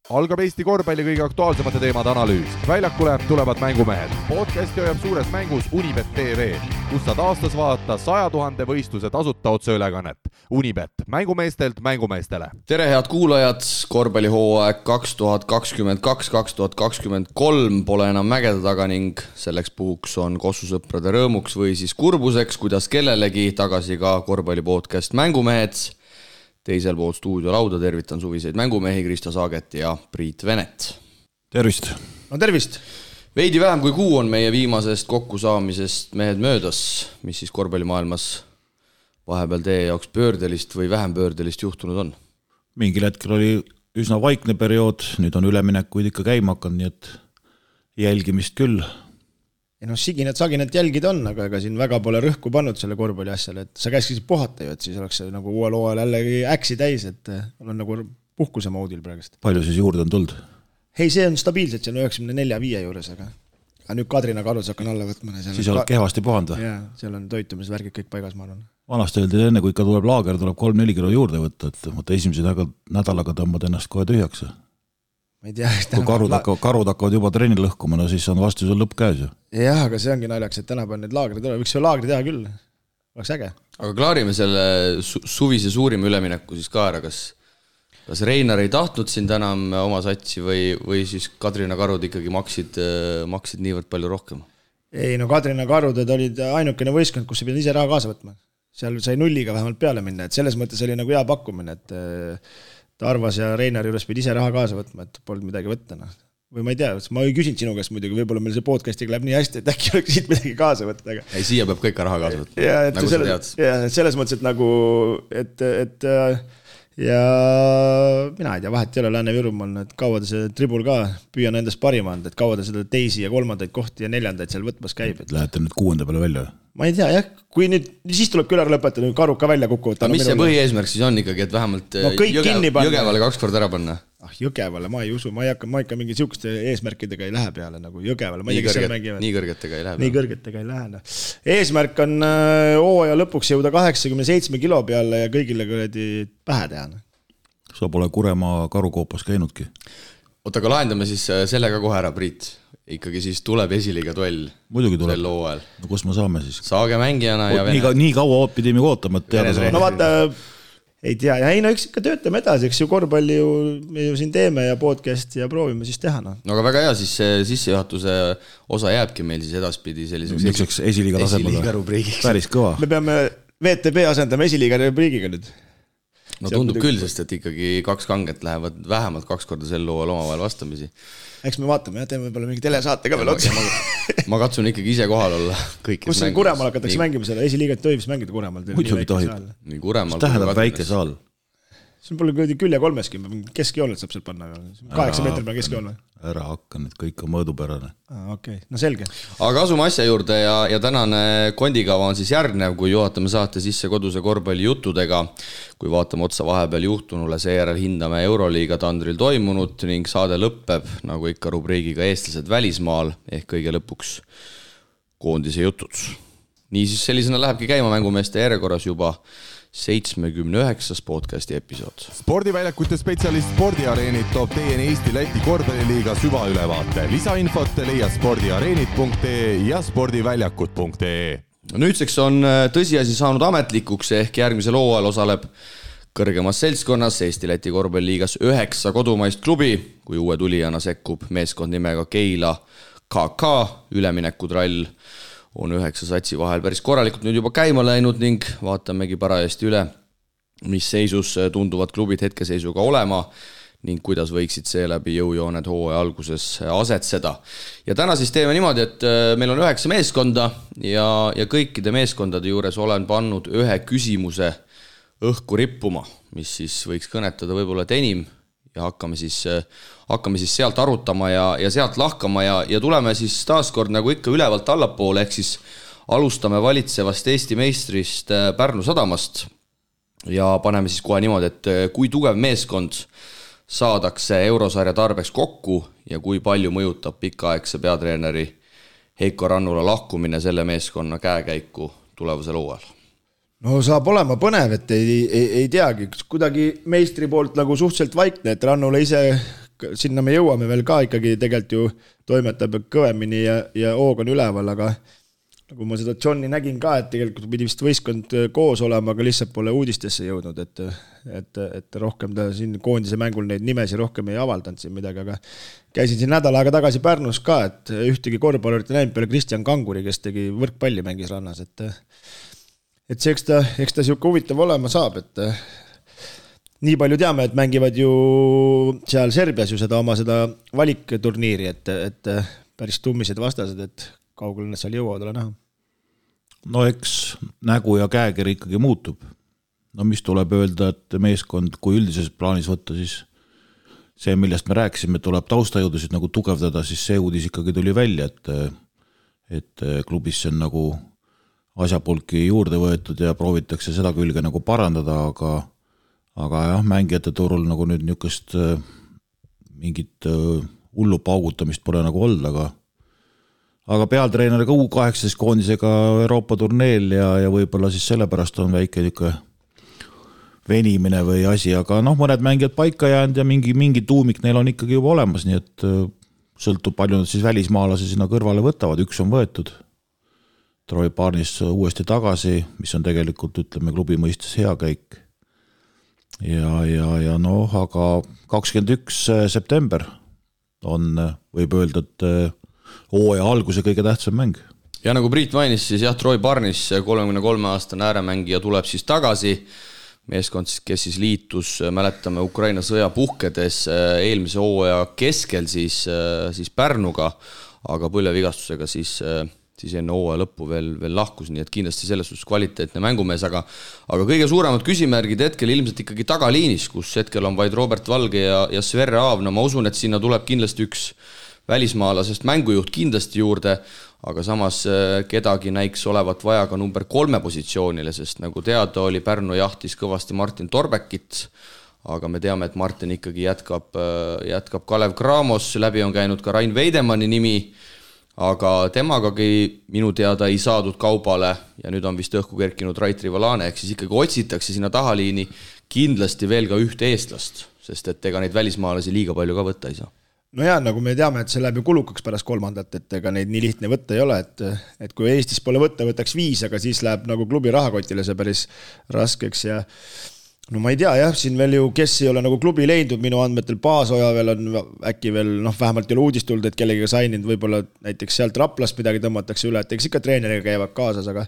Algab Eesti korvpalli kõige aktuaalsemate teemade analüüs. Väljakule tulevad mängumehed. Podcasti hoiab suures mängus Unibet TV, kus saad aastas vaadata 100 000 võistluse tasuta otseülekannet. Unibet, mängumeestelt mängumeestele. Tere head kuulajad, korvpallihooaeg 2022-2023 pole enam mägede taga ning selleks puhuks on kossusõprade rõõmuks või siis kurbuseks, kuidas kellelegi tagasi ka korvpallipodcast Mängumehed. Teisel pool stuudiolauda tervitan suviseid mängumehi Krista Saaget ja Priit Venet. Tervist! No tervist! Veidi vähem kui kuu on meie viimasest kokkusaamisest mehed möödas, mis siis korvpallimaailmas vahepeal teie jaoks pöördelist või vähem pöördelist juhtunud on? Mingil hetkel oli üsna vaikne periood, nüüd on üleminekuid ikka käima hakanud, nii et jälgimist küll. Ja saginat jälgida on, aga ega siin väga pole rõhku pannud selle korvpalli asjale, et sa käiskisid puhata ju, et siis oleks see nagu uuel hooajal jällegi äksi täis, et on nagu puhkuse moodil praegust. Palju siis juurde on tulnud? Ei, see on stabiilselt, see on 94-5 juures, aga nüüd Kadrina Karus hakkan alla võtma. Siis oled kehvasti puhanud? Jaa, seal on toitumisvärgid kõik paigas, ma arvan. Vanasti öeldi enne, kui ikka tuleb laager, tuleb 3-4 kilo juurde võtta, et esimese nädalaga tõmbad ennast kohe tühjaks. Ma ei tea, kui karud hakkavad juba trenni lõhkuma, no siis on vastu sul lõpp käes ju. Jah, aga see ongi naljaks, et tänapäeval need laagrid tuleb. Võiks see laagri teha küll. Oleks äge. Aga klaarime selle suvise suurima ülemineku siis ka ära. Kas Reinar ei tahtnud sind enam oma satsi või siis Kadrina Karud ikkagi maksid niivõrd palju rohkem? Ei, no Kadrina Karuded olid ainukene võistkond, kus sa pidid ise raha kaasa võtma. Seal sai nulliga vähemalt peale minna, et selles mõttes oli nagu hea pakkumine, et Tarvas ja Reinar juures pidi ise raha kaasa võtma, et polnud midagi võtta. Või ma ei tea, ma ei küsin sinu käest muidugi, võib-olla meil see podcastiga läheb nii hästi, et äkki oleks siit midagi kaasa võtta. Aga... Ei, siia peab kõik raha kaasa võtma, nagu sa tead. Selles mõttes, et nagu, ja mina ei tea, vahet ei ole Lääne-Virumaal, et kaua ta see tribul ka püüan endast parima anda, et kaua ta seda teisi ja kolmandaid kohti ja neljandaid seal võtmas käib. Lähete nüüd 6. peale välja? Ma ei tea, jah, kui nüüd, siis tuleb küll ära lõpetada, Karuk ka välja kukuvad. Aga mis see põhieesmärk siis on ikkagi, et vähemalt Jõgevale 2 korda ära panna? Jõgevale ma ei usu, ma ikka mingi siuksete eesmärkidega ei lähe peale, nagu Jõgevale. Nii kõrgetega ei lähe. Nii kõrgetega ei lähe. Eesmärk on hooaja lõpuks jõuda 87 kilo peale ja kõigile kõredi pähe teha. Sa pole Kuremaa karukoopas käinudki. Oota, aga lahendame siis sellega kohe ära, Priit. Ikkagi siis tuleb esiliiga duell. Muidugi tuleb. Sel hooajal. No kus me saame siis? Saage mängijana ja Vene. Nii kaua pidime ootama, et teada saada. No vaata, ei tea. Ja ei, no eks ikka töötame edasi, eks ju korvpalli me ju siin teeme ja podcast ja proovime siis teha. No aga väga hea, siis see sissejuhatuse osa jääbki meil siis edaspidi selliseks esiliiga tasemega. Päris kõva. Me peame VTB asendama esiliiga rubriigiga nüüd. No tundub küll, sest et ikkagi 2 kanget lähevad vähemalt 2 korda sel hooajal omavahel vastamisi. Eks me vaatame, teeme võib-olla mingi telesaate ka veel otsa. Ma katsun ikkagi ise kohal olla. Kus see Kuremaal hakatakse mängima selle? Esiliigat tohib mängida Kuremaal. Muidugi tohib. Mis tähendab väike saal? See on palju külje 3-ski, keskjooned saab seal panna. 8 meetri peal keskjoon või? Ära hakka, need kõik on mõõdupärane. Okei, no selge. Aga asume asja juurde ja tänane kondikava on siis järgnev, kui juhatame saate sisse koduse korvpalli juttudega. Kui vaatame otsa vahepeal juhtunule, seejärel hindame Euroliiga tandril toimunut ning saade lõppeb, nagu ikka rubriigiga eestlased välismaal, ehk kõige lõpuks koondise jutud. Niisiis sellisena lähebki käima mängumeeste järjekorras juba 79. podcasti episood. Spordiväljakute spetsialist Spordiareenid toob teieni Eesti-Läti korvpalliliiga süvaülevaate. Lisainfot leia spordiareenid.ee ja spordiväljakut.ee. Nüüdseks on tõsiasi saanud ametlikuks, ehk järgmisel hooajal osaleb kõrgemas seltskonnas Eesti-Läti korvpalliliigas 9 kodumaist klubi, kui uue tulijana sekkub meeskond nimega Keila KK. Üleminekutrall on 9 satsi vahel päris korralikult nüüd juba käima läinud ning vaatamegi parajasti üle, mis seisus tunduvad klubid hetkeseisuga olema ning kuidas võiksid seeläbi jõujooned hooaja alguses asetseda. Ja täna siis teeme niimoodi, et meil on 9 meeskonda ja kõikide meeskondade juures olen pannud ühe küsimuse õhku rippuma, mis siis võiks kõnetada võib-olla enim ja hakkame siis sealt arutama ja sealt lahkama ja tuleme siis taaskord nagu ikka ülevalt allapoole, ehk siis alustame valitsevast Eesti meistrist Pärnu Sadamast ja paneme siis kohe niimoodi, et kui tugev meeskond saadakse eurosarja tarbeks kokku ja kui palju mõjutab pikaaegse peatreeneri Heiko Rannula lahkumine selle meeskonna käekäiku tulevasel hooajal? No saab olema põnev, et ei teagi, kuidagi meistri poolt nagu suhteliselt vaikne, et Rannula ise sinna me jõuame veel ka ikkagi tegelikult ju toimetab kõvemini ja hoog on üleval, aga nagu ma seda Johni nägin ka, et tegelikult pidi vist võistkond koos olema, aga lihtsalt pole uudistesse jõudnud, et rohkem ta siin koondise mängul neid nimesi rohkem ei avaldanud siin midagi, aga käisin siin nädal aega tagasi Pärnus ka, et ühtegi korvpallurit näinud peale Kristjan Kanguri, kes tegi võrkpalli mängis rannas, et see, eks ta siuke huvitav olema saab, et nii palju teame, et mängivad ju seal Serbias ju seda oma seda valikturniiri, et päris tummised vastased, et kaugel nad seal jõuavad ole näha. No eks nägu ja käekiri ikkagi muutub. No mis tuleb öelda, et meeskond, kui üldises plaanis võtta, siis see, millest me rääkisime, tuleb taustajõudusid nagu tugevdada, siis see uudis ikkagi tuli välja, et klubis on nagu asjapulki juurde võetud ja proovitakse seda külge nagu parandada, aga jah, mängijate turul nagu nüüd niukest mingit hullu paugutamist pole nagu olnud, aga pealtreeneriga U18 koondisega Euroopa turneel ja võib-olla siis sellepärast on väike niuke venimine või asi, aga mõned mängijad paika jäänud ja mingi tuumik neil on ikkagi juba olemas, nii et sõltub palju nad siis välismaalasi sinna kõrvale võtavad, üks on võetud Troy Barnes uuesti tagasi, mis on tegelikult, ütleme, klubi mõistes hea käik ja aga 21. september on, võib öelda, et hooaja alguse kõige tähtsam mäng. Ja nagu Priit mainis, siis jah, Troy Barnes, 33-aastane ääremängija tuleb siis tagasi. Meeskond, kes siis liitus, mäletame Ukraina sõja puhkedes eelmise hooaja keskel siis Pärnuga, aga põlvevigastusega siis enne hooaja lõppu veel lahkus, nii et kindlasti selles suhtes kvaliteetne mängumees, aga kõige suuremad küsimärgid hetkel ilmselt ikkagi tagaliinis, kus hetkel on vaid Robert Valge ja Sverre Aav. No ma usun, et sinna tuleb kindlasti üks välismaalasest mängujuht kindlasti juurde, aga samas kedagi näiks olevat vaja ka number 3 positsioonile, sest nagu teada oli, Pärnu jahtis kõvasti Martin Torbekit, aga me teame, et Martin ikkagi jätkab Kalev Cramos, läbi on käinud ka Rain Veidemanni nimi, aga temagagi minu teada ei saadud kaubale ja nüüd on vist õhku kerkinud Rait Rivalane, ehk siis ikkagi otsitakse sinna tahaliini kindlasti veel ka ühte eestlast, sest et ega neid välismaalasi liiga palju ka võtta ei saa. No jaa, nagu me teame, et see läheb ju kulukaks pärast 3, et ega neid nii lihtne võtta ei ole, et kui Eestis pole võtta, võtaks 5, aga siis läheb nagu klubi rahakotile see päris raskeks ja no ma ei tea jah, siin veel ju, kes ei ole nagu klubi leidnud, minu andmetel Paasoja veel on äkki veel, vähemalt ei ole uudist tulnud, et kellegiga saininud, võib-olla näiteks sealt Raplast midagi tõmmatakse üle, et eks ikka treeneriga käivad kaasas, aga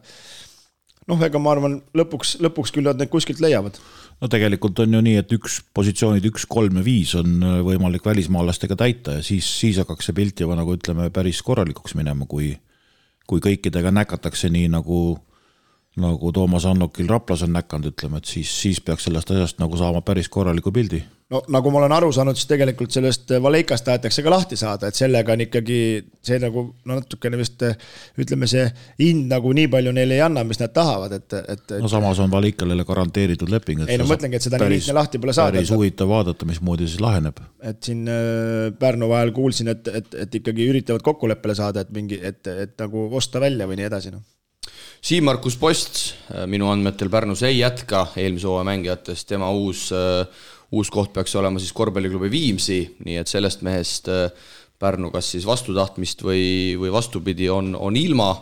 ega ma arvan, lõpuks küll nad need kuskilt leiavad. No tegelikult on ju nii, et üks positsioonid 1, 3 ja 5 on võimalik välismaalastega täita ja siis hakkaks see pilt juba nagu ütleme päris korralikuks minema, kui kõikidega näkatakse nii nagu Toomas Annokil Raplas on näkanud, ütleme, et siis peaks sellest asjast nagu saama päris korraliku pildi. No nagu ma olen aru saanud, siis tegelikult sellest Valeikast tahetakse ka lahti saada, et sellega on ikkagi see nagu natukene vist ütleme see hind nagu nii palju neile ei anna, mis nad tahavad, et no samas on Valeikalele garanteeritud leping. Ei no mõtlengi, et seda nii lihtne lahti pole saada. Päris huvitav vaadata, mismoodi siis laheneb. Et siin Pärnu vahel kuulsin, et ikkagi üritavad kokkuleppele saada, et nagu osta välja või nii edasi. Siim-Markus Post minu andmetel Pärnus ei jätka eelmise hooaja mängijatest, tema uus koht peaks olema siis korvpalliklubi Viimsi, nii et sellest mehest Pärnu kas siis vastutahtmist või vastupidi on ilma.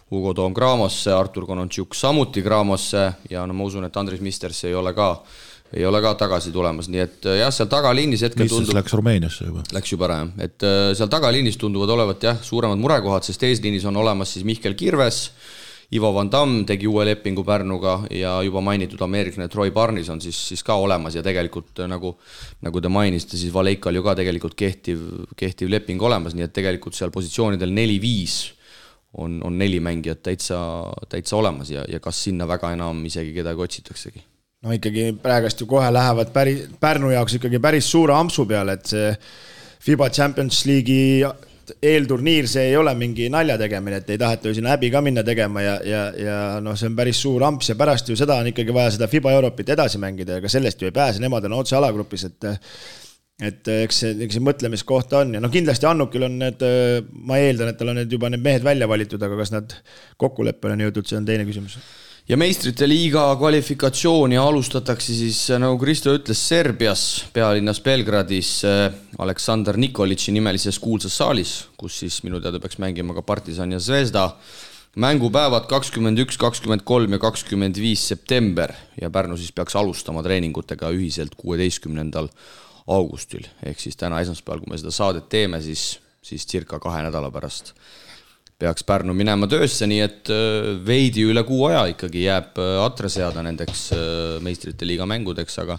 Hugo Toom Craamosse, Artur Konontšuk samuti Craamosse ja ma usun, et Andris Misters ei ole ka tagasi tulemas, nii et jah, seal tagaliinis hetkel tundub... Läks Rumeeniasse juba. Läks juba ära, et seal tagaliinis tunduvad olevat jah, suuremad murekohad, sest eesliinis on olemas siis Mihkel Kirves, Ivo Van Damme tegi uue lepingu Pärnuga ja juba mainitud ameeriklane Troy Barnes on siis ka olemas ja tegelikult nagu te mainisite, siis Valeikal ju ka tegelikult kehtiv leping olemas, nii et tegelikult seal positsioonidel 4-5 on 4 mängijat täitsa olemas ja kas sinna väga enam isegi kedagi otsitaksegi. No ikkagi praegast ju kohe lähevad Pärnu jaoks ikkagi päris suure ampsu peale, et see FIBA Champions League'i eelturniir, see ei ole mingi nalja tegemine, et ei taheta ju sinna häbi ka minna tegema ja see on päris suur amps ja pärast ju seda on ikkagi vaja seda FIBA Europit edasi mängida ja ka sellest ju ei pääse, nemad on otse alagrupis, et eks see mõtlemiskoht on ja kindlasti Annukil on need, ma eeldan, et tal on juba need mehed välja valitud, aga kas nad kokkuleppele on jõudnud, see on teine küsimus. ja meistrite liiga kvalifikatsiooni alustatakse siis, nagu Kristo ütles, Serbias, pealinnas Belgradis Aleksandr Nikolitši nimelises kuulsas saalis, kus siis minu teada peaks mängima ka Partisan ja Zvezda. Mängupäevad 21, 23 ja 25 september ja Pärnu siis peaks alustama treeningutega ühiselt 16. augustil. Ehk siis täna esmaspäeval, kui me seda saadet teeme, siis circa 2 nädala pärast peaks Pärnu minema töösse, nii et veidi üle kuu aja ikkagi jääb atre seada nendeks meistrite liiga mängudeks, aga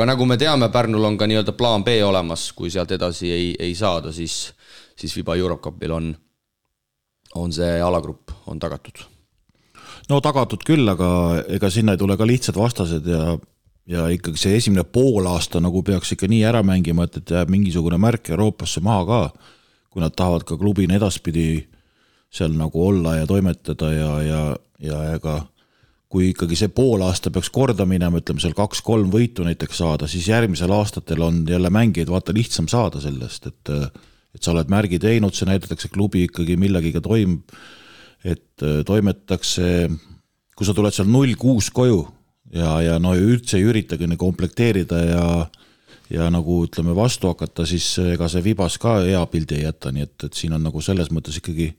nagu me teame, Pärnul on ka nii-öelda plaan B olemas, kui sealt edasi ei saada, siis FIBA Eurocupil on see alagrupp on tagatud. No tagatud küll, aga ega sinna ei tule ka lihtsad vastased ja ikkagi see esimene poolaasta nagu peaks ikka nii ära mängima, et jääb mingisugune märk Euroopasse maha ka, kui nad tahavad ka klubina edaspidi seal nagu olla ja toimetada ja ega kui ikkagi see poolaasta peaks korda minema, ütleme seal 2-3 võitu näiteks saada, siis järgmisel aastatel on jälle mängijaid vaata lihtsam saada sellest, et sa oled märgi teinud, see näidatakse klubi ikkagi millegiga et toimetatakse, kui sa tuled seal 0-6 koju ja no üldse ei üritagi komplekteerida ja nagu ütleme vastu hakata, siis ega see Vibas ka hea pildi ei jätta, nii et siin on nagu selles mõttes ikkagi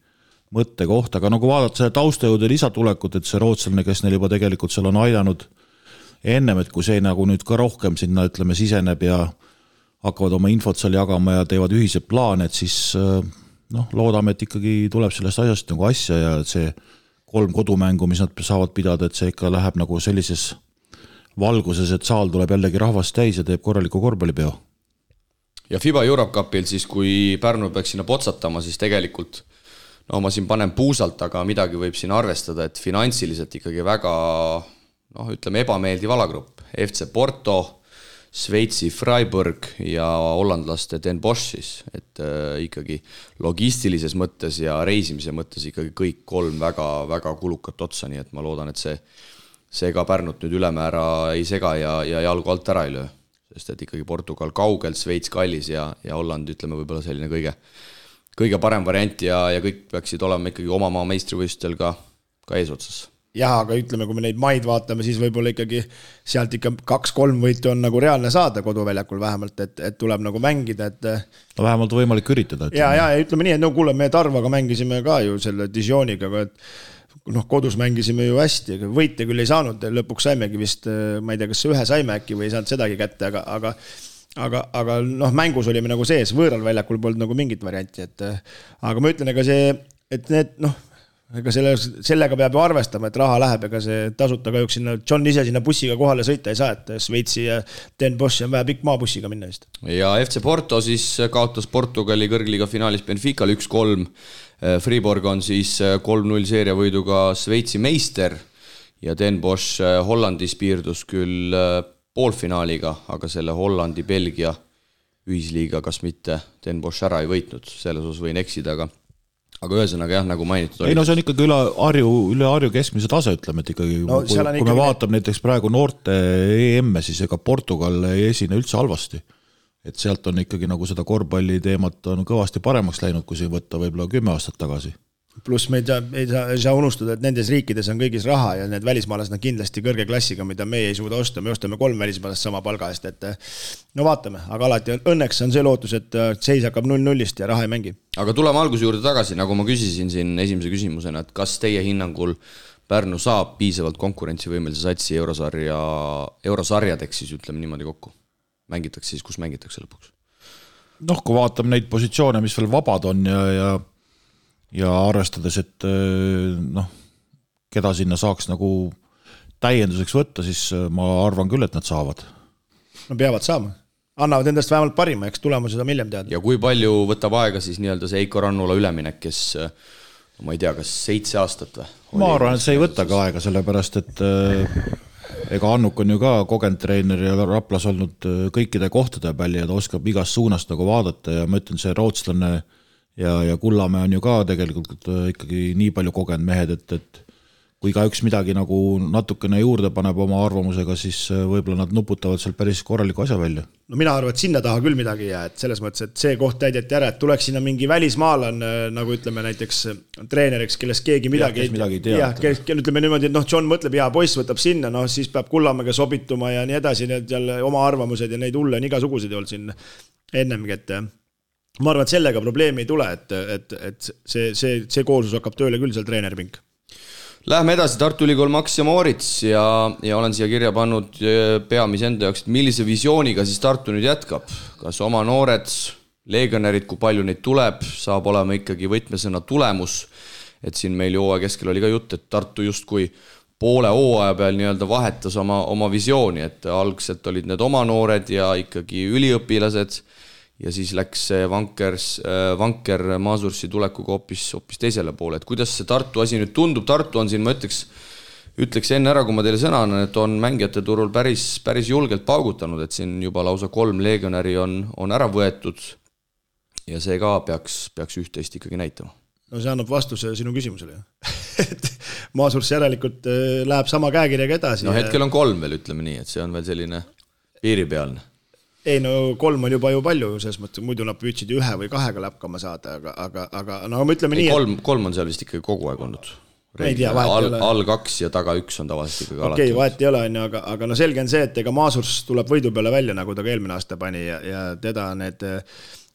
mõtte koht, aga nagu vaadata selle taustajõude lisatulekut, et see rootslane, kes neil juba tegelikult seal on aidanud ennem, et kui see nagu nüüd ka rohkem sinna ütleme siseneb ja hakkavad oma infot seal jagama ja teevad ühised plaane, et siis loodame, et ikkagi tuleb sellest asjast nagu asja ja see 3 kodumängu, mis nad saavad pidada, et see ikka läheb nagu sellises valguses, et saal tuleb jällegi rahvast täis ja teeb korraliku korvpallipeo. Ja FIBA Eurocupil siis, kui Pärnu peaks sinna potsatama, siis tegelikult ma siin panen puusalt, aga midagi võib siin arvestada, et finantsiliselt ikkagi väga, ütleme, ebameeldiv alagrupp. FC Porto, Šveitsi Freiburg ja hollandlaste Den Bosch siis, et ikkagi logistilises mõttes ja reisimise mõttes ikkagi kõik 3 väga, väga kulukat otsa, nii et ma loodan, et see ka Pärnut nüüd ülemäära ei sega ja jalgu alt ära ei löö, sest et ikkagi Portugal kaugelt, Šveits kallis ja Holland, ütleme, võib-olla selline kõige parem variant ja kõik peaksid olema ikkagi oma maa meistrivõistlustel ka eesotsas. Jah, aga ütleme, kui me neid maid vaatame, siis võib-olla ikkagi sealt ikka 2-3 võitu on nagu reaalne saada koduväljakul vähemalt, et tuleb nagu mängida, et vähemalt võimalik üritada. Ja ütleme nii, et kuule, me Tarvaga mängisime ka ju selle Dijoniga, et kodus mängisime ju hästi, võite küll ei saanud, lõpuks saimegi vist, ma ei tea, kas ühe saime äkki või ei saanud sedagi kätte, aga mängus olime nagu sees, võõral väljakul polnud nagu mingit varianti, aga ma ütlen, ega see, et need, ega sellega peab ju arvestama, et raha läheb, ega see tasuta kahjuks sinna, John ise sinna bussiga kohale sõita ei saa, et Šveitsi ja Den Bosch on vaja pikk maabussiga minna vist. Ja FC Porto siis kaotas Portugali kõrgliga finaalis Benficale 1-3, Fribourg on siis 3-0 seeriavõiduga Šveitsi meister ja Den Bosch Hollandis piirdus küll poolfinaaliga, aga selle Hollandi-Belgia ühisliiga kas mitte Den Bosch ära ei võitnud, selles osas võin eksida, aga ühesõnaga jah, nagu mainitud oli. Ei see on ikkagi üle Harju keskmise tase, ütleme, et ikkagi kui me vaatame näiteks praegu noorte EM-e, siis ega Portugal ei esine üldse halvasti. Et sealt on ikkagi nagu seda korvpalli teemat on kõvasti paremaks läinud, kui see võtta võib-olla 10 aastat tagasi. Pluss me ei saa unustada, et nendes riikides on kõigis raha ja need välismaalased on kindlasti kõrge klassiga, mida me ei suuda osta. Me ostame 3 välismaalast sama palga eest, et vaatame, aga alati õnneks on see lootus, et seis hakkab 0-0-ist ja raha ei mängi. Aga tuleme alguse juurde tagasi, nagu ma küsisin siin esimese küsimusena, et kas teie hinnangul Pärnu saab piisavalt konkurentsivõimelise satsi eurosarjadeks siis ütleme niimoodi kokku? Mängitakse siis, kus mängitakse lõpuks? Kui vaatame neid positsioone, mis veel vabad on ja arvestades, et keda sinna saaks nagu täienduseks võtta, siis ma arvan küll, et nad saavad. No peavad saama. Annavad endast vähemalt parima, eks tulemused on hiljem teada. Ja kui palju võtab aega siis nii-öelda see Eiko Rannula üleminek, kes ma ei tea, kas 7 aastat või? Ma arvan, et see ei võta ka aega, sellepärast, et ega Annuk on ju ka kogenud treener ja Raplas olnud kõikide kohtade peal ja ta oskab igast suunast nagu vaadata ja ma ütlen, see rootslane ja Kullamäe on ju ka tegelikult ikkagi nii palju kogenud mehed, et kui ka üks midagi nagu natukene juurde paneb oma arvamusega, siis võib-olla nad nuputavad seal päris korraliku asja välja. No mina arvan, et sinna taha küll midagi ei jää, et selles mõttes, et see koht täideti ära, et tuleks sinna mingi välismaalan, nagu ütleme näiteks treeneriks, kellest keegi midagi ei tea. Ütleme niimoodi, et John mõtleb, poiss võtab sinna, siis peab Kullamäega sobituma ja nii edasi, need jälle oma arvamused ja neid hulle on igasuguseid olnud siin ennemgi, et ma arvan, et sellega probleemi ei tule, et see koolsus hakkab tööle küll seal treenerpink. Lähme edasi, Tartu Ülikool Max ja Moorits ja olen siia kirja pannud peamise enda jaoks, et millise visiooniga siis Tartu nüüd jätkab. Kas oma noored, legionärid, kui palju neid tuleb, saab olema ikkagi võtmesõna tulemus. Et siin meil hooaja keskel oli ka jutt, et Tartu justkui poole hooaja peal nii-öelda vahetas oma visiooni, et algselt olid need oma noored ja ikkagi üliõpilased ja siis läks Vanker Maasursi tulekuga hoopis teisele poole. Et kuidas see Tartu asi nüüd tundub? Tartu on siin, ma ütleks enne ära, kui ma teile sõna annan, et on mängijate turul päris julgelt paugutanud, et siin juba lausa 3 legionäri on ära võetud ja see ka peaks üht-teist ikkagi näitama. No see annab vastuse sinu küsimusele. Et Maasurs järelikult läheb sama käekirjaga edasi. No hetkel on 3 veel, ütleme nii, et see on veel selline piiripealne. Ei, no 3 on juba ju palju, selles mõttes, muidu nad püüdsid 1 või 2 läpkama saada, aga no me ütleme nii... 3 on seal vist ikkagi kogu aeg olnud. Ei tea, vahet ei ole. All 2 ja taga 1 on tavaliselt ikkagi alati. Okei, vahet ei ole, aga no selge on see, et ega Maasurs tuleb võidu peale välja, nagu ta ka eelmine aasta pani ja teda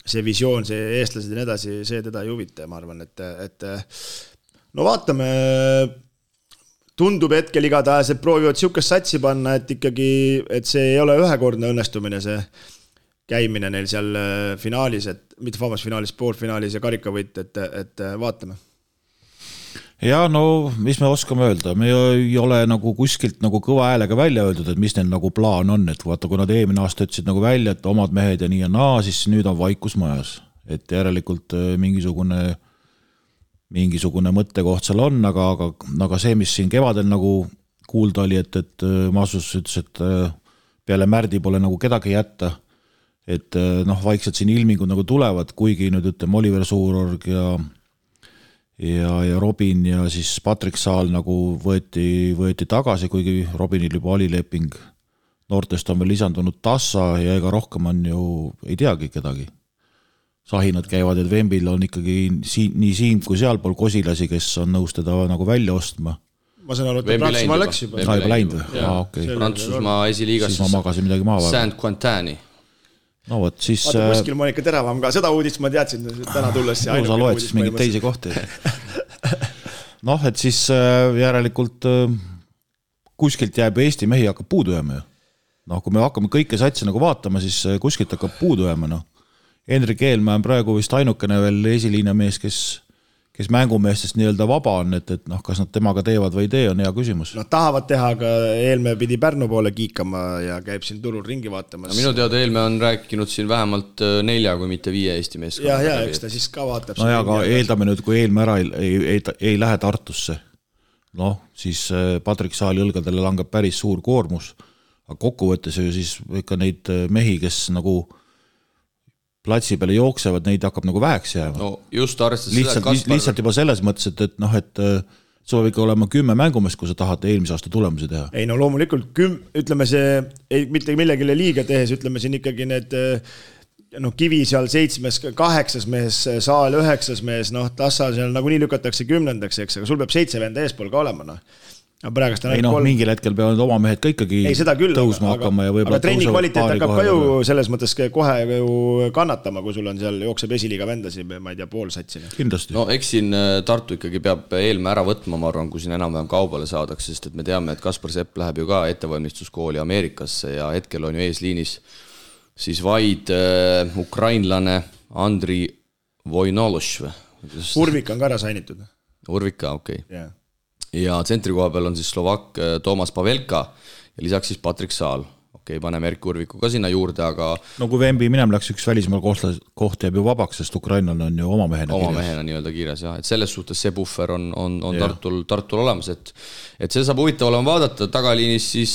see visioon, see eestlased ja nii edasi, see teda ei huvita, ma arvan, et no vaatame... Tundub hetkel igatahes, et proovivad siukest satsi panna, et ikkagi, et see ei ole ühekordne õnnestumine, see käimine neil seal finaalis, mitte finaalis, poolfinaalis ja karikavõit, et vaatame. Ja no, mis me oskame öelda, me ei ole nagu kuskilt nagu kõva häälega välja öeldud, et mis neil nagu plaan on, et vaata, kui nad eelmine aasta ütlesid nagu välja, et omad mehed ja nii ja naa, siis nüüd on vaikus majas, et järelikult mingisugune mõttekoht seal on, aga see, mis siin kevadel nagu kuulda oli, et Maasus ütles, et peale Märdi pole nagu kedagi jätta, et vaikselt siin ilmingud nagu tulevad, kuigi nüüd ütleme Oliver Suurorg ja Robin ja siis Patrick Saal nagu võeti tagasi, kuigi Robinil juba oli leping. Noortest on veel lisandunud Tassa ja ega rohkem on ju, ei teagi kedagi. Sahinad käivad, et Vembil on ikkagi nii siin kui sealpool kosilasi, kes on nõus teda nagu välja ostma. Ma saan aru, et Prantsusmaa läks juba. Juba läinud või? Okay. Prantsusmaa esiliigas siis ma magasin midagi maha. Saint-Quentani. No võt, siis... Vaata, kuskil Monika Teravam ka, seda uudist ma teadsin täna tulles. No sa loed siis mingid teisi kohti. Et siis järelikult kuskilt jääb Eesti mehi hakkab puudu jääma. Kui me hakkame kõike satsi nagu vaatama, siis kuskilt hakkab puudu jääma. Henrik Eelmäe on praegu vist ainukene veel esiliina mees, kes mängumeestest nii-öelda vaba on, et kas nad temaga teevad või ei tee, on hea küsimus. Tahavad teha, aga Eelmäe pidi Pärnu poole kiikama ja käib siin turul ringi vaatamas. Minu teada Eelmäe on rääkinud siin vähemalt 4 kui mitte 5 Eesti meeskonna. Ja, eks ta siis ka vaatab. No ja, aga eeldame nüüd, kui Eelmäe ära ei lähe Tartusse, siis Patrick Saali õlgadele langeb päris suur koormus, aga kokkuvõttes ju siis ikka neid mehi, kes nagu platsi peale jooksevad, neid hakkab nagu väheks jääma. No just arvestades seda, lihtsalt juba selles mõttes, et see võib ikka olema 10 mängumest, kui sa tahad eelmise aasta tulemusi teha. Ei no loomulikult, ütleme see, mitte millegile liiga tehes, ütleme siin ikkagi need Kivi seal 7, 8 mees, Saal 9 mees, Tassa seal nagu nii lükatakse 10, eks, aga sul peab 7 venda eespool ka olema, mingil hetkel peavad oma mehed ka ikkagi tõusma hakkama ja aga trenni kvaliteet hakkab ka ju selles mõttes kohe ju kannatama, kui sul on seal jookseb esiliiga vendasi, ma ei tea, pool satsina. Kindlasti. Eks siin Tartu ikkagi peab Eelmäe ära võtma, ma arvan, kui siin enam-vähem kaubale saadakse, sest et me teame, et Kaspar Sepp läheb ju ka ettevalmistuskooli Ameerikasse ja hetkel on ju eesliinis siis vaid ukrainlane Andri Vojnološ. Urvik on ka ära sainitud. Urvik ka, okei. Ja tsentri koha peal on siis Slovak Toomas Pavelka ja lisaks siis Patrick Saal. Paneme Erki Urviku ka sinna juurde, aga... No kui Vembi minem läks üks välismaal koht jääb ju vabaks, sest Ukrainal on ju oma mehena nii-öelda kiires, jah. Et selles suhtes see buffer on Tartul olemas, et see saab huvitav olema vaadata. Tagaliinis siis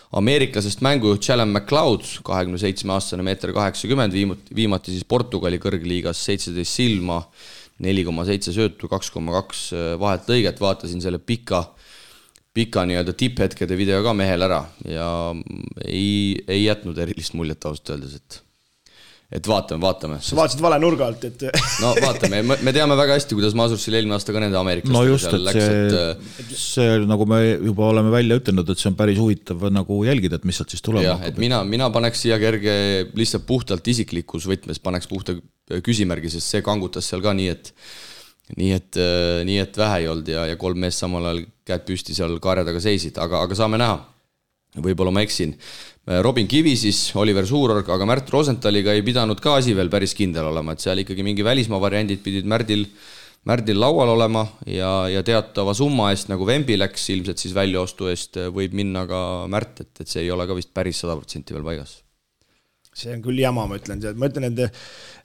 ameeriklasest mängujuht Callum McLeod, 27-aastane, 1,80 m, viimati siis Portugali kõrgliigas 17 silma, 4,7 söötu, 2,2 vahet lõiget, vaatasin selle pika nii-öelda tipphetkede video ka mehel ära ja ei jätnud erilist muljet ausalt öeldes, et vaatame. Sa vaatasid vale nurga alt, et... No vaatame, me teame väga hästi, kuidas Masursil eelmine aasta ka nende ameeriklastega no just, et läks, see, nagu me juba oleme välja ütelnud, et see on päris huvitav nagu jälgida, et mis sealt siis tulema hakkab. Mina paneks siia kerge lihtsalt puhtalt isiklikus võtmes, paneks puhta küsimärgi, sest see kangutas seal ka nii, et vähe ei olnud ja 3 meest samal ajal käed püsti seal kaarjadaga seisid, aga saame näha. Võib-olla ma eksin. Robin Kivi siis, Oliver Suurorg, aga Märt Rosentaliga ei pidanud ka asi veel päris kindel olema, et seal ikkagi mingi välismaa variandid pidid Märdil laual olema ja teatava summa eest, nagu Vembi läks ilmselt siis väljaostu eest, võib minna ka Märt, et see ei ole ka vist päris 100% veel paigas. See on küll jama, ma ütlen, et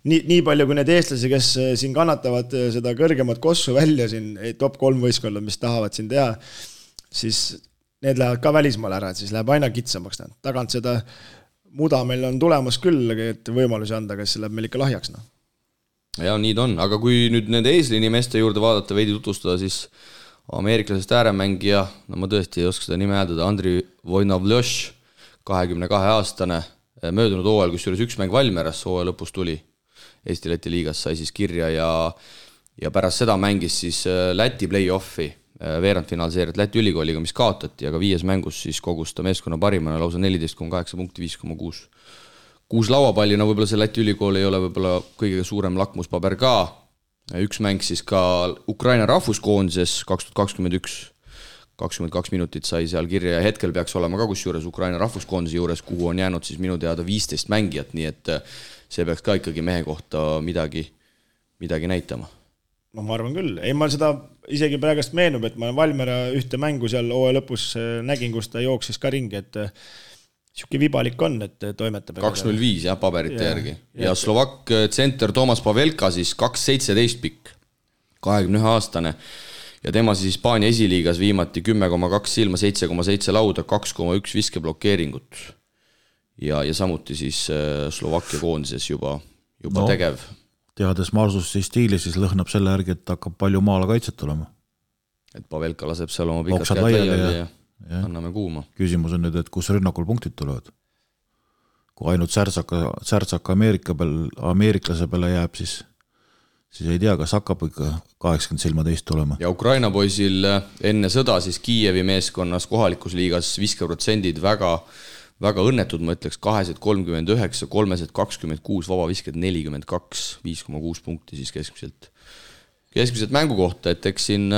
nii palju kui need eestlasi, kes siin kannatavad seda kõrgemat kossu välja siin, top 3 võistkonna, mis tahavad siin teha, siis need lähevad ka välismaale ära, et siis läheb aina kitsamaks. Tagant seda muda meil on tulemas küll, et võimalusi anda, kes läheb meil ikka lahjaks. Ja nii ta on, aga kui nüüd nende eeslini meeste juurde vaadata, veidi tutvustada, siis ameeriklasest ääremängija, no ma tõesti ei oska seda nime hääldada, Andri Vojnavljoš, 22-aastane, möödunud hooajal, kus juures üks mäng Valmieras hooaja lõpus tuli Eesti-Läti liigas, sai siis kirja ja pärast seda mängis siis Läti play-offi veerandfinaalseeriat Läti ülikooliga, mis kaotati, aga 5 mängus siis kogus ta meeskonna parimana lausa 14,8 punkti, 5,6. 6 lauapallina võib-olla see Läti ülikool ei ole võib-olla kõige suurem lakmuspaber ka. Üks mäng siis ka Ukraina rahvuskoondises 2021, 22 minutit sai seal kirja ja hetkel peaks olema ka kusjuures Ukraina rahvuskoondise juures, kuhu on jäänud siis minu teada 15 mängijat, nii et see peaks ka ikkagi mehe kohta midagi näitama. No ma arvan küll. Ei, ma seda isegi praegust meenub, et ma Valmiera ühte mängu seal hooaja lõpus nägin, kus ta jooksis ka ringi, et siuke vibalik on, et toimetab. 2.05 jah, paberite järgi. Ja Slovak tsenter Toomas Pavelka siis 2.17 pikk, 21-aastane. Ja tema siis Hispaania esiliigas viimati 10,2 silma, 7,7 lauda, 2,1 viskeblokeeringut. Ja samuti siis Slovakkia koondises juba tegev. Teades Marsusi stiili, siis lõhnab selle järgi, et hakkab palju maala kaitset tulema. Et Pavelka laseb seal oma pikad käed laiali ja anname kuuma. Küsimus on nüüd, et kus rünnakul punktid tulevad. Kui ainult särtsaka ameeriklase peale jääb, siis ei tea, kas hakkab ikka 80 silma teist tulema. Ja Ukraina poisil enne sõda siis Kiievi meeskonnas kohalikus liigas viskeprotsendid väga õnnetud, ma ütleks 239, 326, vabavisked 42, 5,6 punkti siis keskmiselt mängu kohta, et eks siin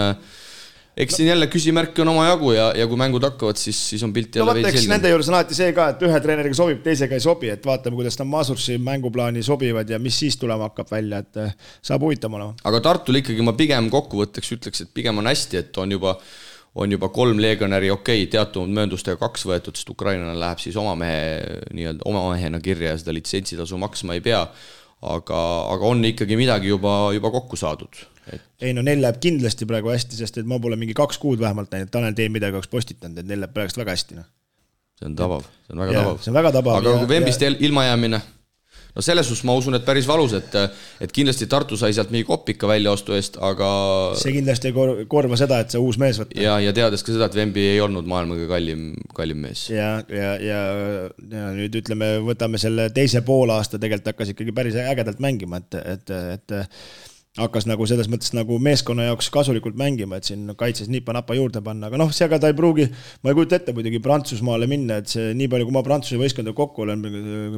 jälle küsimärki on oma jagu ja kui mängud hakkavad, siis on pilt jälle veidi selge. Nende juures on alati see ka, et ühe treeneriga sobib, teisega ei sobi, et vaatame, kuidas nad Masursi mänguplaani sobivad ja mis siis tulema hakkab välja, et saab huvitav olema. Aga Tartul ikkagi ma pigem kokkuvõtteks ütleks, et pigem on hästi, et on juba 3 legionäri teatud mööndustega 2 võetud, sest Ukrainana läheb siis oma mehena kirja ja seda litsentsitasu maksma ei pea, aga on ikkagi midagi juba kokku saadud. Ei no neil läheb kindlasti praegu hästi, sest et ma pole mingi 2 kuud vähemalt näinud, Tanel Teen midagi oleks postitanud, et neil läheb praegu väga hästi. See on tabav, see on väga tabav. Aga kui Vembist ilma jäämine, no selles suhtes ma usun, et päris valus, et kindlasti Tartu sai sealt mingi kopika väljaostu eest, aga see kindlasti ei korva seda, et see uus mees võtta. Ja teades ka seda, et Vembi ei olnud maailmaga kallim mees. Ja nüüd ütleme, võtame selle teise poolaasta, tegelikult hakkas ikkagi päris ägedalt mängima, et hakkas nagu selles mõttes nagu meeskonna jaoks kasulikult mängima, et siin kaitses nipa-napa juurde panna, aga seega ta ei pruugi, ma ei kujuta ette muidugi Prantsusmaale minna, et see nii palju, kui ma Prantsuse võistkonna kokku olen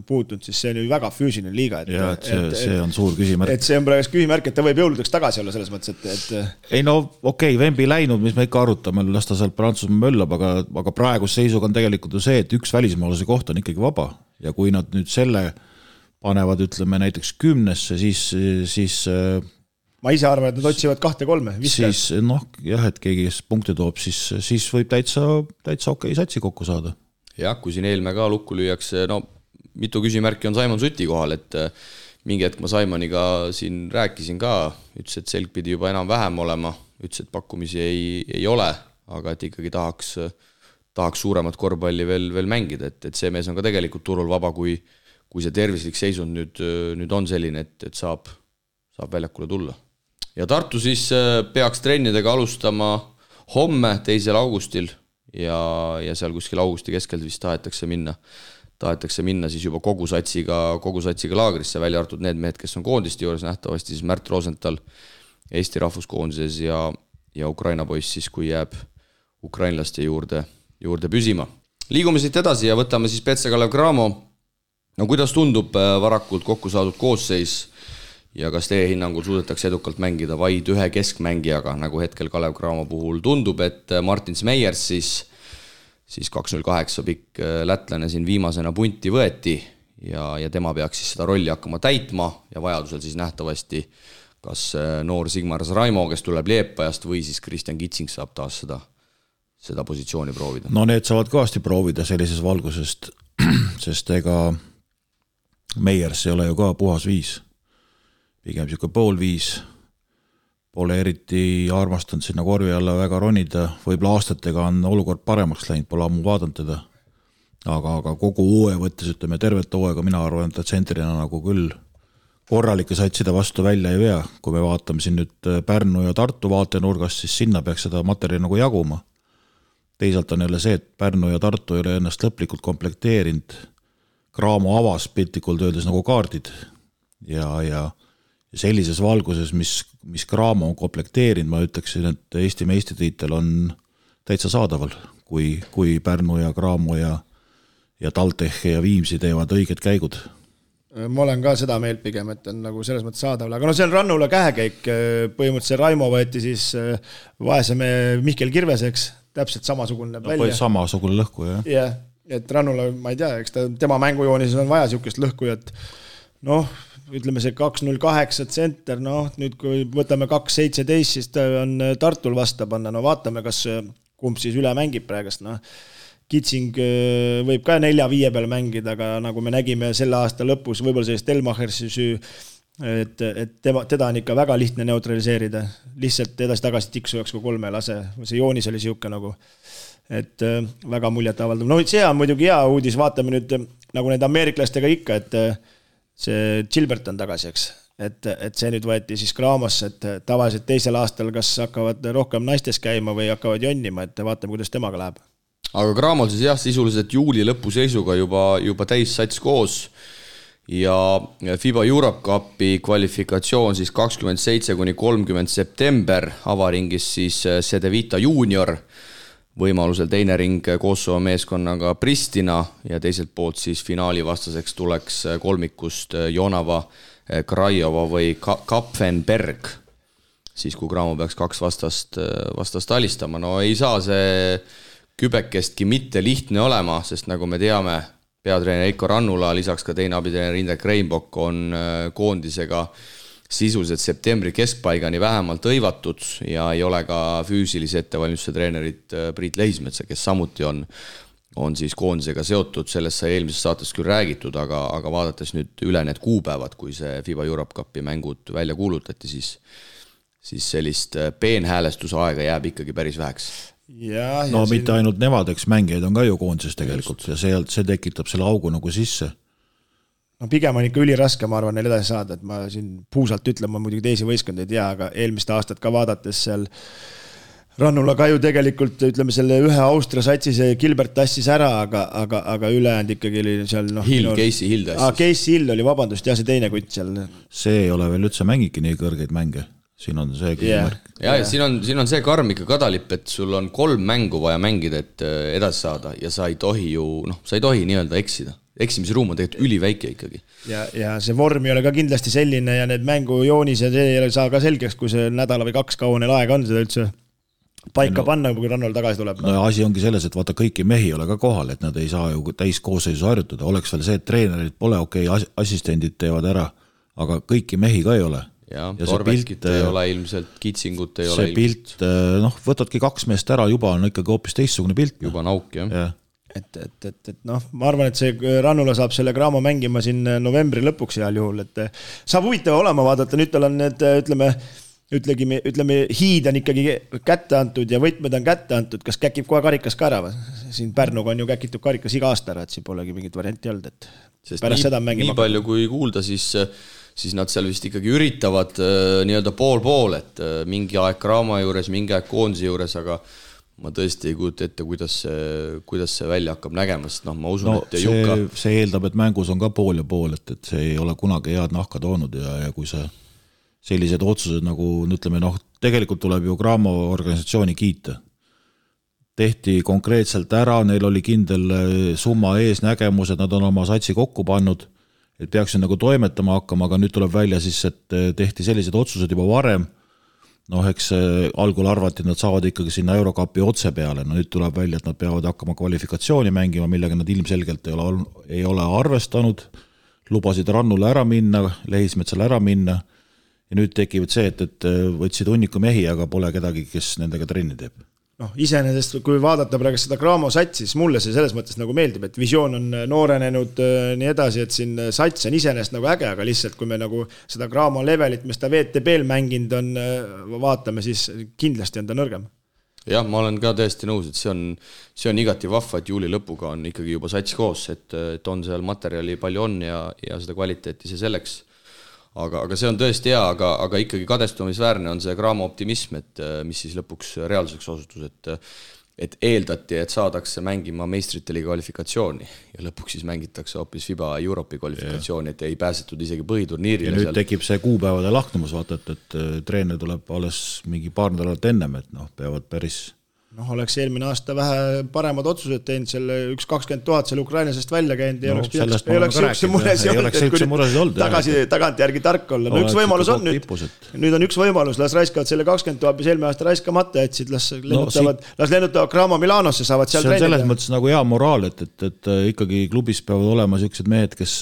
puutunud, siis see on ju väga füüsiline liiga. See on suur küsimärk. Et see on praegu küsimärk, et ta võib jõuludeks tagasi olla selles mõttes, et... Ei no okei, Vembi läinud, mis me ikka arutame, las ta sealt Prantsusmaa möllab, aga praegus seisuga on tegelikult ju see, et üks välismaalase koht on ikkagi vaba ja kui nad nüüd selle panevad, ütleme näiteks 10-sse, siis ma ise arvan, et nad otsivad 2-3. Siis et keegi punkte toob, siis võib täitsa okei satsi kokku saada. Jah, kui siin eelme ka lukku lüüakse, mitu küsimärki on Saimon Suti kohal, et mingi hetk ma Saimoniga siin rääkisin ka, ütles, et selg pidi juba enam vähem olema, ütles, et pakkumisi ei ole, aga et ikkagi tahaks suuremat korvpalli veel mängida, et see mees on ka tegelikult turul vaba, kui see tervislik seisund nüüd on selline, et saab väljakule tulla. ja Tartu siis peaks trennidega alustama homme, 2. augustil ja seal kuskil augusti keskelt vist tahetakse minna siis juba kogu satsiga laagrisse, välja arvatud need mehed, kes on koondiste juures, nähtavasti siis Märt Rosenthal Eesti rahvuskoondises ja Ukraina poiss siis, kui jääb ukrainlaste juurde püsima. Liigume siit edasi ja võtame siis Petse Kalev Cramo. No kuidas tundub varakult kokku saadud koosseis ja kas teie hinnangul suudetakse edukalt mängida vaid ühe keskmängijaga, nagu hetkel Kalev Cramo puhul tundub, et Martin Smejers siis 208 pikk lätlane siin viimasena punti võeti ja tema peaks siis seda rolli hakkama täitma ja vajadusel siis nähtavasti kas noor Sigmar Raimo, kes tuleb Liepajast või siis Kristjan Kitsing saab taas seda positsiooni proovida. No need saavad kõvasti proovida sellises valgusest, sest ega Meiers ei ole ju ka puhas viis. Pigem siuke pool viis. Pole eriti armastanud sinna korvi alla väga ronida. Võib-olla aastatega on olukord paremaks läinud, pole ammu vaadanud teda. Aga kogu uue võttes, ütleme tervet hooaega, mina arvan, et tsentrina nagu küll korralike satsida vastu välja ei vea. Kui me vaatame siin nüüd Pärnu ja Tartu vaatenurgast, siis sinna peaks seda materjali nagu jaguma. Teisalt on jälle see, et Pärnu ja Tartu ei ole ennast lõplikult komplekteerinud. Cramo avas piltlikult öeldes nagu kaardid ja sellises valguses, mis Cramo on komplekteerinud, ma ütleksin, et Eesti meistritiitel on täitsa saadaval, kui Pärnu ja Cramo ja TalTech ja Viimsi teevad õiged käigud. Ma olen ka seda meelt pigem, et on nagu selles mõttes saadaval, aga no see on Rannula kähekäik, põhimõtteliselt Raimo võeti siis vaeseme Mihkel Kirveseks, täpselt samasugune välja. Samasugune lõhku, jah. Jah, et Rannula, ma ei tea, eks tema mängujoonis on vaja siukest lõhku, et ütleme see 2.08 tsenter, nüüd kui võtame 2.17, siis ta on Tartul vasta panna, vaatame, kas kumb siis üle mängib praegast, Kitsing võib ka 4-5 peal mängida, aga nagu me nägime selle aasta lõpus, võib-olla sellist Elmachersi süü, et teda on ikka väga lihtne neutraliseerida, lihtsalt edasi-tagasi tiksujaks kui 3 lase, see joonis oli siuke nagu, et väga muljet avaldav. See on muidugi hea uudis, vaatame nüüd nagu need ameeriklastega ikka, et see Gilbert on tagasi, eks. Et see nüüd võeti siis Cramosse, et tavaliselt teisel aastal kas hakkavad rohkem naistes käima või hakkavad jonnima, et vaatame, kuidas temaga läheb. Aga Cramol siis jah, sisuliselt juuli lõpu seisuga juba täis sats koos ja FIBA Europe Cupi kvalifikatsioon siis 27-30 september, avaringis siis Cedevita Junior, võimalusel teine ring Kosovo meeskonnaga Pristina ja teiselt poolt siis finaali vastaseks tuleks kolmikust Jonava, Krajova või Kapfenberg, siis kui Cramo peaks 2 vastast alistama. No ei saa see kübekestki mitte lihtne olema, sest nagu me teame, peatreener Eiko Rannula, lisaks ka teine abitreener Indrek Reinbok on koondisega sisuliselt septembri keskpaigani vähemalt õivatud ja ei ole ka füüsilise ettevalmistuse treenerit Priit Lehismetsa, kes samuti on siis koondisega seotud, sellest sai eelmises saates küll räägitud, aga vaadates nüüd üle need kuupäevad, kui see FIBA Europe Cupi mängud välja kuulutati, siis sellist peenhäälestuse aega jääb ikkagi päris väheks. Mitte ainult nemad, eks mängijaid on ka ju koondises tegelikult ja see tekitab selle augu nagu sisse. Pigem on ikka üliraske, ma arvan, neil edasi saada, et ma siin puusalt ütlen, ma muidugi teisi võistkond ei tea, aga eelmist aastat ka vaadates seal Rannula ka ju tegelikult, ütleme selle ühe Austria satsi see Gilbert tassis ära, aga ülejäänud ikkagi oli seal Casey Hill tassis. Casey Hill oli, vabandust, see teine kutt seal. See ei ole veel üldse mängiki nii kõrgeid mänge. Siin on see küsimärk. Ja siin on see karm ikka kadalip, et sul on 3 mängu vaja mängida, et edasi saada ja sa ei tohi nii-öelda eksida. Eksimise ruum on tegelikult üliväike ikkagi. Ja see vorm ei ole ka kindlasti selline ja need mängujoonis ja see ei saa ka selgeks, kui see nädala või 2 kaua neil aega on seda üldse paika panna, kui Rannul tagasi tuleb. No asi ongi selles, et vaata kõiki mehi ei ole ka kohal, et nad ei saa ju täiskoosseisu harjutada. Oleks veel see, et treenerid pole assistendid teevad ära, aga kõiki mehi ka ei ole. Ja Torveskit ei ole ilmselt, Kitsingut ei ole ilmselt. See pilt, võtadki 2 meest ära, juba on ikkagi hoopis teistsugune pilt. Juba nauk, jah. Et ma arvan, et see Rannula saab selle Cramo mängima siin novembri lõpuks heal juhul, et saab huvitav olema vaadata, nüüd tal on need, ütleme, hiid on ikkagi kätte antud ja võtmed on kätte antud, kas käkib kohe karikas ka ära? Siin Pärnuga on ju käkitud karikas iga aasta ära, et siin polegi mingit varianti olnud, et sest pärast seda mängima. Nii palju kui kuulda, siis siis nad seal vist ikkagi üritavad nii-öelda pool-pool, et mingi aeg Graamo juures, mingi aeg koondise juures, aga ma tõesti ei kujuta ette, kuidas see välja hakkab nägema, sest ma usun, et Jukka... See eeldab, et mängus on ka pool ja pool, et see ei ole kunagi head nahka toonud ja kui see sellised otsused nagu, ütleme, tegelikult tuleb ju Graamo organisatsiooni kiita. Tehti konkreetselt ära, neil oli kindel summa eesnägemus, et nad on oma satsi kokku pannud, et peaksid nagu toimetama hakkama, aga nüüd tuleb välja siis, et tehti sellised otsused juba varem. Eks algul arvati, et nad saavad ikkagi sinna Eurokapi otse peale. Nüüd tuleb välja, et nad peavad hakkama kvalifikatsiooni mängima, millega nad ilmselgelt ei ole arvestanud. Lubasid Rannule ära minna, Lehismetsale ära minna. Ja nüüd tekivad see, et võtsid hunniku mehi, aga pole kedagi, kes nendega trenni teeb. Iseenesest, kui vaadata praegu seda Graamo satsi, siis mulle see selles mõttes nagu meeldib, et visioon on noorenenud nii edasi, et siin sats on iseenesest nagu äge, aga lihtsalt kui me nagu seda Graamo levelit, mis ta VTB-l mänginud on, vaatame, siis kindlasti on ta nõrgem. Jah, ma olen ka täiesti nõus, et see on igati vahva, et juuli lõpuga on ikkagi juba sats koos, et on seal materjali palju on ja seda kvaliteeti see selleks. Aga see on tõesti hea, aga ikkagi kadestumisväärne on see Graamo optimism, et mis siis lõpuks reaalsuseks osutus, et eeldati, et saadakse mängima meistrite liiga kvalifikatsiooni ja lõpuks siis mängitakse hoopis FIBA Euroopi kvalifikatsiooni, et ei pääsetud isegi põhiturniirile. Ja nüüd tekib see kuupäevade lahknumus, vaata, et treener tuleb alles mingi paar nädalat ennem, et peavad päris... oleks eelmine aasta vähe paremad otsused teinud, selle 120 000 seal Ukrainasest välja käinud ja ei oleks sihukese muresid olnud, tagant järgi tark olla. Üks võimalus on nüüd on üks võimalus, las raiskavad selle 20 000, mis eelmine aasta raiskamata jätsid, las lennutavad Graamo Milanosse, saavad seal treenida. See on selles mõttes nagu hea moraal, et ikkagi klubis peavad olema sellised mehed, kes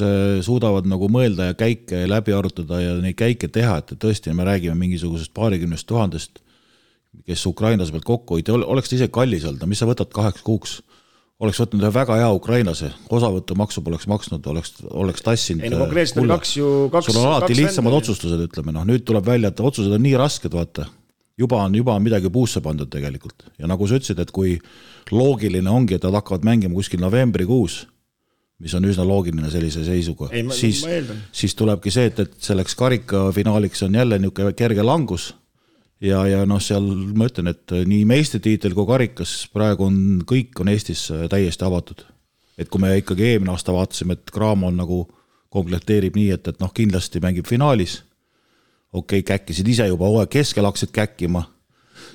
suudavad nagu mõelda ja käike läbi arutada ja neid käike teha, et tõesti me räägime mingisugusest 20 000, kes Ukrainas pealt kokku hoiti, oleks ta ise kallis olnud, mis sa võtad 8 kuuks? Oleks võtnud ühe väga hea ukrainlase, osavõttu maksu poleks maksnud, oleks tassinud. Konkreetselt on sul on alati lihtsamad otsustused, ütleme. Nüüd tuleb välja, et otsused on nii rasked, vaata. Juba on midagi puusse pandud tegelikult. Ja nagu sa ütlesid, et kui loogiline ongi, et nad hakkavad mängima kuskil novembrikuus, mis on üsna loogiline sellise seisuga, siis tulebki see, et selleks karika finaaliks on jälle niisugune kerge langus. Ja seal ma ütlen, et nii meistritiitel kui karikas praegu kõik on Eestis täiesti avatud. Et kui me ikkagi eelmine aasta vaatasime, et Graamo on nagu komplekteerib nii, et kindlasti mängib finaalis, käkkisid ise juba keskel hakkasid käkkima,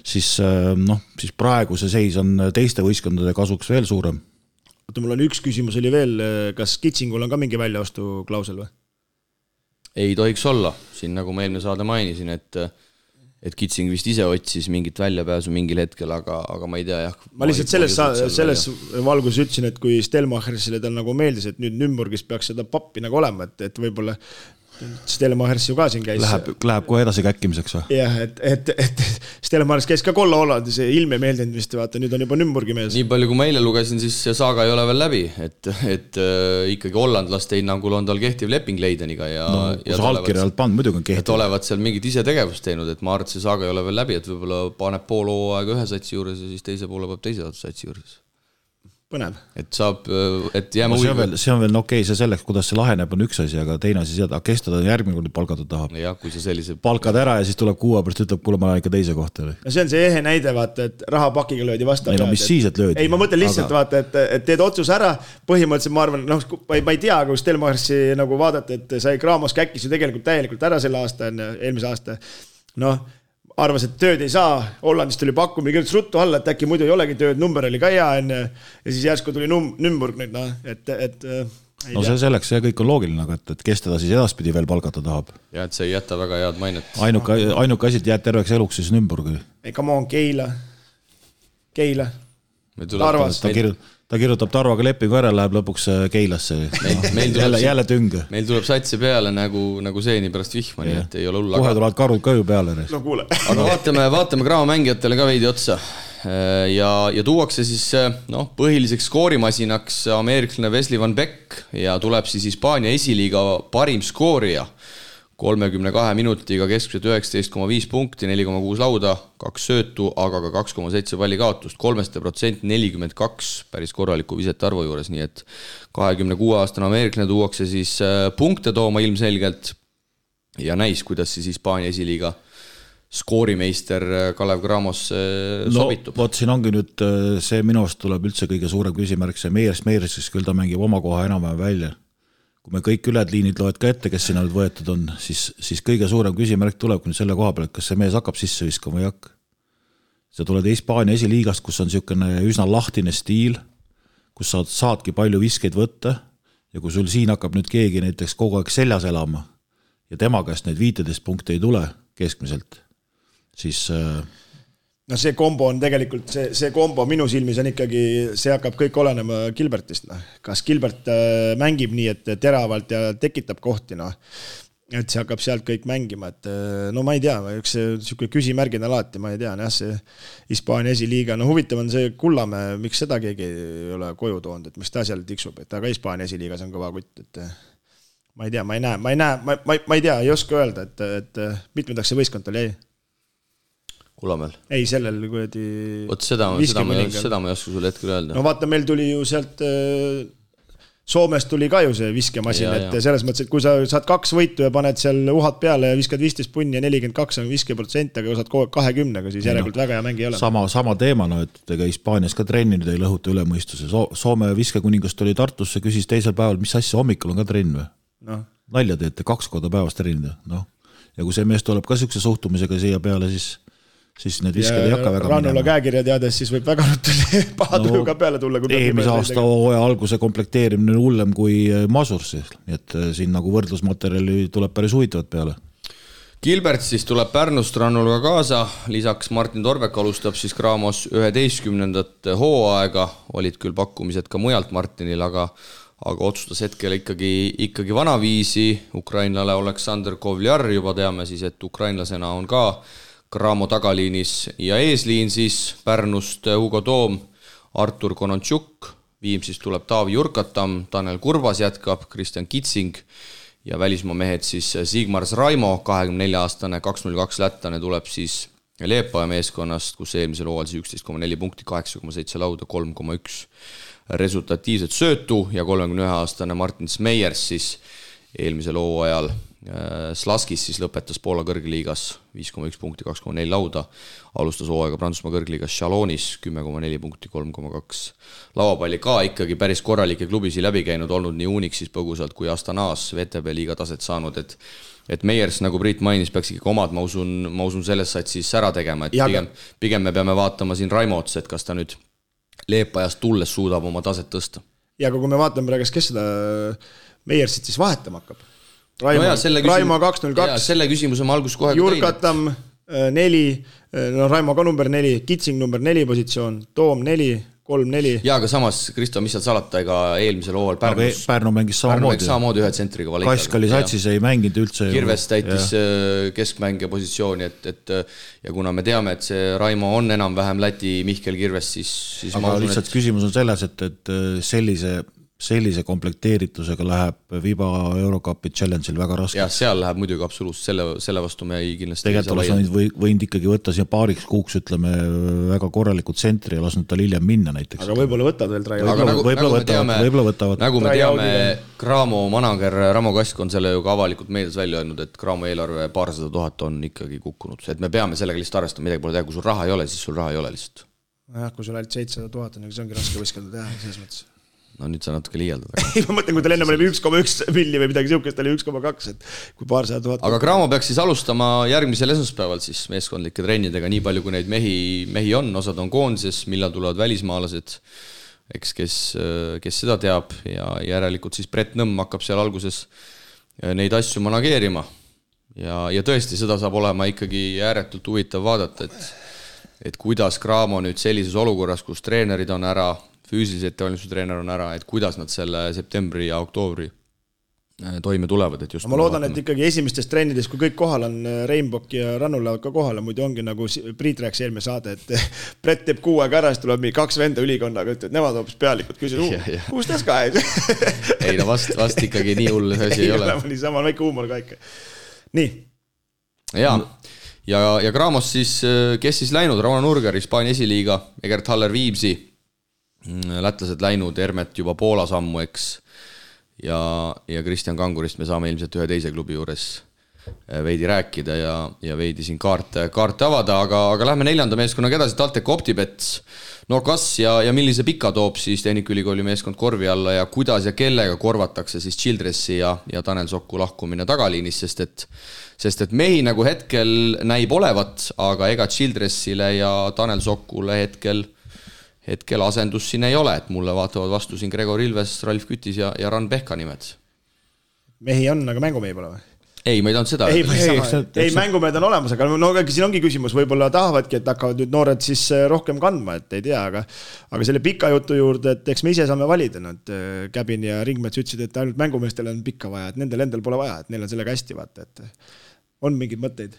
siis praegu see seis on teiste võistkondade kasuks veel suurem. Mul on üks küsimus oli veel, kas Kitsingul on ka mingi väljaostu klausel või? Ei tohiks olla, siin nagu ma eelmine saade mainisin, et Kitsing vist ise otsis mingit väljapääsu mingil hetkel, aga ma ei tea, jah. Ma lihtsalt selles valgus ütlesin, et kui Stelmachersile tal nagu meeldis, et nüüd Nürnbergis peaks seda pappi nagu olema, et võib-olla Stelmachers ju ka siin käis. Läheb kohe edasi käkkimiseks või? Jah, et Stelmachers käis ka Kolla Hollandis, ilme meeldinud vist, vaata, nüüd on juba Nürnbergi mees. Nii palju, kui ma eile lugesin, siis see saaga ei ole veel läbi, et ikkagi hollandlaste hinnangul on tal kehtiv leping Leideniga ja kui sa allkirjalt pannud, muidugi on kehtiv. Et olevat seal mingit ise tegevust teinud, et ma arvan, et see saaga ei ole veel läbi, et võib-olla paneb pool hooaega ühe satsi juures ja siis teise poole peab teise satsi juures. Põnev. Et saab, et jääme see on veel okei, see selleks, kuidas see laheneb on üks asi, aga teine asi seda, kes teda järgmine kord palgata tahab. Ja, kui see sellise... Palkad ära ja siis tuleb kuua pärast ütleb, kuule ma lähen ikka teise kohta. No see on see ehe näide, vaata, et rahapakiga löödi vastu. Ei, mis siis, et löödi? Ei, ma mõtlen lihtsalt, vaata, et teed otsus ära, põhimõtteliselt ma arvan, ma ei tea, kui Stelmachersi nagu vaadata, et sai Graamos käkkis ju tegelikult täielikult ära selle aasta, eelmise aasta. Arvas, et tööd ei saa, Hollandist tuli pakkumi, kirjutas ruttu alla, et äkki muidu ei olegi tööd, number oli ka hea enne, ja siis järsku tuli Nürnberg nüüd, see selleks, see kõik on loogiline, et kes teda siis edaspidi veel palgata tahab. Ja, et see ei jäta väga head mainet. Ainuke asi, et jääd terveks eluks siis Nürnbergi. Ei, come on, Keila. Tarvas. Ta kirjutab Tarvaga lepingu ära, läheb lõpuks Keilasse. Jälle tünge. Meil tuleb satsi peale nagu seeni pärast vihma, nii et ei ole hull. Kohe tulevad karud ka ju peale. No kuule. Aga vaatame Graamo mängijatele ka veidi otsa. Ja tuuakse siis põhiliseks skoorimasinaks ameeriklane Wesley Van Beek ja tuleb siis Hispaania esiliiga parim skoorija. 32 minutiga keskmiselt 19,5 punkti, 4,6 lauda, 2 söötu, aga ka 2,7 palli kaotust, 3% 42 päris korraliku visete arvu juures, nii et 26-aastane ameeriklane tuuakse siis punkte tooma ilmselgelt ja näis, kuidas siis Hispaania esiliiga skoorimeister Kalev Cramos sobitub. Vot siin ongi nüüd see minu arust tuleb üldse kõige suurem küsimärk, see Meiers, siis küll ta mängib oma koha enam-vähem välja. Kui me kõik üled liinid loed ka ette, kes sinna nüüd võetud on, siis kõige suurem küsimärk tuleb nüüd selle koha peal, et kas see mees hakkab sisse viskama või hakka. Sa tuled Hispaania esiliigast, kus on niisugune üsna lahtine stiil, kus saadki palju viskeid võtta ja kui sul siin hakkab nüüd keegi näiteks kogu aeg seljas elama ja tema käest neid 15 punkte ei tule keskmiselt, siis no see kombo on tegelikult, see kombo minu silmis on ikkagi, see hakkab kõik olenema Gilbertist. Kas Gilbert mängib nii, et teravalt ja tekitab kohti, et see hakkab sealt kõik mängima, et no ma ei tea, üks niisugune küsimärgin alati, ma ei tea, see Hispaania esiliiga, no huvitav on see Kullamäe, miks seda keegi ei ole koju toonud, et miks ta seal tiksub, et aga Hispaania esiliigas on kõva kutt, et ma ei tea, ma ei tea, ei oska öelda, et mitmendaks see võistkond oli, ei? Kullamäel? Ei, sellel kuidagi... Vot seda ma ei oska sulle hetkel öelda. No vaata, meil tuli ju sealt Soomest tuli ka ju see viskemasin, et selles mõttes, et kui sa saad 2 võitu ja paned seal uhad peale ja viskad 15 punni ja 42 on 50%, aga kui saad kogu aeg 20, siis järelikult väga hea mängi ei ole. Sama teema, et ega Hispaanias ka trennid ei lõhuta üle mõistuse. Soome viskekuningast tuli Tartusse, küsis teisel päeval, mis asja hommikul on ka trenn või? No. Nalja teete 2 korda päevast trennida. No. Ja kui see mees tuleb ka siukse suhtumisega siia peale, siis need visked ei hakka väga Rannula käekirja teades, siis võib väga paha tuju ka peale tulla. Eelmise aasta hooaja alguse komplekteerimine hullem kui Masursi, nii et siin nagu võrdlusmaterjali tuleb päris huvitavad peale. Gilbert siis tuleb Pärnust Rannulaga kaasa, lisaks Martin Torbek alustab siis Cramos 11. hooaega, olid küll pakkumised ka mujalt Martinil, aga otsustas hetkel ikkagi vanaviisi, ukrainlale Aleksandr Kovljar, juba teame siis, et ukrainlasena on ka Cramo tagaliinis ja eesliin siis Pärnust Hugo Toom, Artur Konontšuk, Viimsist tuleb Taavi Jurkatam, Tanel Kurbas jätkab, Kristjan Kitsing ja välismaa mehed siis Sigmars Raimo, 24-aastane, 202 lättane tuleb siis Leepaja meeskonnast, kus eelmisel hooajal 11,4 punkti, 8,7 lauda, 3,1 resultatiivset söötu ja 31-aastane Martin Meiers siis eelmisel hooajal Slaskis siis lõpetas Poola kõrgliigas 5,1 punkti, 2,4 lauda, alustas hooaega Prantsusmaa kõrgliigas Chalonis 10,4 punkti, 3,2 lauapalli, ka ikkagi päris korralikke klubisi läbi käinud, olnud nii Unixis põgusalt kui Astanas VTB liiga taset saanud, et Meiers, nagu Priit mainis, peaks ikkagi omad, ma usun selles said siis ära tegema, et pigem me peame vaatama siin Raimo otsa, et kas ta nüüd Leepajast tulles suudab oma taset tõsta. Ja kui me vaatame praegu, kes seda Meiersit siis vahetama hakkab, Raimo 202. Selle küsimuse ma algus kohe Jurkatam 4, Raimo ka number 4, Kitsing number 4 positsioon, Toom 4, 3-4. Ja aga samas, Kristo, mis seal salata, ega eelmisel hooval Pärnu mängis samamoodi ühe tsentriga valikaga. Kaiskali satsis ei mänginud üldse. Kirves täitis keskmängija positsiooni, ja kuna me teame, et see Raimo on enam-vähem Läti Mihkel Kirves, siis aga lihtsalt küsimus on selles, et sellise komplekteeritusega läheb Viba Eurocupi challenge'il väga raske. Ja seal läheb muidugi absoluutselt, selle vastu me ei kindlasti tegelikult oleks võinud ikkagi võtta siia paariks kuuks, ütleme, väga korralikult tsentri ja lasnud tal hiljem minna näiteks. Aga võib-olla võtavad veel Traia. Võib-olla võtavad. Nagu me teame, Cramo manager Ramo Kask on selle ju ka avalikult meedias välja öelnud, et Cramo eelarve 200 000 on ikkagi kukkunud. Et me peame sellega lihtsalt arvestama, midagi pole teha, kui sul raha ei ole, siis sul raha ei ole lihtsalt. Kui sul ainult 700 000 on, see ongi raske võiskelda teha, selles mõttes. No nüüd sa natuke liialdad. Ei, ma mõtlen, kui tal enne oli 1,1 milli või midagi siukest, oli 1,2, et kui 200 000. Aga Cramo peaks siis alustama järgmisel esmaspäeval siis meeskondlike trennidega, nii palju kui neid mehi on, osad on koondises, millal tulevad välismaalased, eks kes seda teab ja järelikult siis Brett Nõmm hakkab seal alguses neid asju manageerima ja tõesti seda saab olema ikkagi ääretult huvitav vaadata, et kuidas Cramo nüüd sellises olukorras, kus treenerid on ära, füüsilise ettevalmistustreener on ära, et kuidas nad selle septembri ja oktoobri toime tulevad. Et just ma loodan, et ikkagi esimestes trennides, kui kõik kohal on, Rainbock ja Rannu lähevad ka kohale, muidu ongi nagu Priit rääks eelmine saade, et Brett teeb 6 aega ära, siis tuleb 2 venda ülikonnaga, et nemad hoopis pealikud küsid, kus tas ka? Ei, no vast ikkagi nii hull see asi ei ole. Nii sama väike huumor ka ikka. Nii. Ja Cramos siis, kes siis läinud? Rauno Nurger, Hispaania esiliiga, Egert Haller Viimsi, lätlased läinud, Hermet juba Poola sammu, eks, ja Kristjan Kangurist me saame ilmselt ühe teise klubi juures veidi rääkida ja veidi siin kaarte avada, aga lähme 4. meeskonnaga edasi, TalTech OpTibet. No kas ja millise pika toob siis Tehnikaülikooli meeskond korvi alla ja kuidas ja kellega korvatakse siis Childressi ja Tanel Soku lahkumine tagaliinis, sest et mehi nagu hetkel näib olevat, aga ega Childressile ja Tanel Sokule hetkel asendus siin ei ole, et mulle vaatavad vastu siin Gregor Ilves, Ralf Kütis ja Ran Pehka nimed. Mehi on, aga mängumehi pole või? Ei, ma ei tahan seda. Ei, mängumehed on olemas, aga siin ongi küsimus, võib-olla tahavadki, et hakkavad nüüd noored siis rohkem kandma, et ei tea, aga selle pika jutu juurde, et eks me ise saame valida, et Käbin ja Ringmets ütlesid, et ainult mängumeestel on pikka vaja, et nendel endal pole vaja, et neil on sellega hästi vaata, et on mingid mõtteid.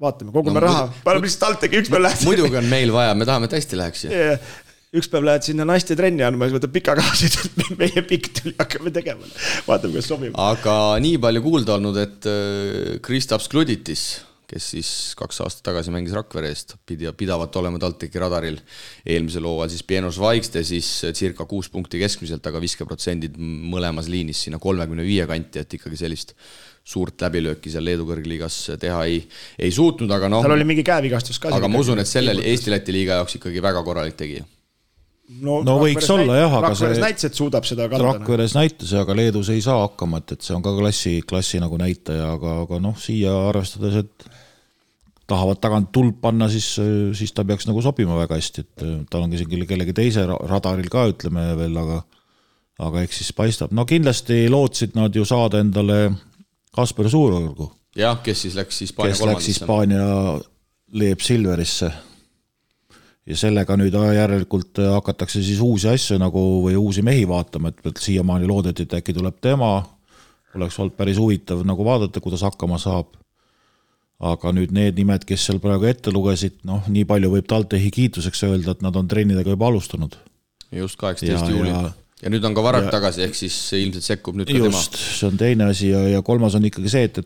Vaatame, kogume raha, paneme lihtsalt TalTechi, üks päev lähed. Muidugi on meil vaja, me tahame, et hästi läheks. Üks päev lähed sinna naiste trenni andma, siis võtab pika kaasid, et meie pikk tuli hakkame tegema. Vaatame, kas sobib. Aga nii palju kuulda olnud, et Kristaps Kluditis, kes siis 2 aastat tagasi mängis Rakvere eest, pidavat olema TalTechi radaril eelmisel hooajal, siis Pienos Vaikste siis circa 6 punkti keskmiselt, aga 50% mõlemas liinis sinna 35 kanti, et ikkagi sellist suurt läbilööki seal Leedu kõrgliigas teha ei suutnud, aga tal oli mingi käevigastus ka. Aga ma usun, et sellel Eesti-Läti liiga jaoks ikkagi väga korralik tegija. No võiks olla jah, aga Rakveres näitas, et suudab seda kanda. Rakveres näitas, aga Leedus ei saa hakkama, et see on ka klassi nagu näitaja, aga siia arvestades, et tahavad tagant tuld panna, siis ta peaks nagu sobima väga hästi, et tal on kellegi teise radaril ka, ütleme veel, aga eks siis paistab. No kindlasti lootsid nad ju saada endale Kasper Suurorgu. Jah, kes siis läks Hispaania kolmandisse. Kes läks Hispaania Leeb Silverisse. Ja sellega nüüd järelikult hakatakse siis uusi asju nagu või uusi mehi vaatama, et siiamaani loodeti, et äkki tuleb tema, oleks olnud päris huvitav nagu vaadata, kuidas hakkama saab. Aga nüüd need nimed, kes seal praegu ette lugesid, nii palju võib TalTechi kiituseks öelda, et nad on trennidega juba alustanud. Just 18. juuli. Ja nüüd on ka Varrak tagasi, ehk siis ilmselt sekkub nüüd ka tema. Just, see on teine asi ja kolmas on ikkagi see, et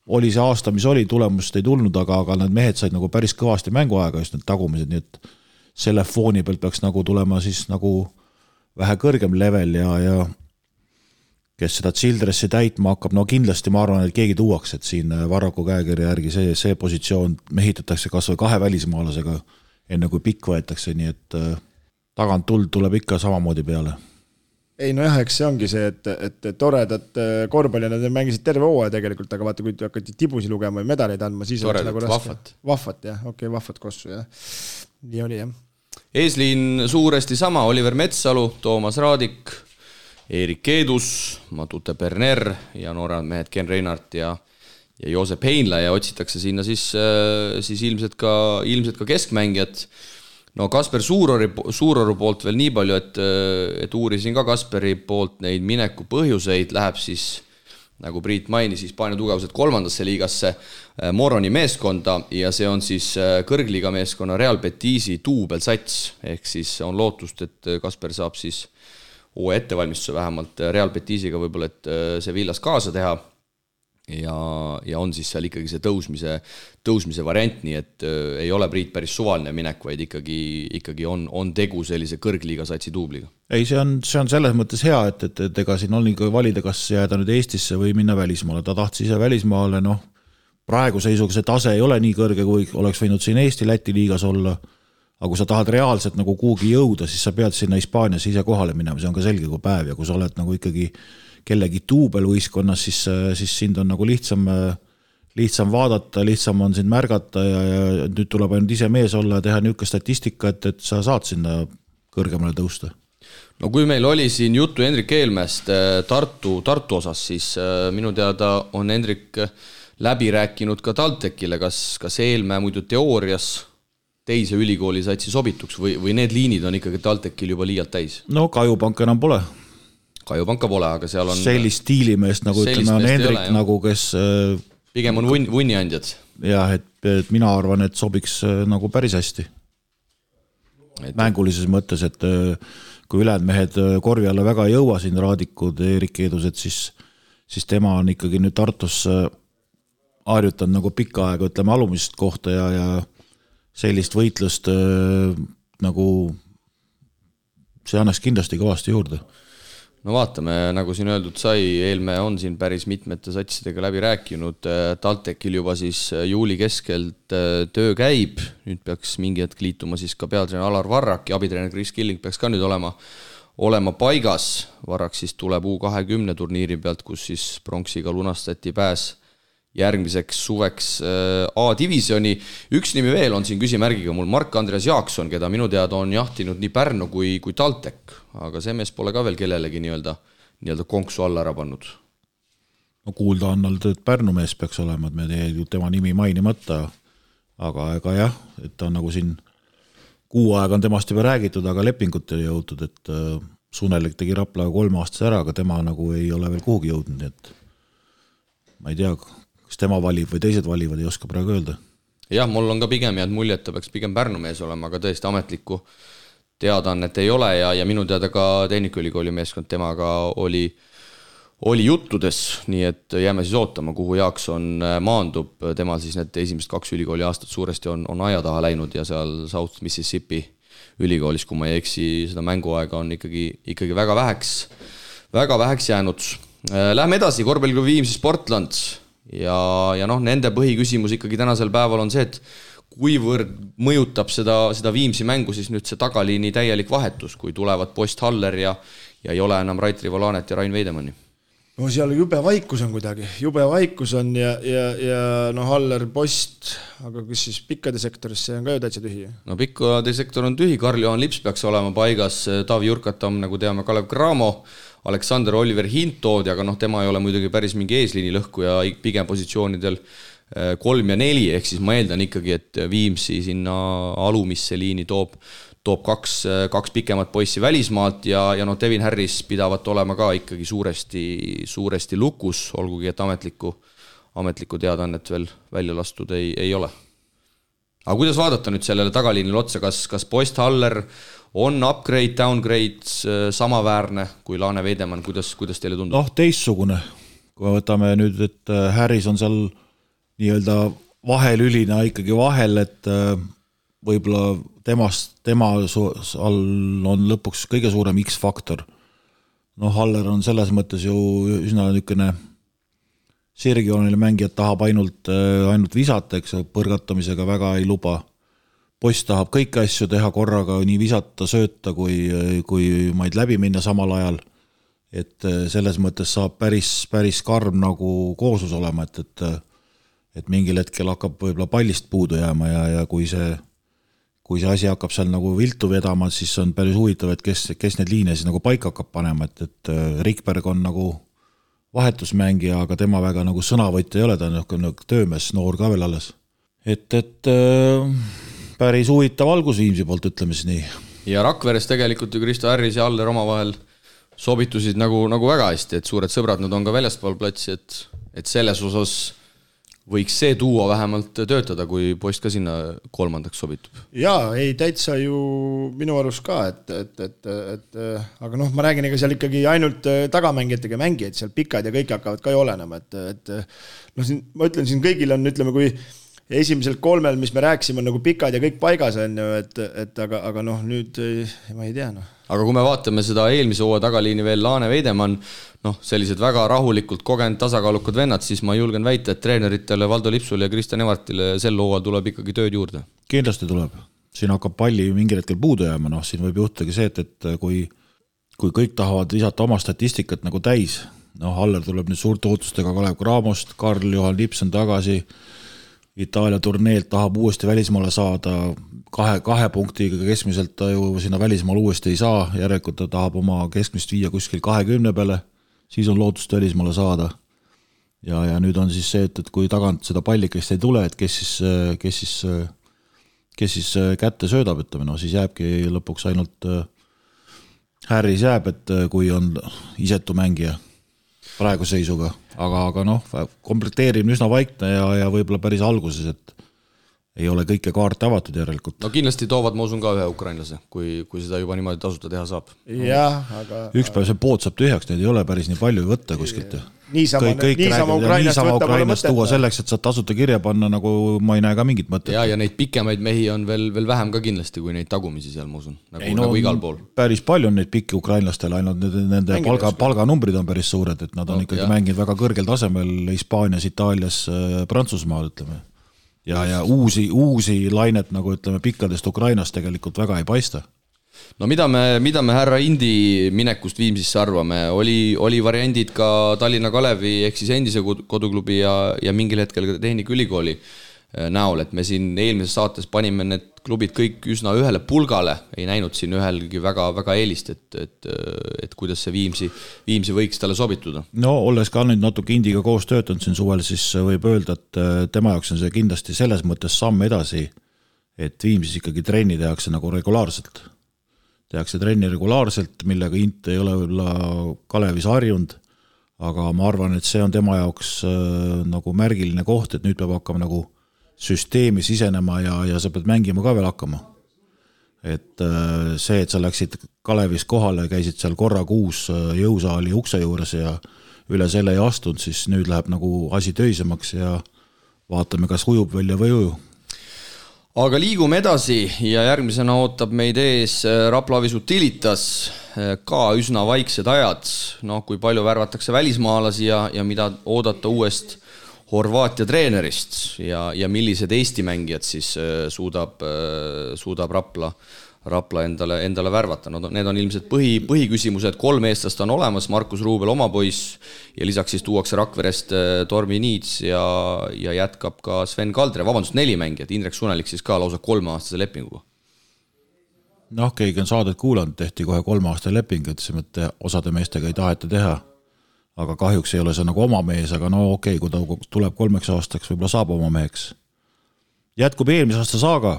oli see aasta, mis oli, tulemust ei tulnud, aga need mehed said nagu päris kõvasti mänguaega, just need tagumised, nii et selle fooni pealt peaks nagu tulema siis nagu vähe kõrgem level ja kes seda Childressi täitma hakkab, kindlasti ma arvan, et keegi tuuaks, et siin Varraku käekirja järgi see positsioon mehitatakse kas või 2 välismaalasega enne kui pikk võetakse, nii et tagant tuld tuleb ikka samamoodi peale. Ei, eks see ongi see, et toredad korvpalli nad mängisid terve hooaja tegelikult, aga vaata, kui hakati tibusi lugema või medaleid andma, siis toredad, nagu vahvat. Vahvat, jah, okei, vahvat kossu, jah. Nii oli, jah. Eesliin suuresti sama, Oliver Metsalu, Toomas Raadik, Erik Keedus, Matute Berner ja nooremad mehed Ken Reinart ja Joosep Heinla ja otsitakse sinna siis ilmselt ka keskmängijad. No Kasper Suuroru poolt veel nii palju, et uurisin ka Kasperi poolt neid mineku põhjuseid, läheb siis, nagu Priit mainis, Hispaania tugevused 3. liigasse Moroni meeskonda ja see on siis kõrgliiga meeskonna Real Betisi duubelsats, ehk siis on lootust, et Kasper saab siis uue ettevalmistuse vähemalt Real Betisiga võib-olla, et see Villas kaasa teha ja on siis seal ikkagi see tõusmise variant, nii et ei ole Priit päris suvaline minek, vaid ikkagi on tegu sellise kõrgliiga satsi duubliga. Ei, see on selles mõttes hea, et ega siin on ikka valida, kas jääda nüüd Eestisse või minna välismaale. Ta tahtis ise välismaale, praegu seisuga see tase ei ole nii kõrge, kui oleks võinud siin Eesti-Läti liigas olla, aga kui sa tahad reaalselt nagu kuhugi jõuda, siis sa pead sinna Hispaanias ise kohale minema, see on ka selge kui päev ja kui sa oled nagu ikkagi kellegi duubelvõistkonnas, siis sind on nagu lihtsam vaadata, lihtsam on sind märgata ja nüüd tuleb ainult ise mees olla ja teha niisugune statistika, et sa saad sinna kõrgemale tõusta. No kui meil oli siin juttu Hendrik Eelmäest Tartu osas, siis minu teada on Hendrik läbi rääkinud ka TalTechile, kas Eelmäe muidu teoorias teise ülikooli satsi sobituks või need liinid on ikkagi TalTechil juba liialt täis? No Kajupank enam pole. Kajupanka pole, aga seal on sellist stiilimeest, nagu ütleme, on Hendrik, nagu kes pigem on vunniandjad. Jah, et mina arvan, et sobiks nagu päris hästi. Mängulises mõttes, et kui ülejäänud mehed korvi alla väga ei jõua siin Raadikud, Erik Keedused, siis tema on ikkagi nüüd Tartus harjutanud nagu pikka aega, ütleme, alumisest kohta ja sellist võitlust nagu see annaks kindlasti kõvasti juurde. no vaatame, nagu siin öeldud sai, Eelmäe on siin päris mitmete satsidega läbi rääkinud, TalTechil juba siis juuli keskelt töö käib, nüüd peaks mingi hetk liituma siis ka peatreener Alar Varrak ja abitreener Chris Killing peaks ka nüüd olema paigas. Varrak siis tuleb U20 turniiri pealt, kus siis pronksiga lunastati pääs järgmiseks suveks A-divisjoni. Üks nimi veel on siin küsimärgiga mul, Mark-Andreas Jaakson, keda minu teada on jahtinud nii Pärnu kui TalTech, aga see mees pole ka veel kellelegi nii-öelda konksu alla ära pannud. No kuulda on olnud, et Pärnu mees peaks olema, et me teed tema nimi mainimata, aga ega jah, et ta on nagu siin kuu aega on temast juba räägitud, aga lepingut ei jõutud, et Sunelik tegi Raplaga 3 aastas ära, aga tema nagu ei ole veel kuhugi jõudnud, nii et ma ei tea, kas tema valib või teised valivad, ei oska praegu öelda. Jah, mul on ka pigem jääd mulje, et ta peaks pigem Pärnu mees olema, aga tõesti ametlikku teadaannet ei ole ja minu teada ka Tehnikaülikooli meeskond temaga oli juttudes, nii et jääme siis ootama, kuhu Jaakson maandub. Temal siis need esimesed 2 ülikooli aastat suuresti on aia taha läinud ja seal South Mississippi ülikoolis, kui ma ei eksi, seda mänguaega on ikkagi väga väheks jäänud. Lähme edasi, korvpalliklubi Viimsi Sportland ja noh, nende põhiküsimus ikkagi tänasel päeval on see, et kuivõrd mõjutab seda Viimsi mängu siis nüüd see tagaliini täielik vahetus, kui tulevad Post Haller ja ei ole enam Rait Rivolanet ja Rain Veidemanni. No seal jube vaikus on kuidagi, ja no Haller, Post, aga kus siis pikkade sektoris, see on ka ju täitsa tühi. No pikkade sektor on tühi, Karl-Johan Lips peaks olema paigas, Taavi Jurkatam, nagu teame, Kalev Cramo, Aleksander Oliver Hintood, aga noh, tema ei ole muidugi päris mingi eesliini lõhku ja pigem positsioonidel 3 ja 4, ehk siis ma eeldan ikkagi, et Viimsi sinna alumisse liini toob 2 pikemat poissi välismaalt ja noh, Devin Harris pidavat olema ka ikkagi suuresti lukus, olgugi et ametlikku teadannet veel välja lastud ei ole. Aga kuidas vaadata nüüd sellele tagaliinile otsa, kas Post Haller on upgrade, downgrade samaväärne kui Laane Veidemann, kuidas teile tundub? Noh, teistsugune. Kui me võtame nüüd, et Harris on seal nii-öelda vahelülina ikkagi vahel, et võib-olla tema all on lõpuks kõige suurem X-faktor. Noh, Haller on selles mõttes ju üsna niisugune sirgjoonile mängijad tahab ainult visata, eks põrgatamisega väga ei luba. Post tahab kõiki asju teha korraga, nii visata, sööta kui maid läbi minna samal ajal. Et selles mõttes saab päris karm nagu kooslus olema, et mingil hetkel hakkab võib-olla pallist puudu jääma ja kui see asi hakkab seal nagu viltu vedama, siis on päris huvitav, et kes need liine siis nagu paika hakkab panema, et Rikberg on nagu vahetusmängija, aga tema väga nagu sõnavõtja ei ole, ta on töömees, noor ka veel alles. Et päris huvitav algus Viimsi poolt, ütleme siis nii. Ja Rakveres tegelikult ju Kristo Harris ja Aller omavahel sobitusid nagu väga hästi, et suured sõbrad nad on ka väljaspool platsi, et selles osas võiks see duo vähemalt töötada, kui Post ka sinna 3. sobitub. Jaa, ei täitsa ju minu arust ka, aga noh, ma räägin, ega seal ikkagi ainult tagamängijatega mängijad, seal pikad ja kõik hakkavad ka ju olenema, et noh, ma ütlen, siin kõigil on, ütleme, kui esimesel 3, mis me rääksime, on nagu pikad ja kõik paigas on ju, aga noh, nüüd ma ei tea, noh. Aga kui me vaatame seda eelmise hooaja tagaliini veel Laane Veidemann, noh, sellised väga rahulikult kogenud tasakaalukad vennad, siis ma julgen väita, et treeneritele Valdo Lipsule ja Kristjan Evartile sel hooajal tuleb ikkagi tööd juurde. Kindlasti tuleb. Siin hakkab palli mingil hetkel puudu jääma, noh, siin võib juhtagi see, et kui kõik tahavad lisata oma statistikat nagu täis, noh, Haller tuleb nüüd suurte ootustega Kalev Cramost, Karl-Johan Lips on tagasi, Itaalia turneelt tahab uuesti välismaale saada, 2 punktiga keskmiselt ta ju sinna välismaal uuesti ei saa, järelikult ta tahab oma keskmist viia kuskil 20 peale, siis on lootust välismaale saada. Ja nüüd on siis see, et kui tagant seda pallikest ei tule, et kes siis kätte söödab, ütleme, no siis jääbki lõpuks ainult Harris jääb, et kui on isetu mängija praegu seisuga, aga noh, komplekteerimine üsna vaikne ja võib-olla päris alguses, ei ole kõike kaarte avatud järelikult. No kindlasti toovad, ma usun ka ühe ukrainlase, kui seda juba niimoodi tasuta teha saab. Jah, aga... Üks päev see pood saab tühjaks, neid ei ole päris nii palju võtta kuskilt. Niisama Ukrainast tuua selleks, et saad tasuta kirja panna, nagu ma ei näe ka mingit mõtet. Ja neid pikemaid mehi on veel vähem ka kindlasti, kui neid tagumisi seal, ma usun. Nagu igal pool. Päris palju on neid pikki ukrainlastel, ainult nende palganumbrid on päris suured, et nad on ikkagi mänginud väga kõrgel tasemel Hispaanias, Itaalias, Prantsusmaal, ütleme. Ja uusi lainet, nagu ütleme, pikkadest Ukrainast tegelikult väga ei paista. No mida me härra Indi minekust Viimsisse arvame? Oli variandid ka Tallinna Kalevi ehk siis endise koduklubi ja mingil hetkel ka Tehnikaülikooli näol, et me siin eelmises saates panime need klubid kõik üsna ühele pulgale, ei näinud siin ühelgi väga eelist, et kuidas see Viimsi võiks talle sobituda. No olles ka nüüd natuke Indiga koos töötanud siin suvel, siis võib öelda, et tema jaoks on see kindlasti selles mõttes samm edasi, et Viimsis ikkagi trenni tehakse nagu regulaarselt. Tehakse trenni regulaarselt, millega Int ei ole Kalevis harjunud, aga ma arvan, et see on tema jaoks nagu märgiline koht, et nüüd peab hakkama nagu süsteemi sisenema ja sa pead mängima ka veel hakkama. Et see, et sa läksid Kalevis kohale, käisid seal korra kuus jõusaali ukse juures ja üle selle ei astunud, siis nüüd läheb nagu asi töisemaks ja vaatame, kas ujub välja või uju. Aga liigume edasi ja järgmisena ootab meid ees Rapla Avis Utilitas, ka üsna vaiksed ajad, kui palju värvatakse välismaalasi ja mida oodata uuest Horvaatia treenerist ja millised Eesti mängijad siis suudab Rapla endale värvata. No, need on ilmselt põhiküsimused, 3 eestlast on olemas, Markus Ruubel oma poiss ja lisaks siis tuuakse Rakverest Tormi Niits ja jätkab ka Sven Kaldre, 4 mängijat, Indrek Sunelik siis ka lausa 3-aastase lepinguga. No, keegi on saadet kuulanud, tehti kohe 3-aastase leping, et see mõtte osade meestega ei taheta teha. Aga kahjuks ei ole see nagu oma mees, aga no okei, kui ta tuleb 3 aastaks, võib-olla saab oma meheks. Jätkub eelmise aasta saaga.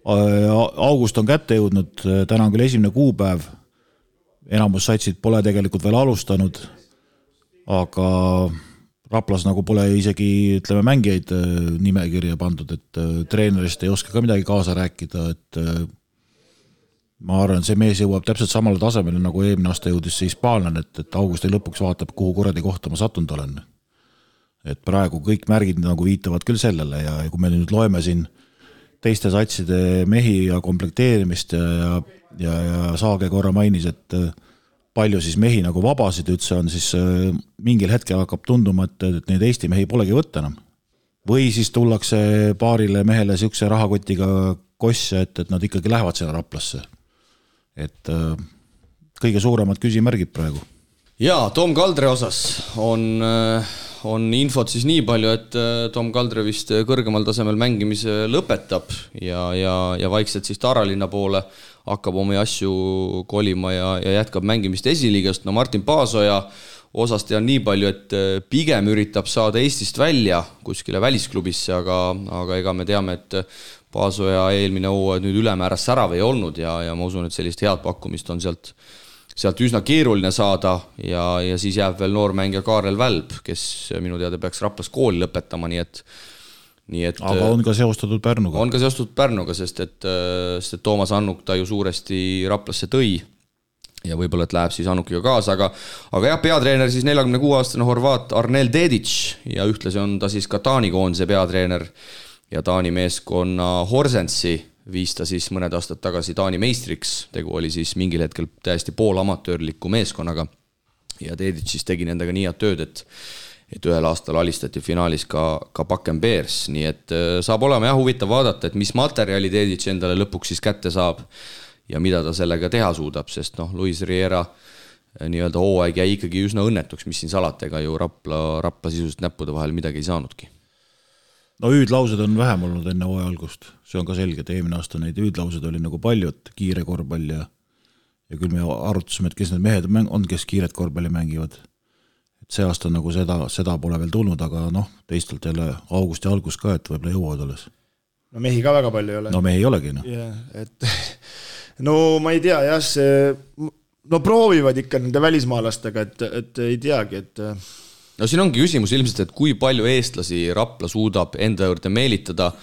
August on kätte jõudnud, täna on küll 1. kuupäev. Enamus satsid pole tegelikult veel alustanud, aga Raplas nagu pole isegi, ütleme, mängijaid nimekirja pandud, et treenerist ei oska ka midagi kaasa rääkida, et ma arvan, see mees jõuab täpselt samale tasemele, nagu eelmine aasta jõudis see hispaanlane, et augusti lõpuks vaatab, kuhu kuradi kohta ma sattunud olen. Et praegu kõik märgid nagu viitavad küll sellele ja kui me nüüd loeme siin teiste satside mehi ja komplekteerimist ja Saage korra mainis, et palju siis mehi nagu vabasid üldse on, siis mingil hetkel hakkab tunduma, et neid Eesti mehi polegi võtta enam. Või siis tullakse paarile mehele siukse rahakotiga kosse, et nad ikkagi lähevad sinna Raplasse. Et kõige suuremad küsimärgid praegu. Jaa, Tom Kaldre osas on infot siis nii palju, et Tom Kaldre vist kõrgemal tasemel mängimise lõpetab ja vaikselt siis Taralinna poole hakkab omi asju kolima ja jätkab mängimist esiliigast. No Martin Paasoja osast tean nii palju, et pigem üritab saada Eestist välja kuskile välisklubisse, aga ega me teame, et Paasoja eelmine hooaeg nüüd ülemääras särav ei olnud ja ma usun, et sellist head pakkumist on sealt üsna keeruline saada ja siis jääb veel noormängija Kaarel Välb, kes minu teada peaks Raplas kooli lõpetama, nii et aga on ka seostatud Pärnuga. On ka seostatud Pärnuga, sest et Toomas Annuk ta ju suuresti Raplasse tõi ja võib-olla, et läheb siis Annukiga kaasa, aga jah, peatreener siis 46-aastane Horvaat Arnel Dedic ja ühtlasi on ta siis ka Taani koondise peatreener ja Taani meeskonna Horsensi viis ta siis mõned aastad tagasi Taani meistriks, tegu oli siis mingil hetkel täiesti poolamatöörliku meeskonnaga ja Dedic siis tegi nendega nii head tööd, et ühel aastal alistati finaalis ka Bakken Bears, nii et saab olema jah huvitav vaadata, et mis materjali Dedic endale lõpuks siis kätte saab ja mida ta sellega teha suudab, sest Luis Riera nii-öelda hooaeg jäi ikkagi üsna õnnetuks, mis siin salatega ju Rapla sisust näppude vahel midagi ei saanudki. No hüüdlaused on vähem olnud enne hooaja algust, see on ka selge, et eelmine aasta neid hüüdlaused oli nagu palju, et kiire korvpall ja küll me arutasime, et kes need mehed on, kes kiiret korvpalli mängivad. Et see aasta nagu seda pole veel tulnud, aga teistelt jälle augusti algus ka, et võib-olla jõuavad alles. No mehi ka väga palju ei ole. No mehi ei olegi. No ma ei tea, jah, proovivad ikka nende välismaalastega, et ei teagi, et No siin ongi küsimus ilmselt, et kui palju eestlasi Rapla suudab enda juurde meelitada.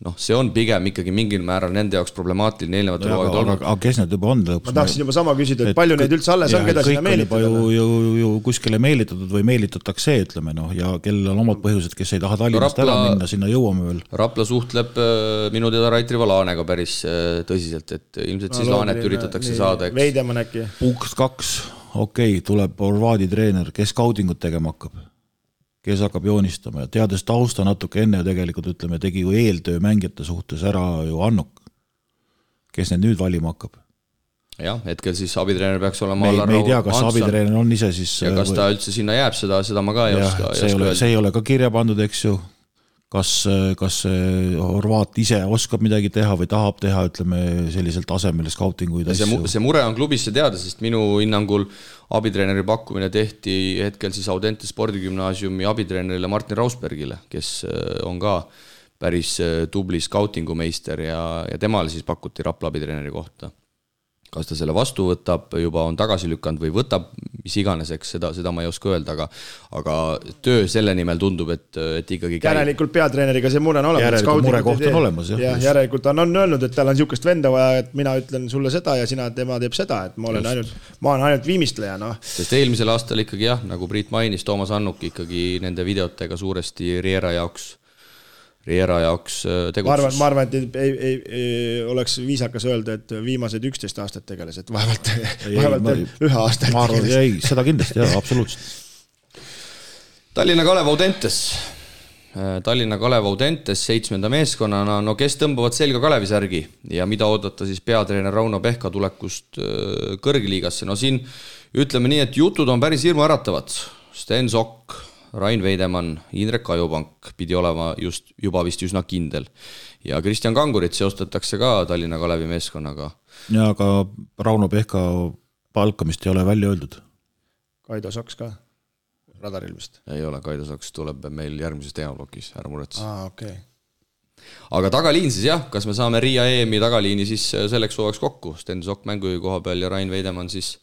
Noh, see on pigem ikkagi mingil määral nende jaoks problemaatiline eelnevatel hooaegudel olnud. Aga kes need juba on lõpuks? Ma tahaksin juba sama küsida, et palju neid üldse alles on, keda sinna meelitada? Kõik on ju kuskile meelitatud või meelitatakse, ütleme, ja kellel on omad põhjused, kes ei taha Tallinnast ära minna, sinna jõuame veel. Rapla suhtleb minu teada Rait Rivo Laanega päris tõsiselt, et ilmselt siis Laanet üritatakse saada. Veidemann äkki. Punkt 2, okei, tuleb Horvaadi treener, kes scoutingut tegema hakkab. Kes hakkab joonistama ja teades tausta natuke enne tegelikult, ütleme, tegi ju eeltöö mängijate suhtes ära ju Annuk, kes need nüüd valima hakkab. Jah, hetkel siis abitreener peaks olema me ei tea, kas abitreener on ise siis ja kas ta üldse sinna jääb, seda ma ka ei oska. See ei ole ka kirja pandud, eks ju. Kas Horvaat ise oskab midagi teha või tahab teha, ütleme, sellisel tasemel scoutinguid asju. See mure on klubisse teada, sest minu hinnangul abitreeneri pakkumine tehti hetkel siis Audente spordigümnaasiumi abitreenerile Martin Rausbergile, kes on ka päris tubli scoutingu meister ja temale siis pakuti Rapla abitreeneri kohta. Kas ta selle vastu võtab, juba on tagasi lükanud või võtab, mis iganeseks, seda ma ei oska öelda, aga töö selle nimel tundub, et ikkagi käib. Järelikult peatreeneriga see mure on olemas. Järelikult murekoht on olemas, jah. Järelikult on öelnud, et tal on niisugust venda vaja, et mina ütlen sulle seda ja tema teeb seda, et ma olen ainult viimistleja. No. Sest eelmisel aastal ikkagi jah, nagu Priit mainis, Toomas Annuk ikkagi nende videotega suuresti Riera jaoks tegutsus. Ma arvan, et ei oleks viisakas öelda, et viimased 11 aastat tegeles, et vaevalt ühe aasta. Ma arvan, ei, seda kindlasti, jah, absoluutselt. Tallinna Kalev Audentes 7. meeskonnana, no kes tõmbavad selga Kalevisärgi ja mida oodata siis peatreener Rauno Pehka tulekust kõrgliigasse. No siin ütleme nii, et jutud on päris hirmu äratavad. Sten Sokk, Rain Veidemann, Indrek Ajupank pidi olema juba vist üsna kindel. Ja Kristjan Kangurit seostatakse ka Tallinna Kalevi meeskonnaga. Ja aga Rauno Pehka palkamist ei ole välja öeldud. Kaido Soks ka? Radaril vist? Ei ole, Kaido Soks tuleb meil järgmises teemablokis, ära muretsi. Okay. Aga tagaliin siis jah, kas me saame Riia EM-i tagaliini siis selleks hooajaks kokku? Sten Sokk mängujuhi koha peal ja Rain Veidemann siis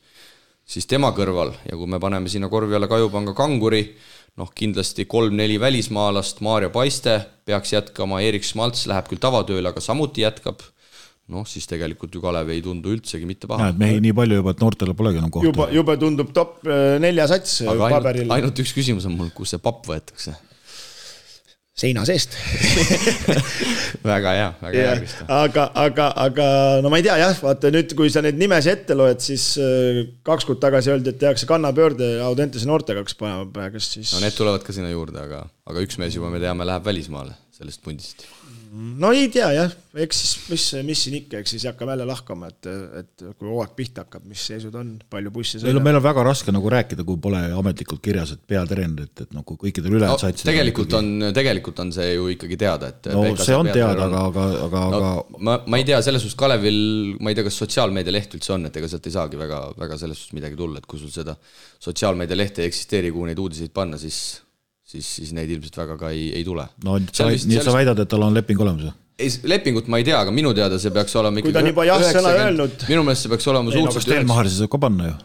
tema kõrval. Ja kui me paneme sinna korvi alla Kajupanga Kanguri, kindlasti 3-4 välismaalast, Maarja Paiste peaks jätkama, Erik Schmaltz läheb küll tavatööle, aga samuti jätkab. Siis tegelikult ju Kalev ei tundu üldsegi mitte paha. Mehi nii palju juba, et noortele polegi enam kohta. Juba tundub top 4 sats paberil. Ainult üks küsimus on mul, kus see papp võetakse? Seina seest. väga hea vist. Aga no ma ei tea jah, vaata nüüd, kui sa neid nimesi ette loed, siis 2 kuud tagasi öeldi, et tehakse kannapöörde Audentese noortega, kes praegu siis... No need tulevad ka sinna juurde, aga üks mees juba me teame läheb välismaale sellest pundist. No ei tea jah, eks siis mis siin ikka, eks siis hakkab jälle lahkama, et kui hooaeg pihta hakkab, mis seisud on, palju bussi sõidab. Meil on väga raske nagu rääkida, kui pole ametlikult kirjas, et peatreener, et nagu kõikidel ülejäänud said tegelikult on see ju ikkagi teada, et no see on teada, aga ma ei tea, selles suhtes Kalevil, ma ei tea, kas sotsiaalmeedia leht üldse on, et ega sealt ei saagi väga selles suhtes midagi tulla, et kui sul seda sotsiaalmeedia lehte ei eksisteeri, kuhu neid uudiseid panna, siis neid ilmselt väga ka ei tule. No nii sa väidad, et tal on leping olemas? Lepingut ma ei tea, aga minu teada see peaks olema kui ta on juba jah-sõna öelnud. Minu meelest see peaks olema suhteliselt Stenmahar saab ka panna ju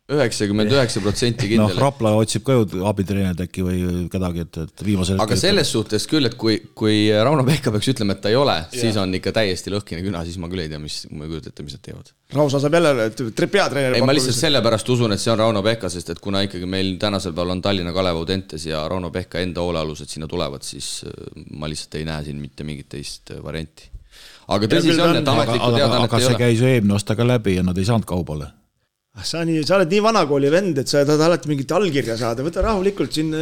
99% kindel. Rapla otsib ka ju abitreenerid äkki või kedagi, et viimasel aga selles suhtes küll, et kui Rauno Pehka peaks ütlema, et ta ei ole, siis on ikka täiesti lõhkine küna, siis ma küll ei tea, mis nad teevad. Rausa saab jälle peatreeneri. Ei, ma lihtsalt sellepärast usun, et see on Rauno Pehka, sest et kuna ikkagi meil tänasel päeval on Tallinna Kalev Audentes ja Rauno Pehka enda hoolealused sinna tulevad, siis ma lihtsalt ei näe siin mitte mingit teist varianti. Aga tõsi see on, et ametlikku teadannet ei ole. Aga see käis ju eelmine aasta ka läbi ja nad ei saanud kaubale. Sa oled nii vanakooli vend, et sa tahad alati mingit allkirja saada. Võta rahulikult siin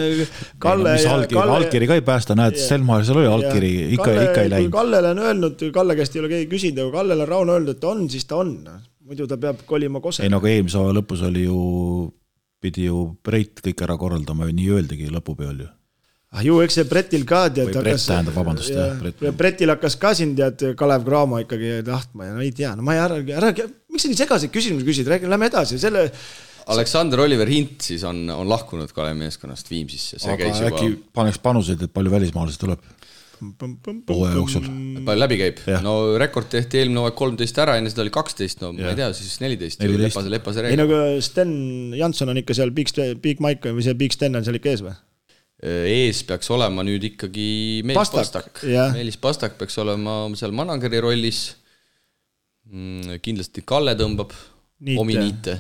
Kalle... Allkiri ka ei päästa, näed, Stelmar, seal oli allkiri, ikka ei läinud. Kallele on öelnud, Kalle käest ei ole keegi küsinud, aga Kallele on Rauno öelnud, et on, siis ta on. Muidu ta peab kolima Kose. Ei, nagu eelmise lõpus oli ju, pidi ju Breit kõik ära korraldama, nii öeldigi lõpupeal ju. Ju, eks see Bretil ka tead, Bretil hakkas ka siin tead Kalev Cramo ikkagi tahtma ja no ei tea, no ma miks sa nii segaseid küsimusi küsid, lähme edasi Aleksander Oliver Hint siis on lahkunud Kalevi meeskonnast Viimsisse, see aga käis juba äkki paneks panuseid, et palju välismaalasi tuleb? hooaja jooksul. Palju läbi käib? No rekord tehti eelmine hooaeg 13 ära, enne seda oli 12, no ma ei tea, siis 14. Lepase reegel. Ei, no Sten Jansson on ikka seal Big Mike või see Big Sten on seal ikka ees või? Ees peaks olema nüüd ikkagi Meelis Pastak. Meelis Pastak peaks olema seal manageri rollis. Kindlasti Kalle tõmbab omi niite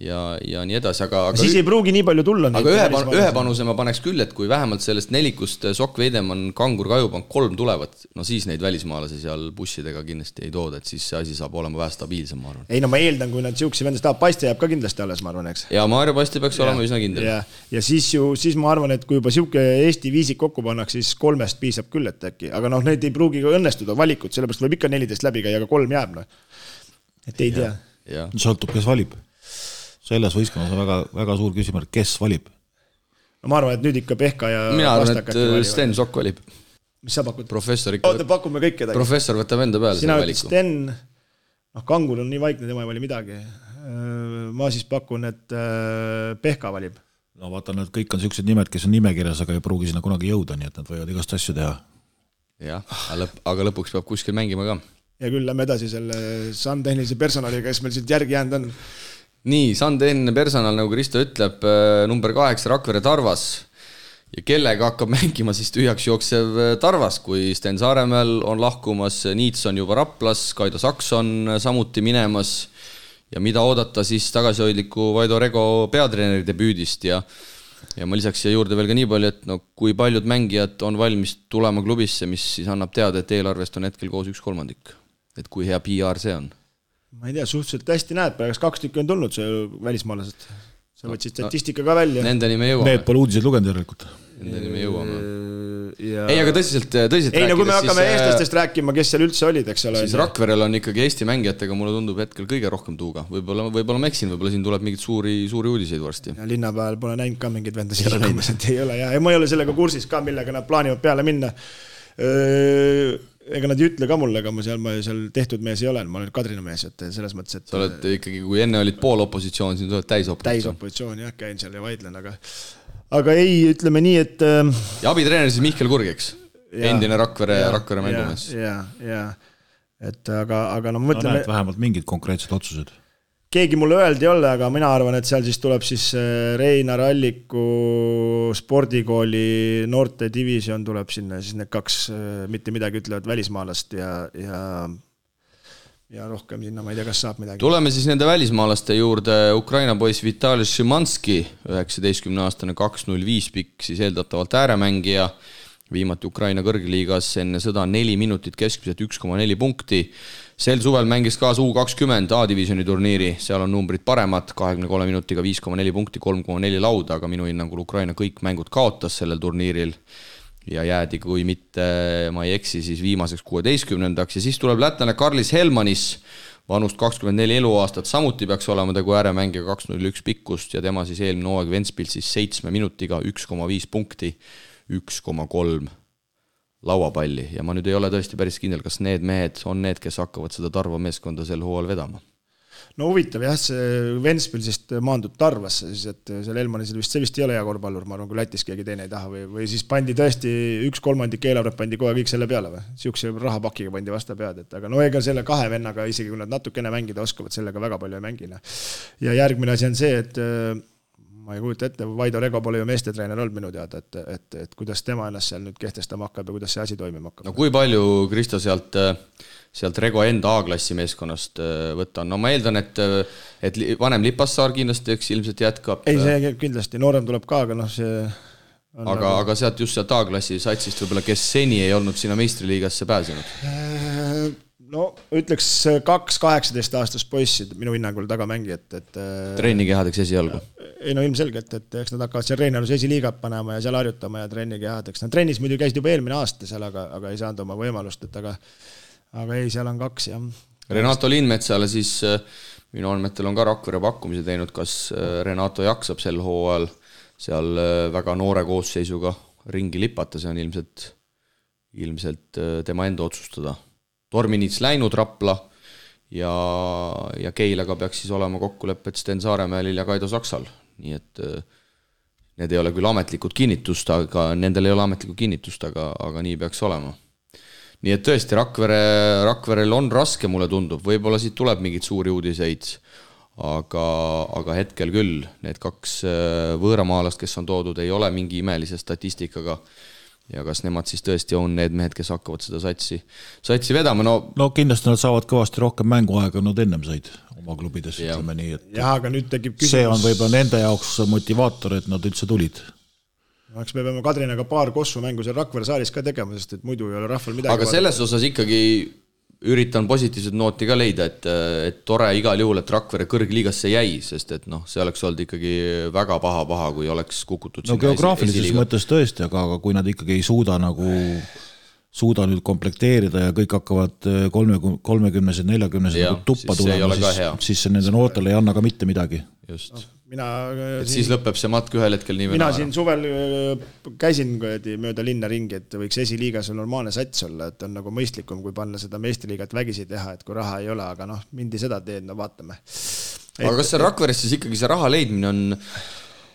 ja nii edasi, aga siis ei pruugi nii palju tulla. Aga ühe panuse ma paneks küll, et kui vähemalt sellest nelikust Sokk Veidemann, Kangur, Kajupank 3 tulevad, no siis neid välismaalasi seal bussidega kindlasti ei tooda, et siis see asi saab olema vähe stabiilsem, ma arvan. Ei, no ma eeldan, kui nad siuksi vendas tahab, Paiste jääb ka kindlasti alles, ma arvan, eks. Ja Maarja Paiste peaks olema üsna kindel. Ja siis ma arvan, et kui juba siuke Eesti viisik kokku pannaks, siis 3 piisab küll, et äkki. Aga noh, need ei pruugi ka õnnestuda valikut, sellepärast võib ikka 14 läbi käia, aga 3 jääb. No. Et ei tea. Sõltub, kes valib. Selles võistkonnas on väga suur küsimärk, kes valib? No ma arvan, et nüüd ikka Pehka ja mina arvan, et Sten Sokk valib. Mis sa pakud? Professor ikka. Pakume kõik kedagi. Professor võtab enda peale sina selle valiku. Sten, Kangur on nii vaikne, tema ei vali midagi. Ma siis pakun, et Pehka valib. No vaata, nad kõik on sellised nimed, kes on nimekirjas, aga ei pruugi sinna kunagi jõuda, nii et nad võivad igast asju teha. Jah, aga lõpuks peab kuskil mängima ka. Ja küll lähme edasi selle Sun-tehnilise personaliga, kes meil siit järgi jäänud on. Nii, Sun-tehniline personal, nagu Kristo ütleb, number 8 Rakvere Tarvas ja kellega hakkab mängima siis tühjaks jooksev Tarvas, kui Sten Saaremäel on lahkumas, Niits on juba Raplas, Kaido Saks on samuti minemas ja mida oodata siis tagasihoidliku Vaido Rego peatreeneri debüüdist ja ma lisaks siia juurde veel ka nii palju, et no, kui paljud mängijad on valmis tulema klubisse, mis siis annab teada, et eelarvest on hetkel koos 1/3, et kui hea PR see on. Ma ei tea, suhteliselt hästi näed, praegu 2 tükki on tulnud see välismaalased. Sa võtsid statistika ka välja. Nendeni me jõuame. Need pole uudiseid lugenud järelikult. Nendeni me jõuame. Ei, aga tõsiselt rääkides. Ei, no kui me hakkame eestlastest rääkima, kes seal üldse olid, eks ole. Siis Rakverel on ikkagi Eesti mängijatega, mulle tundub hetkel kõige rohkem tuuga. Võib-olla ma eksin, võib-olla siin tuleb mingid suuri uudiseid varsti. Ja linnapäeval pole näinud ka mingid vendasid liikumas, et ei ole. Ja ma ei ole sellega kursis ka, millega nad plaanivad peale minna. Ega nad ei ütle ka mulle, aga ma seal tehtud mees ei ole, ma olen Kadrina mees, et selles mõttes, et... Sa oled ikkagi, kui enne olid poolopositsioon, siin tuled täisopositsioon. Täisopositsioon, jah, käin seal ja vaidlen, aga ei, ütleme nii, et... Ja abitreener siis Mihkel Kurg, eks? Endine Rakvere mängumees. Ja, et aga no mõtleme... No näed vähemalt mingid konkreetsed otsused. Keegi mulle öeldi ei ole, aga mina arvan, et seal siis tuleb siis Reinar Alliku spordikooli noorte division tuleb sinna, siis need 2 mitte midagi ütlevad välismaalast ja rohkem sinna, ma ei tea, kas saab midagi. Tuleme siis nende välismaalaste juurde. Ukraina poiss Vitali Šimanski, 19-aastane 2.05 pikk, siis eeldatavalt ääremängija, viimati Ukraina kõrgliigas enne sõda 4 minutit keskmiselt 1,4 punkti. Sel suvel mängis kaasa U20 A-divisjoni turniiri, seal on numbrid paremad, 23 minutiga 5,4 punkti, 3,4 lauda, aga minu hinnangul Ukraina kõik mängud kaotas sellel turniiril ja jäädi, kui mitte, ma ei eksi, siis viimaseks 16-ndaks ja siis tuleb lätlane Karlis Helmanis, vanust 24 eluaastat, samuti peaks olema tegu ääremängija 2.01 pikkust ja tema siis eelmine hooaeg Ventspils siis 7 minutiga 1,5 punkti, 1,3 lauapalli ja ma nüüd ei ole tõesti päris kindel, kas need mehed on need, kes hakkavad seda Tarva meeskonda sel hooajal vedama. No huvitav jah, see Ventspilsist maandub Tarvasse, siis et seal Elmanisel vist ei ole hea korvpallur, ma arvan, kui Lätis keegi teine ei taha või siis pandi tõesti 1/3 eelarvet pandi kohe kõik selle peale või? Siukse rahapakiga pandi vasta pead, et aga no ega selle 2 vennaga, isegi kui nad natukene mängida oskavad, sellega väga palju ei mängina. Ja järgmine asi on see, et ma ei kujuta ette, Vaido Rego pole ju meestetreener olnud minu teada, et kuidas tema ennast seal nüüd kehtestama hakkab ja kuidas see asi toimima hakkab. No kui palju, Kristo, sealt Rego enda A-klassi meeskonnast võtta on? No ma eeldan, et vanem Lipassaar kindlasti ilmselt jätkab. Ei, see kindlasti, noorem tuleb ka, aga noh, see... Aga sealt just sealt A-klassi satsist võib-olla, kes seni ei olnud sinna meistriliigasse pääsenud? No ütleks 2-18 aastast poissid minu hinnangul tagamängijad, et... Treenikehadeks esialgu? Ei no ilmselgelt, et eks nad hakkavad seal Reinalus esiliigat panema ja seal harjutama ja treenikehadeks. Nad trennis muidu käisid juba eelmine aasta seal, aga ei saanud oma võimalust, et aga ei, seal on 2 jah. Renato Lindmetsale siis minu andmetel on ka Rakvere pakkumise teinud, kas Renato jaksab sel hooajal seal väga noore koosseisuga ringi lipata, see on ilmselt tema enda otsustada. Torminits läinud Rapla ja Keilaga peaks siis olema kokkulepped Sten Saaremäelil ja Kaido Saksal. Nii et need ei ole küll ametlikud kinnitust, aga nendel ei ole ametlikku kinnitust, aga nii peaks olema. Nii et tõesti, Rakverel on raske, mulle tundub, võib-olla siit tuleb mingid suuri uudiseid, aga hetkel küll need 2 võõramaalast, kes on toodud, ei ole mingi imelise statistikaga ja kas nemad siis tõesti on need mehed, kes hakkavad seda satsi vedama, no kindlasti nad saavad kõvasti rohkem mänguaega, nad ennem said oma klubides, ütleme nii, et jah, aga nüüd tekib küsimus. See on võib-olla nende jaoks motivaator, et nad üldse tulid. Eks me peame Kadrinaga paar kossu mängu seal Rakvere saalis ka tegema, sest et muidu ei ole rahval midagi. Aga selles osas ikkagi üritan positiivset nooti ka leida, et tore igal juhul, et Rakvere kõrgliigasse jäi, sest et see oleks olnud ikkagi väga paha, kui oleks kukutud. No geograafilises mõttes tõesti, aga kui nad ikkagi ei suuda nüüd komplekteerida ja kõik hakkavad 30-sed, 40-sed tuppa tulema, siis see nende noortele ei anna ka mitte midagi. Just. Siis lõpeb see matk ühel hetkel nii mina siin suvel käisin mööda linna ringi, et võiks esiliigas on normaalne sats olla, et on nagu mõistlikum, kui panna seda meistriliigat vägisi teha, et kui raha ei ole, aga mindi seda teed, vaatame. Aga kas see Rakveres siis ikkagi see raha leidmine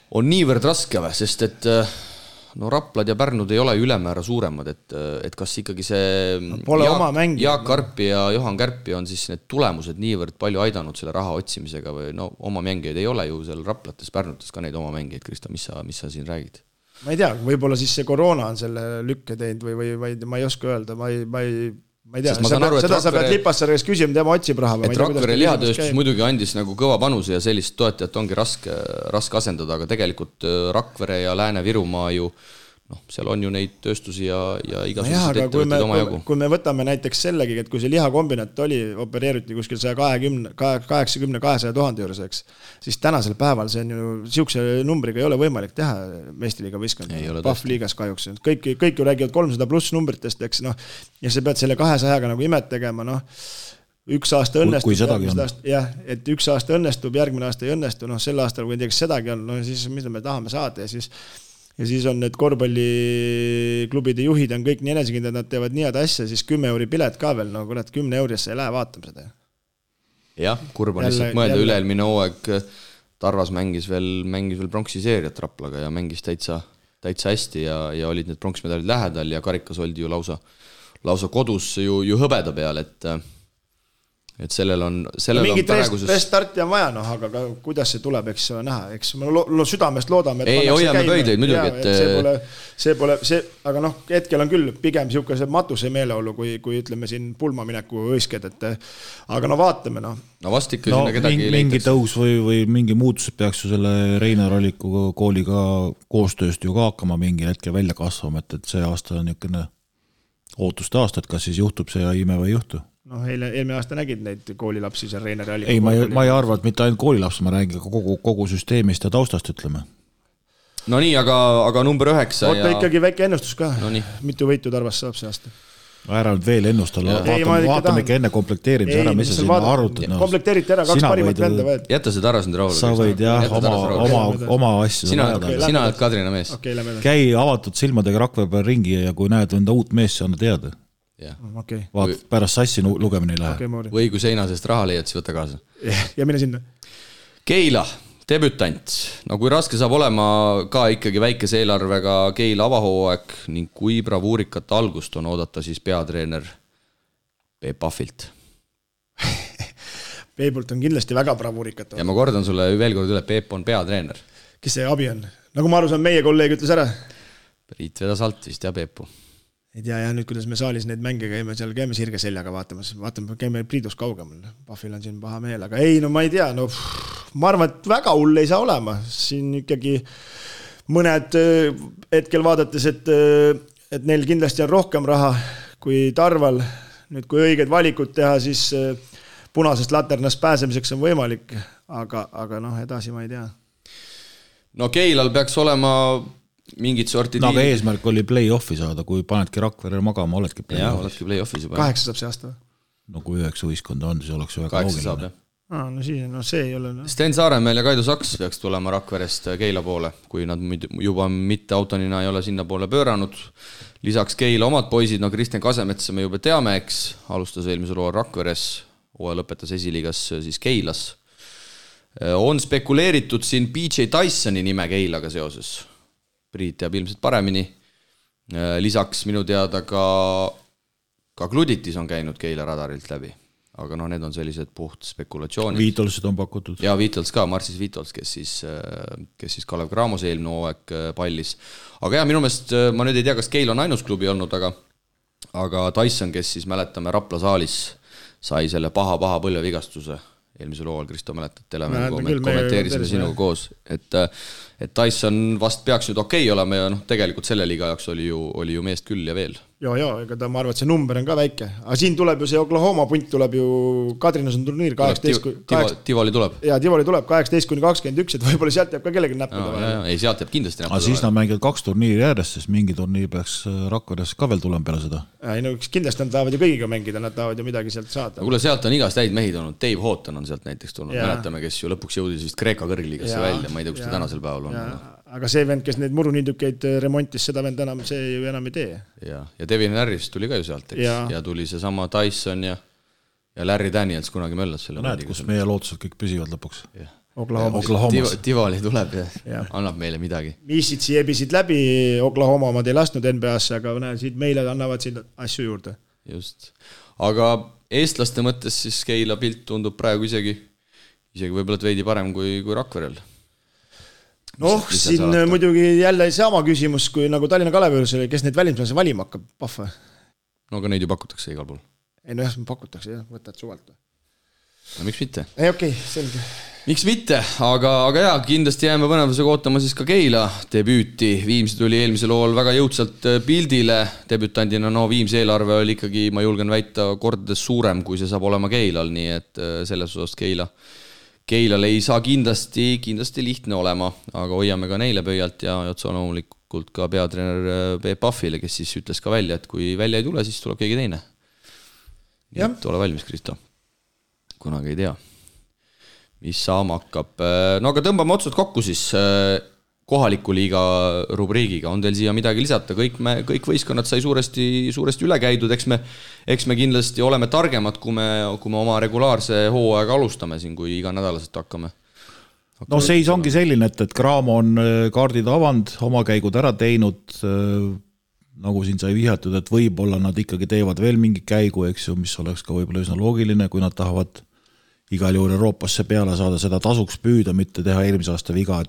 on niivõrd raske või, sest et Raplad ja Pärnud ei ole ülemäära suuremad, et kas ikkagi see Jaak Karpi ja Johan Kärpi on siis need tulemused niivõrd palju aidanud selle raha otsimisega või oma mängijaid ei ole ju seal Raplates, Pärnutes ka neid oma mängijaid, Krista, mis sa siin räägid? Ma ei tea, võib-olla siis see koroona on selle lükke teinud või ma ei oska öelda, ma ei tea, seda sa pead Lipassarjas küsima, tema otsib raha. Et Rakvere lihatööstus muidugi andis nagu kõva panuse ja sellist toetajat ongi raske asendada, aga tegelikult Rakvere ja Lääne-Virumaa ju, seal on ju neid tööstusi ja igasugused ettevõtted oma jagu. Kui me võtame näiteks sellegi, et kui see lihakombinat opereeriti kuskil 180-200 000 juures, eks, siis tänasel päeval see on ju siukse numbriga ei ole võimalik teha meistriliiga võistkond. Pahvliigas kahjuks. Kõik ju räägivad 300 pluss numbritest, eks, ja sa pead selle 200-ga nagu imet tegema, üks aasta õnnestub, et üks aasta õnnestub, järgmine aasta ei õnnestu, sel aastal, kui näiteks sedagi on, siis mida me tahame saada ja siis on need korvpalliklubide juhid on kõik nii enesekindlad, nad teevad nii head asja, siis 10 euri pilet ka veel, kuule, 10 eurisse ei lähe vaatama seda. Jah, kurb on lihtsalt mõelda üleelmine hooaeg, Tarvas mängis veel pronksiseeriat Raplaga ja mängis täitsa hästi ja olid need pronksmedalid lähedal ja karikas oldi ju lausa kodus ju hõbeda peal, et sellel on mingit restarti on vaja, aga kuidas see tuleb, eks näha, eks me südamest loodame, et ei, hoiame pöidleid muidugi, see pole, aga hetkel on küll pigem siukese matuse meeleolu, kui ütleme siin pulmamineku õisked, aga vaatame. Vast ikka sinna kedagi mingi tõus või mingi muutus peaks ju selle Reinar Alliku kooliga koostööst ju ka hakkama mingil hetkel välja kasvama, et see aasta on niisugune ootuste aasta, et kas siis juhtub see ime või ei juhtu. Eelmine aasta nägid neid koolilapsi seal Reinar Alliku. Ei, ma ei arva, et mitte ainult koolilaps, ma räägin kogu süsteemist ja taustast, ütleme. No nii, aga number 9. Oota ikkagi väike ennustus ka. Mitu võitu Tarvas saab see aasta? Ära nüüd veel ennustala, vaatame ikka enne komplekteerimise ära, mis sa sinna arvutad. Komplekteeriti ära, 2 parimat venda võed. Jäta see Tarvas nüüd rahule. Sa võid oma asju. Sina oled Kadrina mees. Käi avatud silmadega Rakvere peal ringi ja kui näed enda uut mees, siis anna teada. Vaat pärast sassi lugemine ei lähe. Või kui seina sest raha leiad, siis võta kaasa. Ja mine sinna. Keila, debütant. Kui raske saab olema ka ikkagi väikese eelarvega Keila avahooaeg ning kui bravuurikat algust on oodata siis peatreener Peep Pahvilt. Peepult on kindlasti väga bravuurikat. Ja ma kordan sulle veel kord üle, Peep on peatreener. Kes see abi on? Nagu ma aru saan, meie kolleeg ütles ära. Priit vedas alt vist ja Peepu. Ei tea, nüüd kuidas me saalis neid mänge käime, seal käime sirge seljaga vaatame, käime Priidus kaugemal. Pahvil on siin paha meel, aga ei, ma ei tea, ma arvan, et väga hull ei saa olema. Siin ikkagi mõned hetkel vaadates, et neil kindlasti on rohkem raha kui Tarval. Nüüd, kui õiged valikud teha, siis punasest laternast pääsemiseks on võimalik, aga edasi ma ei tea. Keilal peaks olema mingid sorti aga eesmärk oli play-offi saada, kui panedki Rakvere magama, oledki play-offis juba. 8 saab see aasta või? Kui 9 võistkonda on, siis oleks väga 8 saab, jah. See ei ole. Sten Saaremäel ja Kaido Saks peaks tulema Rakverest Keila poole, kui nad juba mitte autonina ei ole sinna poole pööranud. Lisaks Keila omad poisid, Kristjan Kasemetsa me juba teame, eks, alustas eelmisel hooajal Rakveres, hooaja lõpetas esiliigas siis Keilas. On spekuleeritud siin PJ Tysoni nime Keilaga seoses. Priit teab ilmselt paremini. Lisaks minu teada ka Gluditis on käinud Keila radarilt läbi. Aga need on sellised puht spekulatsioonid. Viitolsid on pakutud. Ja Viitols ka, Marsis Viitols, kes siis Kalev Cramose eelmine hooaeg pallis. Aga minu meelest, ma nüüd ei tea, kas Keil on ainus klubi olnud, aga Tyson, kes siis mäletame Rapla saalis, sai selle paha põlvevigastuse eelmisel hooajal, Kristo mäletad, kommenteerisime sinuga koos, et Tyson vast peaks nüüd okei olema ja tegelikult selle liiga jaoks oli ju meest küll ja veel. Ega ma arvan, et see number on ka väike. Aga siin tuleb ju see Oklahoma punt tuleb ju, Kadrinas on turniir 18... Tivoli tuleb. Ja Tivoli tuleb 18-21, et võib-olla sealt jääb ka kellegi näppuda. Ei, sealt jääb kindlasti näppuda. Aga siis nad mängivad 2 turniiri järjest, sest mingi turniir peaks Rakveres ka veel tulema peale seda. Kindlasti nad tahavad ju kõigiga mängida, nad tahavad ju midagi sealt saada. Kuule, sealt on igast häid mehid olnud. Dave Houghton on sealt näiteks tulnud. Mäletame, kes ju lõpuks jõudis vist Kreeka kõrgliigasse välja. Ma ei tea, kus ta tänasel päeval on. Aga see vend, kes neid muruniidukeid remontis, seda vend enam, see ju enam ei tee. Ja Devin Harris tuli ka ju sealt, eks? Ja tuli see sama Tyson ja Larry Daniels kunagi möllas selle. Näed, kus meie lootused kõik püsivad lõpuks. Oklahomas. Tivoli tuleb ja annab meile midagi. Misitsi ebisid läbi, Oklahoma omad ei lasknud NBA-sse, aga siit meile annavad siin asju juurde. Just. Aga eestlaste mõttes siis Keila pilt tundub praegu isegi võib-olla veidi parem kui Rakverel. Siin muidugi jälle sama küsimus, kui nagu Tallinna Kalevius oli, kes neid välismaalasi valima hakkab, pahva? No aga neid ju pakutakse igal pool. Ei, pakutakse, võtad suvalt. No miks mitte? Okei, selge. Miks mitte, aga kindlasti jääme põnevusega ootama siis ka Keila debüüti. Viimsi tuli eelmisel lool väga jõudsalt pildile. Debütandina Viimsi eelarve oli ikkagi, ma julgen väita, kordades suurem, kui see saab olema Keilal, nii et selles osas Keilal ei saa kindlasti lihtne olema, aga hoiame ka neile pöialt ja otsa loomulikult ka peatreener Peep Pahvile, kes siis ütles ka välja, et kui välja ei tule, siis tuleb keegi teine. Nii et ole valmis, Kristo. Kunagi ei tea, mis saama hakkab. No aga tõmbame otsad kokku siis kohaliku liiga rubriigiga. On teil siia midagi lisata? Kõik võistkonnad sai suuresti üle käidud. Eks me kindlasti oleme targemad, kui me oma regulaarse hooaega alustame siin, kui iga nädalaselt hakkame. No seis ongi selline, et Cramo on kaardid avanud, oma käigud ära teinud, nagu siin sai vihjatud, et võib-olla nad ikkagi teevad veel mingi käigu, eks ju, mis oleks ka võib-olla üsna loogiline, kui nad tahavad igal juhul Euroopasse peale saada, seda tasuks püüda, mitte teha eelmise aasta viga,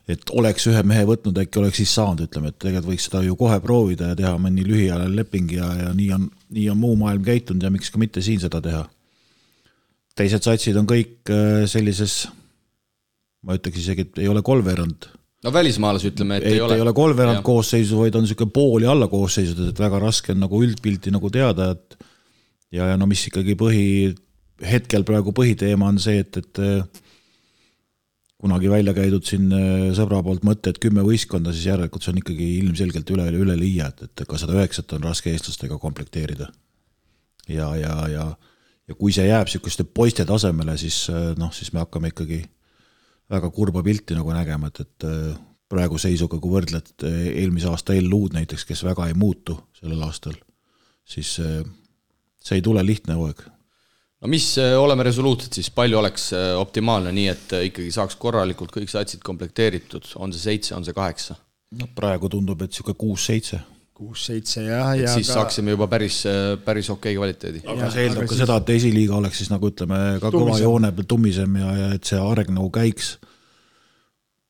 et oleks ühe mehe võtnud, äkki oleks siis saanud, ütleme, et tegelikult võiks seda ju kohe proovida ja teha mõni lühiajaline leping ja nii on muu maailm käitunud ja miks ka mitte siin seda teha. Teised satsid on kõik sellises, ma ütleks isegi, et ei ole kolmveerand. No välismaalas ütleme, et ei ole. Ei ole kolmveerand koosseisu, vaid on selline pooli alla koosseisud, et väga raske on nagu üldpilti nagu teada, et ja no mis ikkagi hetkel praegu põhiteema on see, et kunagi välja käidud siin sõbra poolt mõtte, et 10 võistkonda, siis järelikult see on ikkagi ilmselgelt üle liia, et ka 109 on raske eestlastega komplekteerida. Ja kui see jääb selliseste poiste tasemele, siis me hakkame ikkagi väga kurba pilti nagu nägema, et praegu seisuga, kui võrdled eelmise aasta LU-d näiteks, kes väga ei muutu sellel aastal, siis see ei tule lihtne hooaeg. No mis oleme resoluutsed, siis palju oleks optimaalne nii, et ikkagi saaks korralikult kõik satsid komplekteeritud, on see 7, on see 8? No praegu tundub, et siuke 6-7. 6-7 ja siis saaksime juba päris okei kvaliteedi. Aga see eeldab ka seda, et esiliiga oleks siis nagu ütleme ka kõva joone peal tummisem ja et see areng nagu käiks.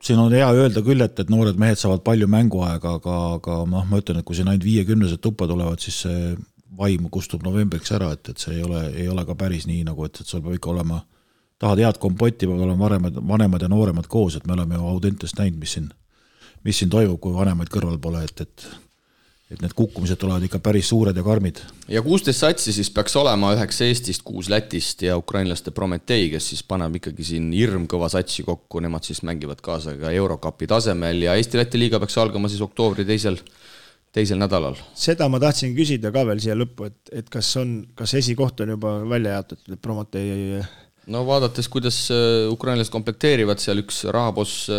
Siin on hea öelda küll, et noored mehed saavad palju mänguaega, aga ma ütlen, et kui siin ainult 50 tuppa tulevad, siis see vaim kustub novembriks ära, et see ei ole ka päris nii, nagu et sul peab ikka olema, tahad head kompotti, peab olema vanemad ja nooremad koos, et me oleme ju Audentest näinud, mis siin toimub, kui vanemaid kõrval pole, et need kukkumised tulevad ikka päris suured ja karmid. Ja 16 satsi siis peaks olema 9 Eestist, 6 Lätist ja ukrainlaste Prometei, kes siis paneb ikkagi siin hirmkõva satsi kokku, nemad siis mängivad kaasa ka Eurocupi tasemel ja Eesti-Läti liiga peaks algama siis oktoobri teisel nädalal. Seda ma tahtsin küsida ka veel siia lõppu, et kas esikoht on juba välja jaotatud, et Prometei... No vaadates, kuidas ukrainlased komplekteerivad, seal üks rahaboss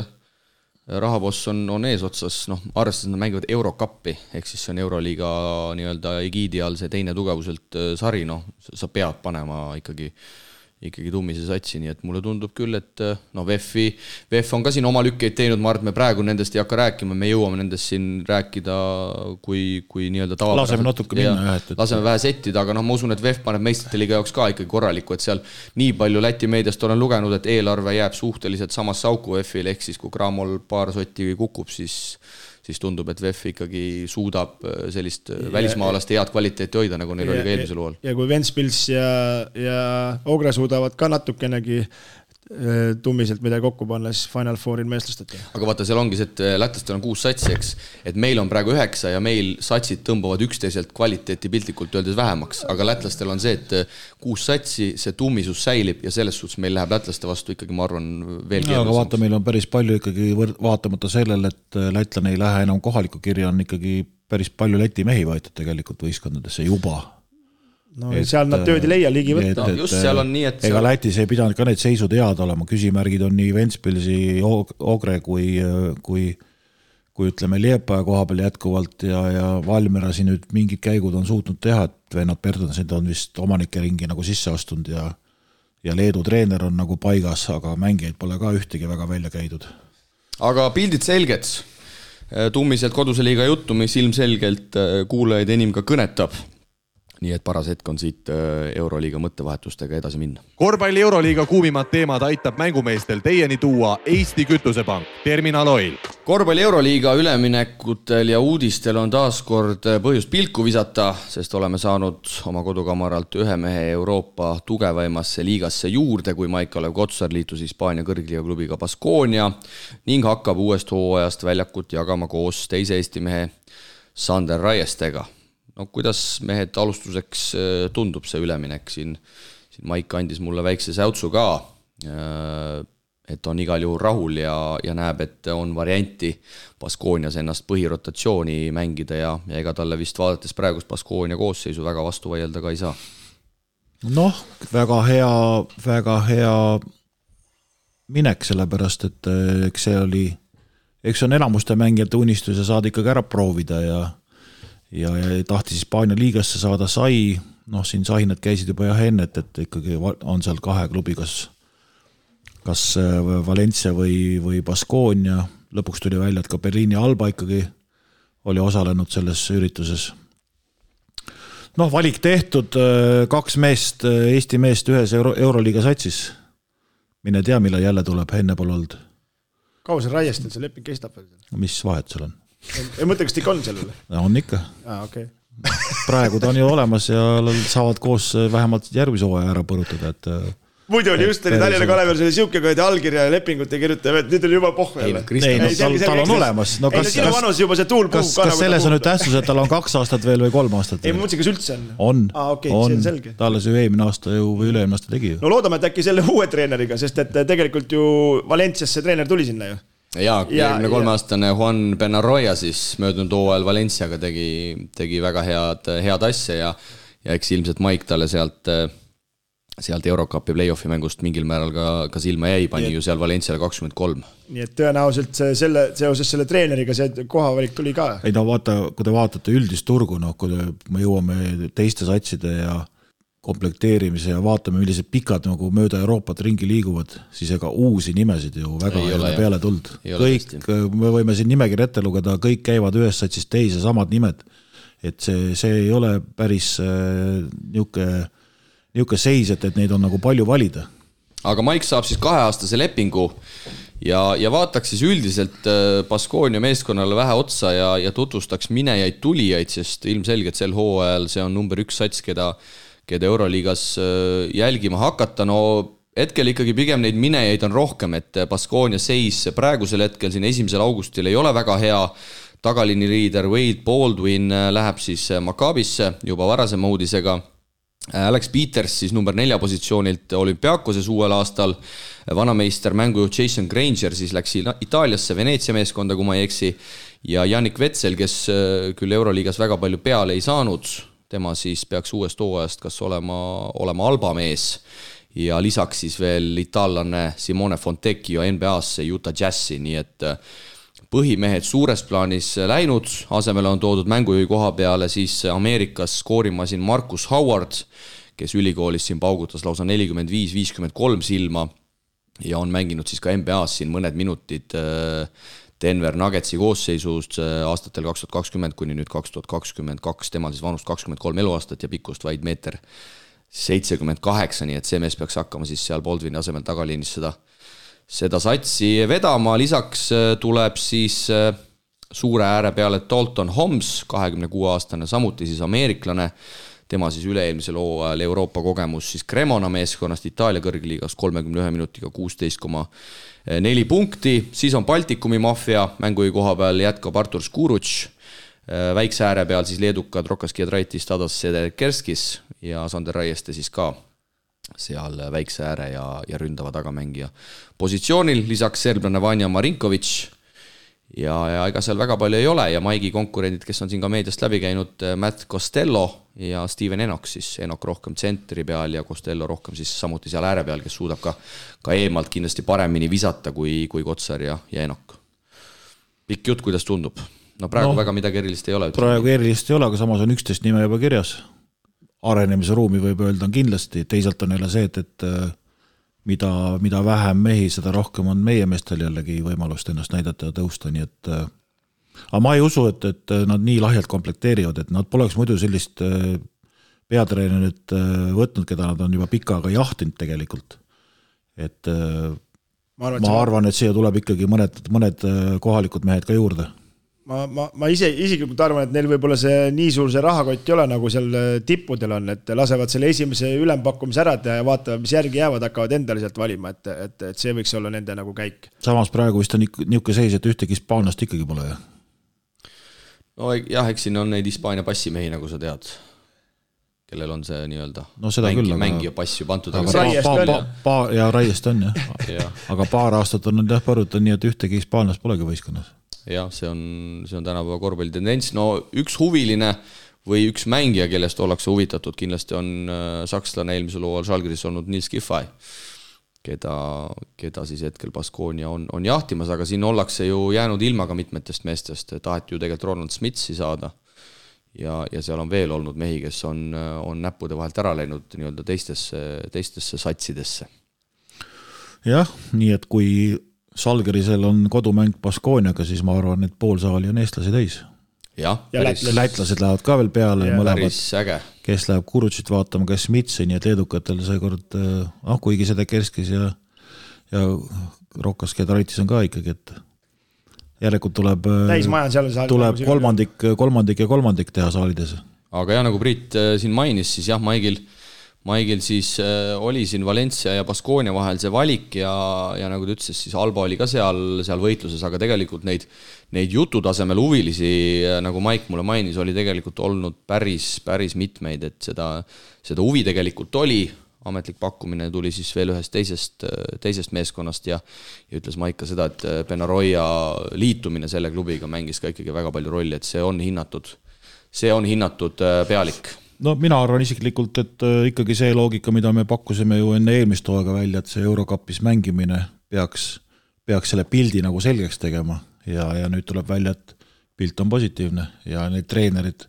on eesotsas, arvestades nad mängivad Eurocupi, ehk siis see on Euroliiga nii-öelda egiidi all see teine tugevuselt sari, sa pead panema ikkagi ikkagi Tummise satsi, nii et mulle tundub küll, et no VEF on ka siin oma lükkeid teinud, ma arvan, et me praegu nendest ei hakka rääkima, me jõuame nendest siin rääkida kui nii-öelda tavapäraselt. Laseme natuke minna, jah. Laseme vähe settida, aga ma usun, et VEF paneb meistrite liiga jaoks ka ikkagi korralikku, et seal nii palju Läti meediast olen lugenud, et eelarve jääb suhteliselt samasse auku VEF-il, ehk siis kui Cramol paar sotti kukub, siis tundub, et VEF ikkagi suudab sellist välismaalaste head kvaliteeti hoida, nagu neil oli ka eelmisel hooajal. Ja kui Ventspils ja Ogre suudavad ka natukenegi Tummiselt midagi kokku panna, siis Final Fouril meestlastati. Aga vaata, seal ongi see, et lätlastel on 6 satsi, eks, et meil on praegu 9 ja meil satsid tõmbavad üksteiselt kvaliteeti piltlikult öeldes vähemaks, aga lätlastel on see, et 6 satsi, see tummisus säilib ja selles suhtes meil läheb lätlaste vastu ikkagi, ma arvan, veel keerulisemaks. Aga vaata, meil on päris palju ikkagi vaatamata sellele, et lätlane ei lähe enam kohaliku kirja, on ikkagi päris palju Läti mehi võetud tegelikult võistkondadesse juba. No seal nad tööd ei leia ligi võtta. Just seal on nii, et ega Lätis ei pidanud ka need seisud head olema, küsimärgid on nii Ventspilsi, Ogre kui ütleme Liepaja koha peal jätkuvalt ja Valmera siin nüüd mingid käigud on suutnud teha, et vennad Bertonsid on vist omanike ringi nagu sisse astunud ja Leedu treener on nagu paigas, aga mängijaid pole ka ühtegi väga välja käidud. Aga pildid selged. Tummiselt koduse liiga juttu, mis ilmselgelt kuulajaid enim ka kõnetab. Nii et paras hetk on siit Euroliiga mõttevahetustega edasi minna. Korvpalli Euroliiga kuumimad teemad aitab mängumeestel teieni tuua Eesti Kütusepank, Terminal Oil. Korvpalli Euroliiga üleminekutel ja uudistel on taas kord põhjust pilku visata, sest oleme saanud oma kodukamaralt ühe mehe Euroopa tugevaimasse liigasse juurde, kui Maik-Olev Kotsar liitus Hispaania kõrgliiga klubiga Baskonia ning hakkab uuest hooajast väljakut jagama koos teise Eesti mehe Sander Raiestega. No kuidas mehed alustuseks tundub see üleminek siin Maik andis mulle väikse säutsu ka, et on igal juhul rahul ja näeb, et on varianti Baskonias ennast põhirotatsiooni mängida ja ega talle vist vaadates praegust Baskonia koosseisu väga vastu vaielda ka ei saa. Noh, väga hea minek, sellepärast, et eks on enamuste mängijate unistus ja saada ikkagi ära proovida ja tahtis Hispaania liigasse saada sai, noh siin sahinad käisid juba enne, et ikkagi on seal 2 klubi, kas Valencia või Baskonia, lõpuks tuli välja, et ka Berliini Alba ikkagi oli osalenud selles ürituses. Noh, valik tehtud, 2 meest, Eesti meest ühes Euroliiga satsis. Mine tea, millal jälle tuleb, enne pole olnud. Kaua see Raiestel see leping kestab? Mis vahet seal on? Ei mõtle, kas ikka on sellele? On ikka. Okay. Praegu ta on ju olemas ja saavad koos vähemalt järgmise hooaja ära põrutada, et muidu oli just Tallinna Kalevel selle siuke allkirja ja lepingut ei kirjuta, et nüüd oli juba pohve. Tal on olemas. No, sinu vanus juba see tuul puhub. Kas selles on nüüd tähtsus, et tal on 2 aastat veel või 3 aastat veel? Ei, mõtlesin, kas üldse on? On. Talle see eelmine aasta või üle-eelmine aasta tegi. No loodame, et äkki selle uue treeneriga, sest et tegelikult ju Valenciasse treener tuli sinna ju. Ja 23-aastane Juan Benarroya siis möödunud hooajal Valenciaga tegi väga head asja ja eks ilmselt Maik talle sealt Eurocupi play-offi mängust mingil määral ka silma jäi, pani ju seal Valenciale 23. Nii et tõenäoliselt seoses selle treeneriga see kohavalik tuli ka. Ei no vaata, kui te vaatate üldist turgu, kui me jõuame teiste satside ja komplekteerimise ja vaatame, millised pikad nagu mööda Euroopat ringi liiguvad, siis ega uusi nimesid ju väga ei ole peale tuld. Kõik, me võime siin nimekiri ette lugeda, kõik käivad ühes satsis teise samad nimed. Et see ei ole päris niuke seis, et neid on nagu palju valida. Aga Maik saab siis 2-aastase lepingu ja vaataks siis üldiselt Baskonia meeskonnale vähe otsa ja tutvustaks minejaid tulijaid, sest ilmselgelt sel hooajal see on number 1 sats, keda Euroliigas jälgima hakata. No hetkel ikkagi pigem neid minejaid on rohkem, et Baskonia seis praegusel hetkel siin 1. augustil ei ole väga hea. Tagalini liider Wade Baldwin läheb siis Maccabisse juba varasema uudisega. Alex Peters siis number 4 positsioonilt Olümpiakoses uuel aastal. Vanameister mängujuht Jason Granger siis läks Itaaliasse Veneetsia meeskonda, kui ma ei eksi. Ja Jannik Vetsel, kes küll Euroliigas väga palju peale ei saanud, tema siis peaks uuest hooajast kas olema Alba mees ja lisaks siis veel itaallane Simone Fontecchio NBA-sse Utah Jazzi, nii et põhimehed suures plaanis läinud, asemele on toodud mängujuhi koha peale siis Ameerikas skoorimasin Marcus Howard, kes ülikoolis siin paugutas lausa 45-53 silma ja on mänginud siis ka NBA-s siin mõned minutid Denver Nuggetsi koosseisust aastatel 2020 kuni nüüd 2022, temal siis vanust 23 eluaastat ja pikkust vaid 1,78 m, nii et see mees peaks hakkama siis seal Baldwini asemel tagaliinis seda satsi vedama, lisaks tuleb siis suure ääre peale Dalton Homs, 26-aastane, samuti siis ameeriklane, tema siis üle-eelmisel hooajal Euroopa kogemus siis Cremona meeskonnast Itaalia kõrgliigas 31 minutiga 16,4 punkti, siis on Baltikumi maffia, mängugi koha peal jätkab Artur Skuruč, väikse ääre peal siis leedukad Rokas Giedraitis, Tadas Sederkerskis ja Sander Raieste siis ka seal väikse ääre ja ründava tagamängija positsioonil, lisaks serblane Vanja Marinković ja ega seal väga palju ei ole ja Maigi konkurendid, kes on siin ka meediast läbi käinud, Matt Costello ja Steven Enoch, siis Enoch rohkem tsentri peal ja Costello rohkem siis samuti seal ääre peal, kes suudab ka eemalt kindlasti paremini visata kui Kotsar ja Enoch. Pikk jutt, kuidas tundub? No praegu väga midagi erilist ei ole. Praegu erilist ei ole, aga samas on 11 nime juba kirjas. Arenemise ruumi võib öelda on kindlasti, teisalt on jälle see, et mida vähem mehi, seda rohkem on meie meestel jällegi võimalust ennast näidata ja tõusta, nii et aga ma ei usu, et nad nii lahjalt komplekteerivad, et nad poleks muidu sellist peatreenerit võtnud, keda nad on juba pikka aega jahtinud tegelikult. Et ma arvan, et siia tuleb ikkagi mõned kohalikud mehed ka juurde. Ma isiklikult arvan, et neil võib-olla see nii suur see rahakott ei ole, nagu seal tippudel on, et lasevad selle esimese ülempakkumise ära ja vaatavad, mis järgi jäävad, hakkavad endale sealt valima, et see võiks olla nende nagu käik. Samas praegu vist on niisugune seis, et ühtegi hispaanlast ikkagi pole. No jah, eks siin on neid Hispaania passimehi, nagu sa tead, kellel on see nii-öelda mängija passi pantud. Ja Raiest on, jah. Aga paar aastat on jah põruta nii, et ühtegi hispaanlast polegi võistkonnas. Jah, see on tänapäeva korvpalli tendents. No üks huviline või üks mängija, kellest ollakse huvitatud, kindlasti on sakslane eelmisel hooajal Žalgiris olnud Nils Giffey, keda siis hetkel Baskonia on jahtimas, aga siin ollakse ju jäänud ilma ka mitmetest meestest, taheti ju tegelikult Ronald Smitsi saada ja seal on veel olnud mehi, kes on näppude vahelt ära läinud nii-öelda teistesse satsidesse. Jah, nii et kui Žalgirisel on kodumäng Baskoniaga, siis ma arvan, et pool saali on eestlasi täis. Ja lätlased lähevad ka veel peale, mõlemad, kes läheb Kurutšit vaatama, kes Mitsi, nii et leedukatel seekord, kuigi seda Kerskis ja Rokas Giedraitis on ka ikkagi, et järelikult tuleb kolmandik teha saalides. Aga nagu Priit siin mainis, siis jah, Maigil siis oli siin Valencia ja Baskonia vahel see valik ja nagu ta ütles, siis Alba oli ka seal võitluses, aga tegelikult neid jututasemel huvilisi, nagu Maik mulle mainis, oli tegelikult olnud päris mitmeid, et seda huvi tegelikult oli, ametlik pakkumine tuli siis veel ühest teisest meeskonnast ja ütles Maik ka seda, et Benaroya liitumine selle klubiga mängis ka ikkagi väga palju rolli, et see on hinnatud pealik. No mina arvan isiklikult, et ikkagi see loogika, mida me pakkusime ju enne eelmist hooaega välja, et see Eurokapis mängimine peaks selle pildi nagu selgeks tegema ja nüüd tuleb välja, et pilt on positiivne ja need treenerid,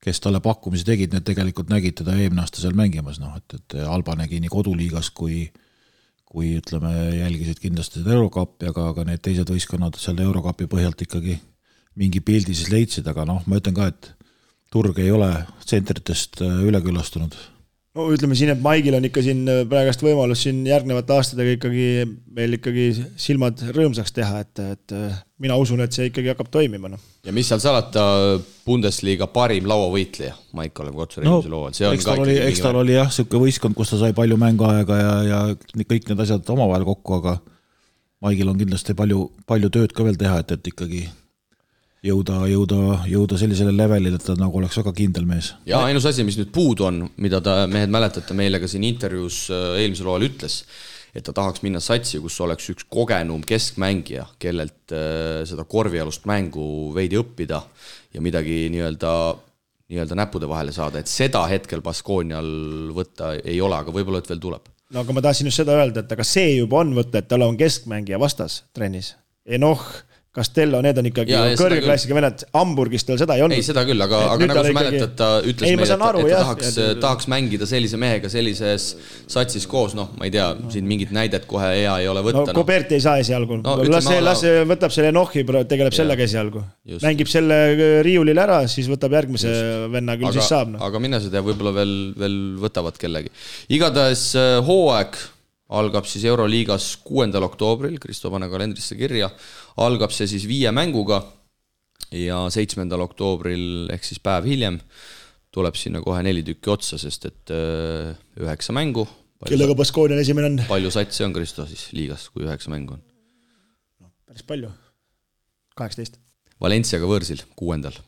kes talle pakkumisi tegid, need tegelikult nägid teda eelmine aasta seal mängimas, et Alba nägi nii koduliigas kui ütleme, jälgisid kindlasti seda Eurokappi, aga need teised võistkonnad seal Eurokapi põhjalt ikkagi mingi pildi siis leidsid, aga ma ütlen ka, et turg ei ole tsentritest üleküllastunud. No ütleme siin, et Maigil on ikka siin praegast võimalus siin järgnevate aastatega ikkagi meil ikkagi silmad rõõmsaks teha, et mina usun, et see ikkagi hakkab toimima. No. Ja mis seal salata Bundesliga parim lauavõitleja, Maik Olev Kotsar eelmisel hooajal. Eks tal oli jah, siuke võistkond, kus ta sai palju mänguaega ja kõik need asjad omavahel kokku, aga Maigil on kindlasti palju tööd ka veel teha, et ikkagi jõuda sellisele levelile, et ta nagu oleks väga kindel mees. Ja ainus asi, mis nüüd puudu on, mida ta mehed mäletate meile ka siin intervjuus eelmisel hooajal ütles, et ta tahaks minna satsi, kus oleks üks kogenum keskmängija, kellelt seda korvialust mängu veidi õppida ja midagi nii-öelda näppude vahele saada, et seda hetkel Baskonial võtta ei ole, aga võib-olla et veel tuleb. No aga ma tahtsin just seda öelda, et aga see juba on võtta, et tal on keskmängija vastas trennis. Enoch, Castello, need on ikkagi kõrge klassiga vennad, Hamburgis tal seda ei olnud. Ei, seda küll, aga nagu sa mäletad, ta ütles meile, et ta tahaks mängida sellise mehega sellises satsis koos, noh, ma ei tea, siin mingit näidet kohe hea ei ole võtta. No Koberti ei saa esialgu. Las võtab selle Nohhi, tegeleb sellega esialgu. Mängib selle riiulil ära, siis võtab järgmise venna, küll siis saab. Aga mine seda võib-olla veel võtavad kellegi. Igatahes hooaeg algab siis Euroliigas 6. oktoobril, Kristo pane kalendrisse kirja, algab see siis 5 mänguga ja 7. oktoobril ehk siis päev hiljem tuleb sinna kohe 4 tükki otsa, sest et 9 mängu. Kellega Baskoonian esimene on? Palju satsi on Kristo siis liigas, kui 9 mängu on? Päris palju. 18. Valenciaga võõrsil 6.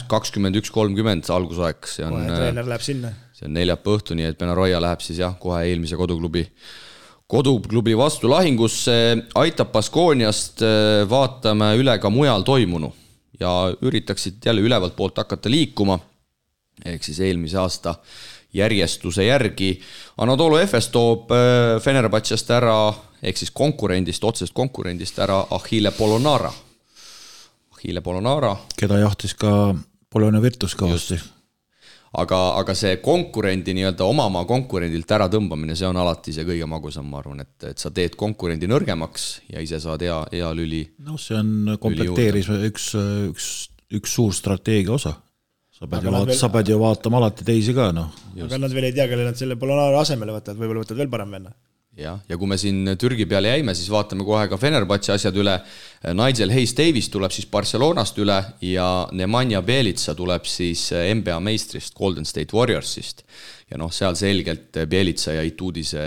21-30 algusaeg. Kohe treener läheb sinna. See on 4 õhtu, nii et Benaroya läheb siis kohe eelmise koduklubi vastu lahingusse, aitab Baskooniast, vaatame üle ka mujal toimunu ja üritaksid jälle ülevalt poolt hakata liikuma, ehk siis eelmise aasta järjestuse järgi. Anadolu Efes toob Fenerbahčest ära, ehk siis otsest konkurendist ära Achille Polonara. Keda jahtis ka Polonia Virtus kõvasti. Aga see konkurendi nii-öelda omamaa konkurendilt ära tõmbamine, see on alati see kõige magusam, ma arvan, et sa teed konkurendi nõrgemaks ja ise saad hea lüli. No see on komplekteeris üks suur strateegia osa. Sa pead ju vaatama alati teisi ka, noh. Aga nad veel ei tea, kelle nad selle Polonara asemele võtavad, võib-olla võtavad veel parem venna. Ja kui me siin Türgi peale jäime, siis vaatame kohe ka Fenerbahče asjad üle. Nigel Hayes-Davis tuleb siis Barcelonast üle ja Nemanja Bjelica tuleb siis NBA meistrist Golden State Warriorsist. Ja seal selgelt Bjelica ja Itudise,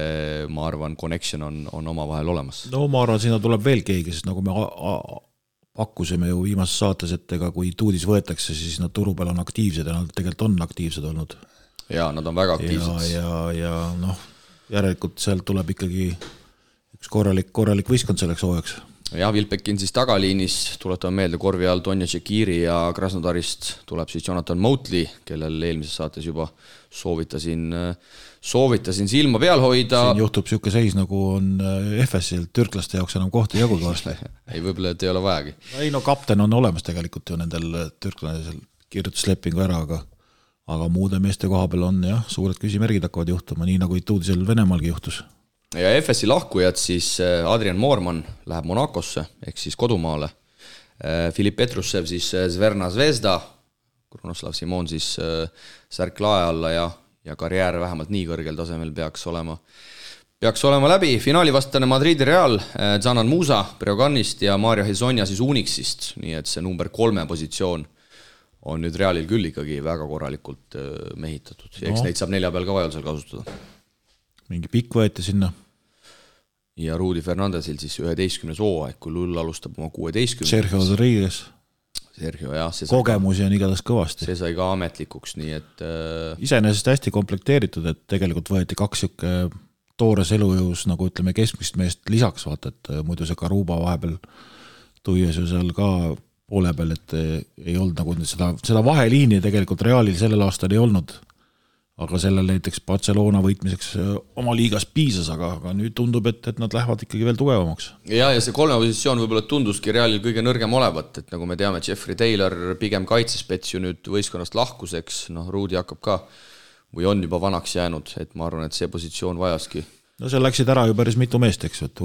ma arvan, connection on oma vahel olemas. No ma arvan, sinna tuleb veel keegi, sest nagu me pakkusime ju viimases saates, et kui Itudis võetakse, siis nad turu peal on aktiivsed ja nad tegelikult on aktiivsed olnud. Ja nad on väga aktiivsed. Ja järelikult sealt tuleb ikkagi üks korralik võistkond selleks hooajaks. Ja Vilpekin siis tagaliinis, tuletame meelde korvi all Tonja Tšekiri ja Krasnodarist tuleb siis Jonathan Motley, kellel eelmises saates juba soovitasin silma peal hoida. Siin juhtub siuke seis, nagu on FS-il, türklaste jaoks enam kohta jagud varsti. Ei, võib-olla, et ei ole vajagi. Ei, kapten on olemas tegelikult ju nendel türklasel kirjutuslepingu ära, aga muude meeste koha peal on suured küsimärgid hakkavad juhtuma, nii nagu Itudisel Venemaalgi juhtus. Ja FS-i lahkujad siis Adrian Moorman läheb Monakosse, ehk siis kodumaale. Filip Petrussev siis Zverna Zvezda, Krunoslav Simon siis särk lae alla ja karjäär vähemalt nii kõrgel tasemel peaks olema läbi. Finaalivastane Madridi Real, Zanan Musa Breogannist ja Mario Hezonja siis Unixist, nii et see number 3 positsioon on nüüd Realil küll ikkagi väga korralikult mehitatud. Eks neid saab 4 peal ka vajadusel kasutada. Mingi pikk võeti sinna. Ja Rudy Fernandesil siis 11. hooaeg, kui Lull alustab oma 16. Sergio Rodriguez. Kogemusi on igatahes kõvasti. See sai ka ametlikuks, nii et iseenesest hästi komplekteeritud, et tegelikult võeti 2 toores elujõus, nagu ütleme keskmist meest lisaks, vaata, et muidu see Karuba vahepeal tuies ju seal ka poole peal, et ei olnud nagu seda vaheliini tegelikult Realil sellel aastal ei olnud, aga sellel näiteks Barcelona võitmiseks oma liigas piisas, aga nüüd tundub, et nad lähevad ikkagi veel tugevamaks. Ja see 3 positsioon võib-olla tunduski Realil kõige nõrgem olevat, et nagu me teame, Jeffrey Taylor pigem kaitsespets ju nüüd võistkonnast lahkuseks, Ruudi hakkab ka või on juba vanaks jäänud, et ma arvan, et see positsioon vajaski. No seal läksid ära ju päris mitu meest, eks, et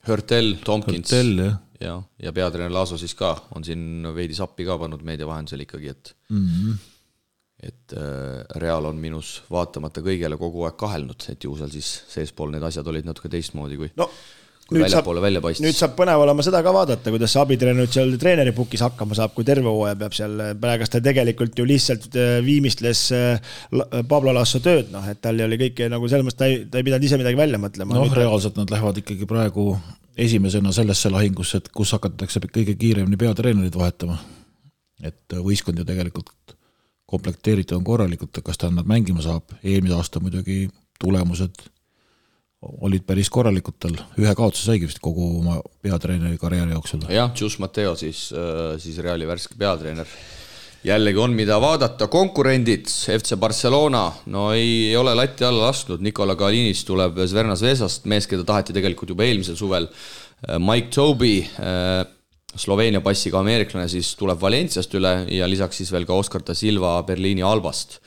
Hurtel, Tompkins Hurtel, ja peatreener Laaso siis ka on siin veidi sappi ka pannud meedia vahendusel ikkagi, et Real on minus vaatamata kõigele kogu aeg kahelnud, et ju seal siis seespool need asjad olid natuke teistmoodi kui väljapoole välja paistis. Nüüd saab põnev olema seda ka vaadata, kuidas see abitreener nüüd seal treeneri pukis hakkama saab, kui terve hooaja peab seal, praegas ta tegelikult ju lihtsalt viimistles Pablo Lasso tööd, et tal oli kõike nagu selles mõttes, ta ei pidanud ise midagi välja mõtlema. Reaalselt nad lähevad ikkagi praegu esimesena sellesse lahingusse, et kus hakatakse kõige kiiremini peatreenerid vahetama. Et võistkond ju tegelikult komplekteeritud on korralikult, kas ta nad mängima saab. Eelmise aasta muidugi tulemused olid päris korralikud tal. 1 kaotuse saigi vist kogu oma peatreeneri karjääri jooksul. Jah, Jus Mateo siis Reali värske peatreener. jällegi on mida vaadata, konkurendid, FC Barcelona, no ei ole latti alla lasknud, Nikola Kalinis tuleb Zvezda Zvezdast, mees, keda taheti tegelikult juba eelmisel suvel, Mike Toby, Sloveenia passiga ameeriklane, siis tuleb Valenciast üle ja lisaks siis veel ka Oskar da Silva Berliini Albast.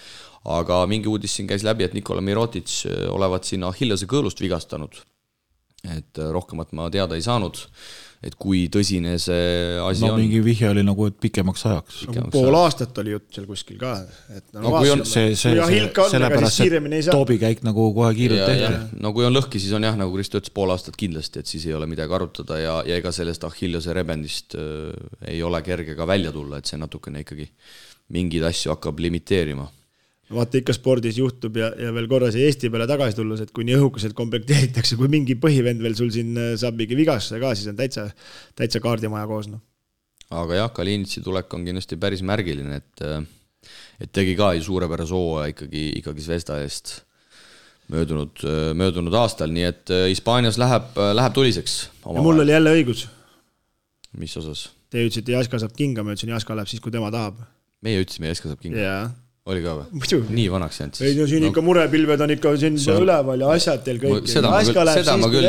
Aga mingi uudis siin käis läbi, et Nikola Mirotic olevat siin Achillese kõõlust vigastanud. Et rohkemat ma teada ei saanud, et kui tõsine see asi on. Mingi vihje oli nagu, et pikemaks ajaks. Pool aastat oli jutt seal kuskil ka. Et kui on sellepärast, et Tobi käik nagu kohe kiirelt tehti. No kui on lõhki, siis on jah, nagu Kristo ütles, pool aastat kindlasti, et siis ei ole midagi arutada ja ega sellest Achillese rebendist ei ole kerge ka välja tulla, et see natukene ikkagi mingid asju hakkab limiteerima. Vaata ikka spordis juhtub ja veel korra see Eesti peale tagasi tulles, et kui nii õhukuselt komplekteeritakse, kui mingi põhivend veel sul siin saab mingi vigastuse ka, siis on täitsa kaardimaja koos. No. Aga jah, Kalinitsi tulek on kindlasti päris märgiline, et tegi ka ju suurepärase hooaja ikkagi Zvezda eest möödunud aastal, nii et Hispaanias läheb tuliseks. Ja mul oli jälle õigus. Mis osas? Te ütlesite, Jaska saab kinga, ma ütlesin, Jaska läheb siis, kui tema tahab. Meie ütlesime, Jaska saab kinga. Jaa. Oli ka või? Muidu. Nii vanaks jäänud. Ei, no siin ikka murepilved on ikka siin üleval ja asjad teil kõik. Seda ma küll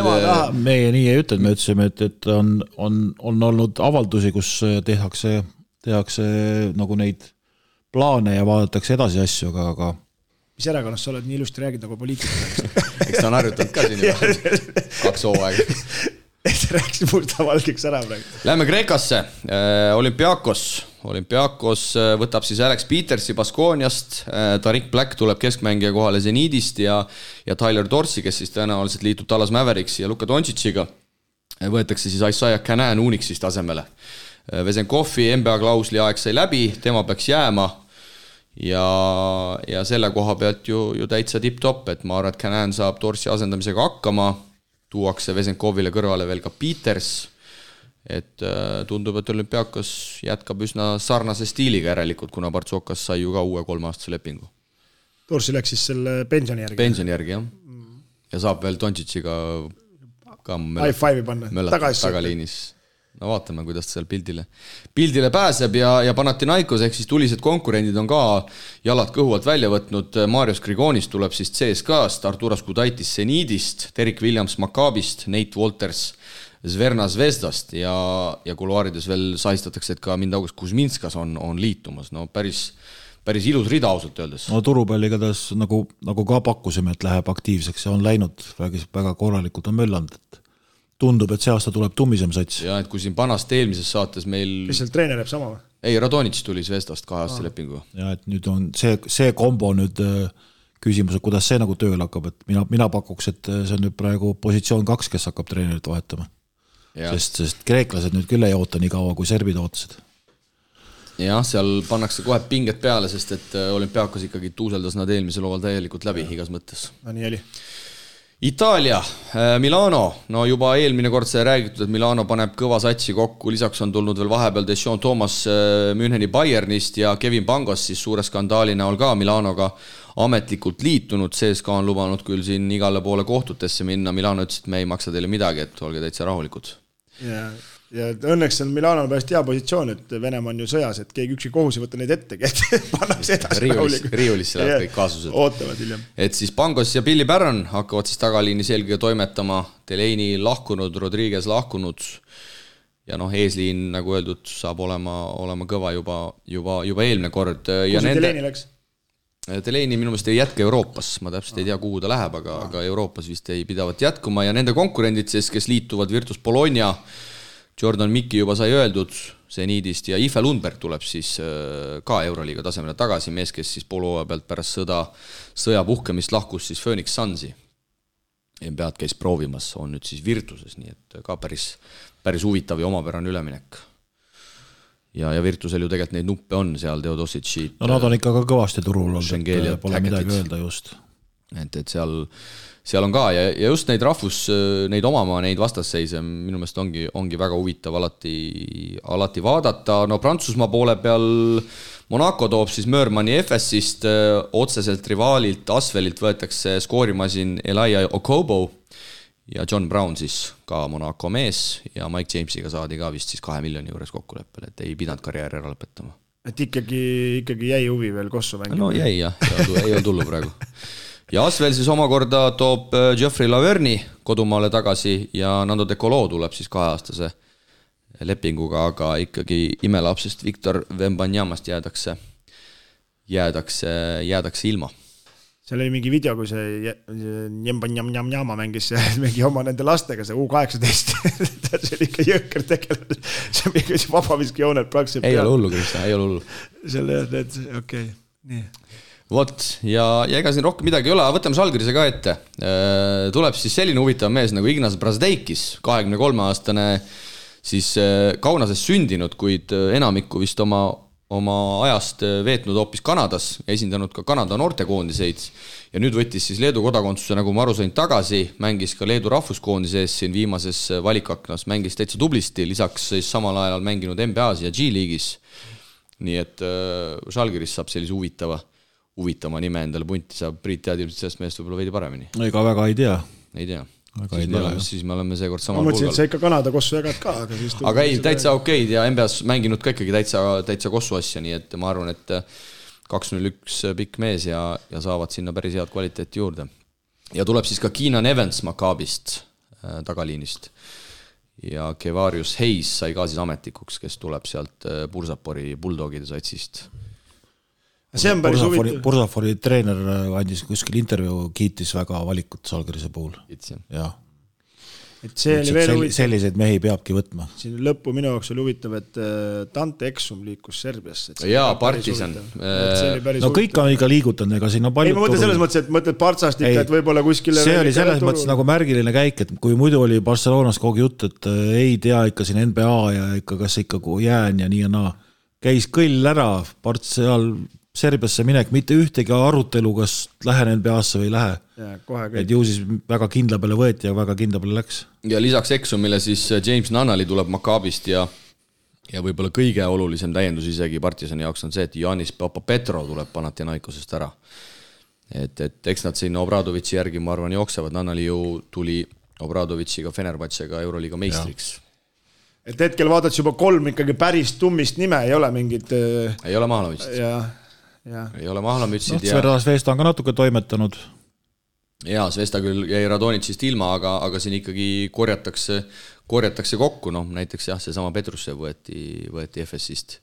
meie nii ei ütled, me ütlesime, et on olnud avaldusi, kus tehakse nagu neid plaane ja vaadatakse edasi asju, aga mis erakonnast sa oled nii ilusti räägid nagu poliitika? Eks ta on harjutanud ka siin juba 2 hooaega. Et rääkis mustavalgeks ära praegu. Lähme Kreekasse. Olympiakos võtab siis Alex Petersi Baskooniast, Tariq Black tuleb keskmängija kohale Zenidist ja Tyler Dorsey, kes siis tõenäoliselt liitub Dallas Mavericksi ja Luka Doncic'iga. Võetakse siis Isaiah Canaan Unixist asemele. Vesenkovi NBA klausli aeg sai läbi, tema peaks jääma ja selle koha pealt ju täitsa tipp-top, et ma arvan, et Canaan saab Dorsey asendamisega hakkama, tuuakse Vesenkovile kõrvale veel ka Peters, et tundub, et Olümpiakos jätkab üsna sarnase stiiliga järelikult, kuna Partsokas sai ju ka uue 3-aastase lepingu. Dorsey läks siis selle pensioni järgi. Pensioni järgi, jah. Ja saab veel Doncic'iga ka high-five'i panna. Tagaliinis. No vaatame, kuidas ta seal pildile pääseb ja Panathinaikos ehk siis tulised konkurendid on ka jalad kõhu alt välja võtnud. Marius Grigonis tuleb siis CSKA-st, Arturas Gudaitis Zenidist, Derek Williams Maccabist, Nate Walters Zvezda Zvezdast ja kuluaarides veel sahistatakse, et ka Mindaugas Kuzminskas on liitumas. No päris ilus rida ausalt öeldes. No turupalli igatahes nagu ka pakkusime, et läheb aktiivseks ja on läinud väga korralikult on möllanud, et tundub, et see aasta tuleb tummisem sats. Ja et kui siin Panast eelmises saates meil... Kes seal treener jääb sama või? Ei, Radonits tuli Zvezdast 2-aastase lepingu. Ja et nüüd on see kombo nüüd küsimus, et kuidas see nagu tööl hakkab, et mina pakuks, et see on nüüd praegu positsioon 2, kes hakkab treenerit vahetama. Sest kreeklased nüüd küll ei oota nii kaua, kui serbid ootasid. Jah, seal pannakse kohe pinget peale, sest et Olümpiakos ikkagi tuuseldas nad eelmisel hooval täielikult läbi igas mõttes. No nii oli. Itaalia, Milano, no juba eelmine kord sai räägitud, et Milano paneb kõva satsi kokku, lisaks on tulnud veel vahepeal Deschon Thomas Müncheni Bayernist ja Kevin Pangos siis suure skandaali näol ka Milanoga ametlikult liitunud, CSKA on lubanud küll siin igale poole kohtutesse minna, Milano ütles, et me ei maksa teile midagi, et olge täitsa rahulikud. Ja õnneks on Milano pärast hea positsioon, et Venemaa on ju sõjas, et keegi üksi kohus ei võtta neid ette, et pannakse edasi riiulisse läheb kõik kaasused. Ootavad hiljem. Et siis Pangos ja Billy Barron hakkavad siis tagaliinis eelkõige toimetama, Delaney lahkunud, Rodriguez lahkunud ja eesliin, nagu öeldud, saab olema kõva juba eelmine kord. Kus Delaney läks? Delaney minu meelest ei jätka Euroopas, ma täpselt ei tea, kuhu ta läheb, aga Euroopas vist ei pidavat jätkuma ja nende konkurendid siis, kes liituvad Virtus Bologna, Jordan Mikki juba sai öeldud Zenidist ja Ife Lundberg tuleb siis ka Euroliiga tasemele tagasi, mees, kes siis poolhooaja pealt pärast sõja puhkemist lahkus siis Phoenix Sunsi. NBA-d käis proovimas, on nüüd siis Virtuses, nii et ka päris huvitav ja omapärane üleminek. Ja Virtusel ju tegelikult neid nuppe on seal, Teodosicid. No nad on ikka ka kõvasti turul olnud, pole midagi öelda just. Et seal on ka ja just neid neid omamaa, neid vastasseise minu meelest ongi väga huvitav alati vaadata. No Prantsusmaa poole peal Monaco toob siis Möörmani FS-ist otseselt rivaalilt Asvelilt võetakse skoorimasin Elijah Okobo ja John Brown siis ka Monaco mees ja Mike Jamesiga saadi ka vist siis 2 miljoni juures kokkuleppel, et ei pidanud karjääri ära lõpetama. et ikkagi jäi huvi veel Kossu mängima. No jäi jah, ei olnud tullu praegu. Ja Asvel siis omakorda toob Geoffrey Laverni kodumaale tagasi ja Nando De Colo tuleb siis 2-aastase lepinguga, aga ikkagi imelapsest Victor Wembanyamast jäädakse ilma. Seal oli mingi video, kui see Njamba mängis mingi oma nende lastega, see U18. See oli ikka jõhker tegelane. See mingi vabaviski jooned praktiliselt peal. Ei ole hullu, Krista, ei ole hullu. Selle, okei. Nii. Vot, ja ega siin rohkem midagi ei ole, võtame Žalgirise ka ette. Tuleb siis selline huvitav mees nagu Ignas Brazdeikis, 23-aastane siis Kaunases sündinud, kuid enamikku vist oma ajast veetnud hoopis Kanadas ja esindanud ka Kanada noortekoondiseid ja nüüd võttis siis Leedu kodakondsuse, nagu ma aru sain, tagasi, mängis ka Leedu rahvuskoondise ees siin viimases valikaknas, mängis täitsa tublisti, lisaks siis samal ajal mänginud NBA-s ja G-liigis. Nii et Žalgiris saab sellise huvitama nime endale punti, saab Priit tead ilmselt sellest meest võib-olla veidi paremini. Ega väga ei tea. Siis me oleme seekord samal pulgal. Ma mõtlesin, et sa ikka Kanada Kossu jagad ka. Aga ei, täitsa okeid ja NBA-s mänginud ka ikkagi täitsa Kossu asja, nii et ma arvan, et 2-0-1 pikk mees ja saavad sinna päris head kvaliteeti juurde. Ja tuleb siis ka Keenan Evans Maccabist tagaliinist. Ja Kevarius Hayes sai ka siis ametlikuks, kes tuleb sealt Bursapori Bulldogide satsist. See on päris huvitav. Bursafori treener andis kuskil intervjuu, kiitis väga valikut Žalgirise puhul. Jah. Et see oli veel huvitav. Selliseid mehi peabki võtma. Siin lõppu minu jaoks oli huvitav, et Dante Exum liikus Serbiasse. Jaa, Partisan. No kõik on ikka liigutanud, ega siin on palju. Ei, ma mõtlen selles mõttes, et mõtled Partsast ikka, et võib-olla kuskile. See oli selles mõttes nagu märgiline käik, et kui muidu oli Barcelonas kogu jutt, et ei tea ikka siin NBA ja ikka kas ikka jään ja nii ja naa. Käis kõll ära Parts seal Serbiasse minek, mitte ühtegi arutelu, kas lähen NBA-sse või ei lähe. Et ju siis väga kindla peale võeti ja väga kindla peale läks. Ja lisaks Exumile siis James Nunnally tuleb Maccabist ja võib-olla kõige olulisem täiendus isegi Partisani jaoks on see, et Janis Papapetro tuleb Panathinaikosest ära. Et eks nad sinna Obradovitši järgi, ma arvan, jooksevad. Nunnally ju tuli Obradovitšiga Fenerbahcega Euroliiga meistriks. Et hetkel vaadad juba 3 ikkagi päris tummist nime, ei ole mingid... Ei ole Mahlamütsid. Ei ole Mahlamütsid. Svesta on ka natuke toimetanud. Jaa, Svesta küll jäi Radonitsist ilma, aga siin ikkagi korjatakse kokku. No, näiteks jah, seesama Petrusse võeti FS-ist.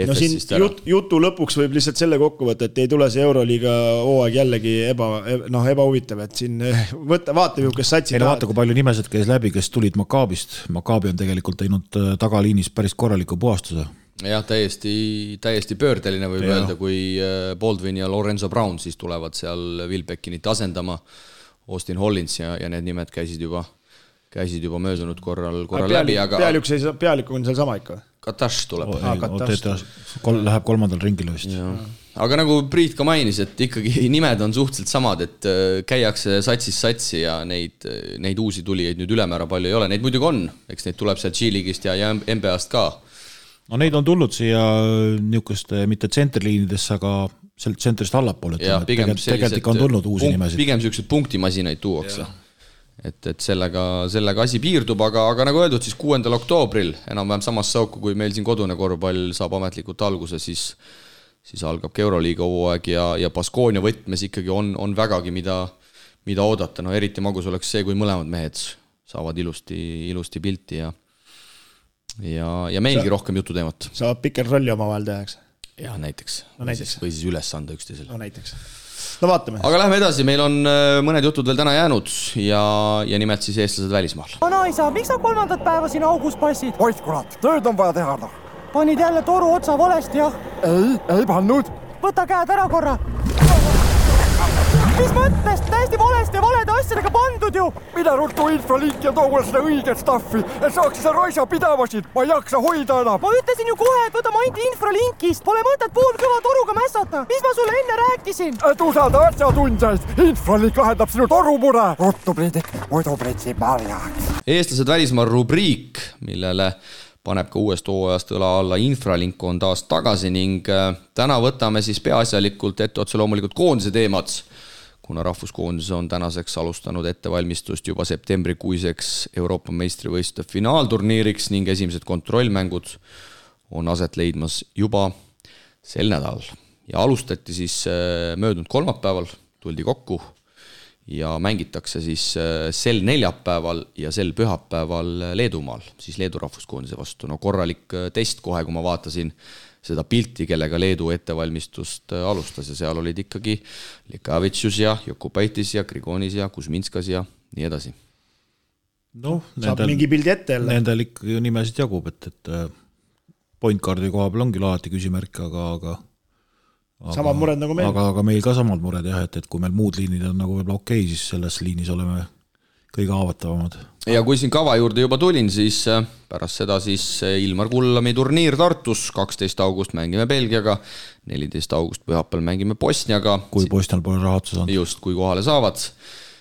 No siin jutu lõpuks võib lihtsalt selle kokku võtta, et ei tule see Euroliiga hooaeg jällegi ebahuvitav, et siin vaata ju, kes satsi vaata, kui palju nimesid käis läbi, kes tulid Maccabist. Maccabi on tegelikult teinud tagaliinis päris korraliku puhastuse. Jah, täiesti pöördeline võib öelda, kui Baldwin ja Lorenzo Brown siis tulevad seal Will Beckinit asendama, Austin Hollins ja need nimed käisid juba möödunud korral läbi. Pealik on seal sama ikka? Katash tuleb. Läheb 3. ringile vist. Aga nagu Priit ka mainis, et ikkagi nimed on suhteliselt samad, et käiakse satsi ja neid uusi tulijaid nüüd ülemäära palju ei ole. Neid muidugi on, eks neid tuleb sealt G-liigist ja NBA-st ka. No neid on tulnud siia niisuguste mitte tsenterliinidesse, aga sealt tsentrist allapoole. Tegelikult on tulnud uusi nimesid. Pigem niisugused punktimasinaid tuuakse. Et sellega asi piirdub, aga nagu öeldud, siis 6. oktoobril enam-vähem samas sauku, kui meil siin kodune korvpall saab ametlikult alguse, siis algab Euroliiga hooaeg ja Baskonia võtmes ikkagi on vägagi mida oodata. No eriti magus oleks see, kui mõlemad mehed saavad ilusti pilti ja meilgi rohkem jututeemat. Saab pikker rolli oma vahel tehaks. Jah, näiteks. Või siis üles anda üksteisel. No näiteks. No vaatame. Aga lähme edasi, meil on mõned jutud veel täna jäänud ja nimelt siis eestlased välismaal. Anaisa, miks sa 3. päeva siin augus passid? Oit kurat, tööd on vaja teha. Panid jälle toru otsa valesti, jah? Ei pannud. Võta käed ära korra. Mis mõttes? Täiesti valesti valede asjadega pandud ju. Mida ruttu infralink ja too mulle seda õiget staffi, et saaks seda raisa pidavasid. Ma ei jaksa hoida enam. Ma ütlesin ju kohe, et võta ainult infralinkist. Pole mõtet poolkõva toruga mässata. Mis ma sulle enne rääkisin? Et usalda asjatundjaid. Infralink lahendab sinu torumure. Ruttu Priidik, muidu pritsi marjaks. Eestlased välismaal rubriik, millele paneb ka uuest hooajast õla alla infralink on taas tagasi ning täna võtame siis peaasjalikult ette otse loomulikult koondise teemad, kuna rahvuskoondis on tänaseks alustanud ettevalmistust juba septembrikuiseks Euroopa meistrivõistluste finaalturniiriks ning esimesed kontrollmängud on aset leidmas juba sel nädalal. Ja alustati siis möödunud kolmapäeval, tuldi kokku ja mängitakse siis sel neljapäeval ja sel pühapäeval Leedumaal, siis Leedu rahvuskoondise vastu. No korralik test kohe, kui ma vaatasin seda pilti, kellega Leedu ettevalmistust alustas ja seal olid ikkagi Likavitšus ja Jokubaitis ja Grigonis ja Kuzminskas ja nii edasi. No, saab mingi pildi ette jälle. Nendel ikka nimesid jagub, et point guardi koha peal ongi alati küsimärk, aga samad mured nagu meil. Aga meil ka samad mured jah, et kui meil muud liinid on nagu võib-olla okei, siis selles liinis oleme kõige haavatavamad. Ja kui siin kava juurde juba tulin, siis pärast seda siis Ilmar Kullami turniir Tartus, 12. august mängime Belgiaga, 14. august pühapäeval mängime Bosniaga. Kui Bosnial pole raha otsa saanud. Just, kui kohale saavad.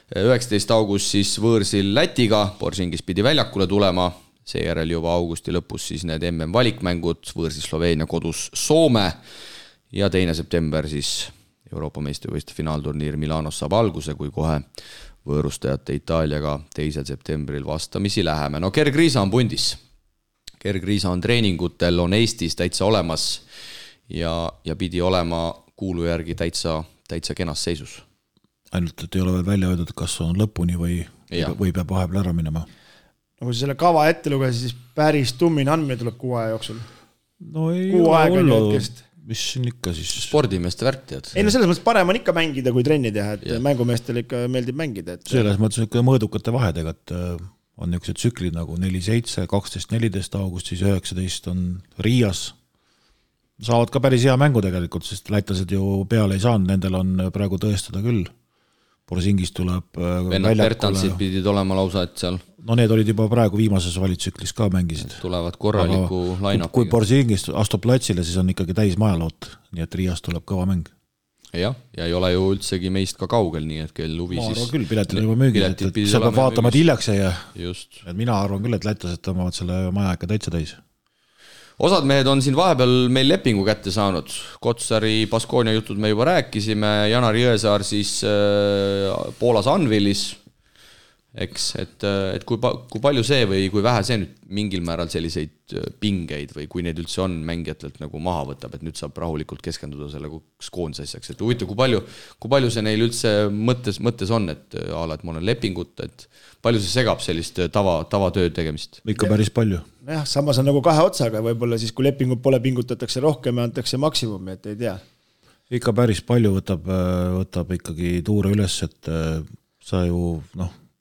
19. august siis võõrsil Lätiga, Borsingis pidi väljakule tulema, seejärel juba augusti lõpus siis need MM valikmängud, võõrsil Sloveenia kodus Soome ja 2. september siis Euroopa meistrivõistluste finaalturniir Milanos saab alguse, kui kohe võõrustajate Itaaliaga 2. septembril vastamisi läheme. No Gerg Riisa on pundis. Gerg Riisa on treeningutel, on Eestis täitsa olemas ja pidi olema kuulu järgi täitsa kenas seisus. Ainult, et ei ole veel välja öeldud, kas on lõpuni või peab vahepeal ära minema. No kui selle kava ette luges, siis päris tummine andmine tuleb 6 aja jooksul. No ei Kuu aega ole hetkest. Mis siin ikka siis? Spordimeeste värk tead. Ei no selles mõttes parem on ikka mängida, kui trenni teha, et mängumeestel ikka meeldib mängida. Selles mõttes ikka mõõdukate vahedega, et on niisugused tsüklid nagu 4-7, 12-14 august, siis 19 on Riias. Saavad ka päris hea mängu tegelikult, sest lätlased ju peale ei saanud, nendel on praegu tõestada küll. Borsingis tuleb Vennad Bertansid pidid olema lausa, et seal. No need olid juba praegu viimases valitsüklis ka mängisid. Tulevad korraliku line-upiga. Kui Borsingis astub platsile, siis on ikkagi täis majaloot, nii et Riias tuleb kõva mäng. Ja ei ole ju üldsegi meist ka kaugel, nii et kell huvi siis. Ma arvan küll, piletid on juba müügid, et see peab vaatama, et hiljaks ei jää. Just. Mina arvan küll, et lätlased tõmbavad selle maja ikka täitsa täis. Osad mehed on siin vahepeal meil lepingu kätte saanud. Kotsari Baskonia jutud me juba rääkisime, Janar Jõesaar siis Poolas Anvilis, eks, et kui palju see või kui vähe see nüüd mingil määral selliseid pingeid või kui need üldse on mängijatelt nagu maha võtab, et nüüd saab rahulikult keskenduda selle koondise asjaks, et huvitav, kui palju see neil üldse mõttes on, et ma olen lepingut, et palju see segab sellist tavatööd tegemist? Ikka päris palju. Jah, samas on nagu 2 otsaga, võib-olla siis kui lepingut pole, pingutatakse rohkem ja antakse maksimumi, et ei tea. Ikka päris palju võtab ikkagi tuure üles, et sa ju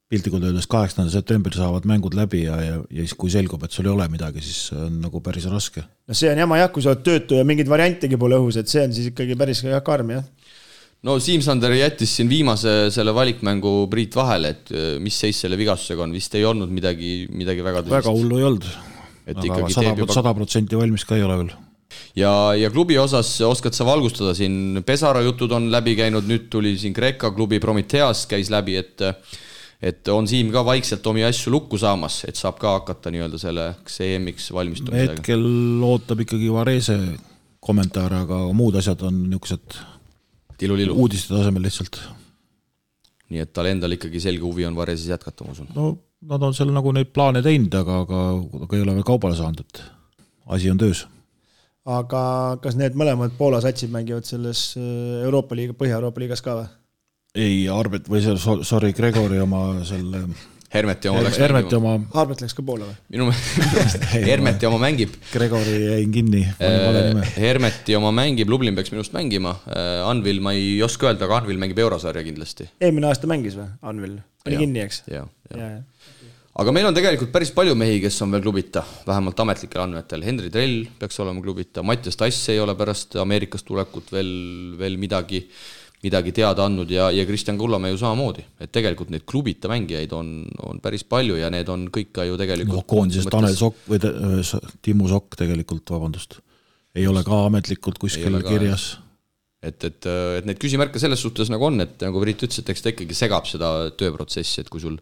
piltlikult öeldes 8. septembril saavad mängud läbi ja siis kui selgub, et sul ei ole midagi, siis on nagu päris raske. No see on jama jah, kui sa oled töötu ja mingid variantigi pole õhus, et see on siis ikkagi päris karm, jah. No Siim-Sander jättis siin viimase selle valikmängu Priit vahele, et mis seis selle vigastusega on, vist ei olnud midagi väga tõsist. Väga hullu ei olnud, aga 100% valmis ka ei ole veel. Ja klubi osas oskad sa valgustada siin, Pesara jutud on läbi käinud, nüüd tuli siin Kreeka klubi Prometheas käis läbi, et on Siim ka vaikselt omi asju lukku saamas, et saab ka hakata nii-öelda selle EM-iks valmistumisega. Hetkel ootab ikkagi Varese kommentaare, aga muud asjad on niisugused uudiste tasemel lihtsalt. Nii et tal endal ikkagi selge huvi on Vareses jätkata, ma usun. No nad on seal nagu neid plaane teinud, aga ei ole veel kaubale saanud, et asi on töös. Aga kas need mõlemad Poola satsid mängivad selles Euroopa liiga, Põhja-Euroopa liigas ka või? Ei, Arbet või sorry, Gregori oma selle Hermeti oma läks mängima. Arbet läks ka Poola või? Minu Hermeti oma mängib. Gregori jäin kinni. Hermeti oma mängib, Lublin peaks minust mängima. Anvil ma ei oska öelda, aga Anvil mängib Eurosarja kindlasti. Eelmine aasta mängis või? Anvil? Oli kinni, eks? Ja. Aga meil on tegelikult päris palju mehi, kes on veel klubita, vähemalt ametlikel andmetel. Henri Trell peaks olema klubita, Mattias Tass ei ole pärast Ameerikast tulekut veel midagi teada andnud ja Kristjan Kullamäe ju samamoodi. Et tegelikult neid klubita mängijaid on päris palju ja need on kõik ka ju tegelikult... Koondisest Tanel Sokk või Timmu Sokk tegelikult, vabandust. Ei ole ka ametlikult kuskil kirjas. Et need küsimärke selles suhtes nagu on, et nagu Priit ütles, et eks ta ikkagi segab seda tööprotsessi, et kui sul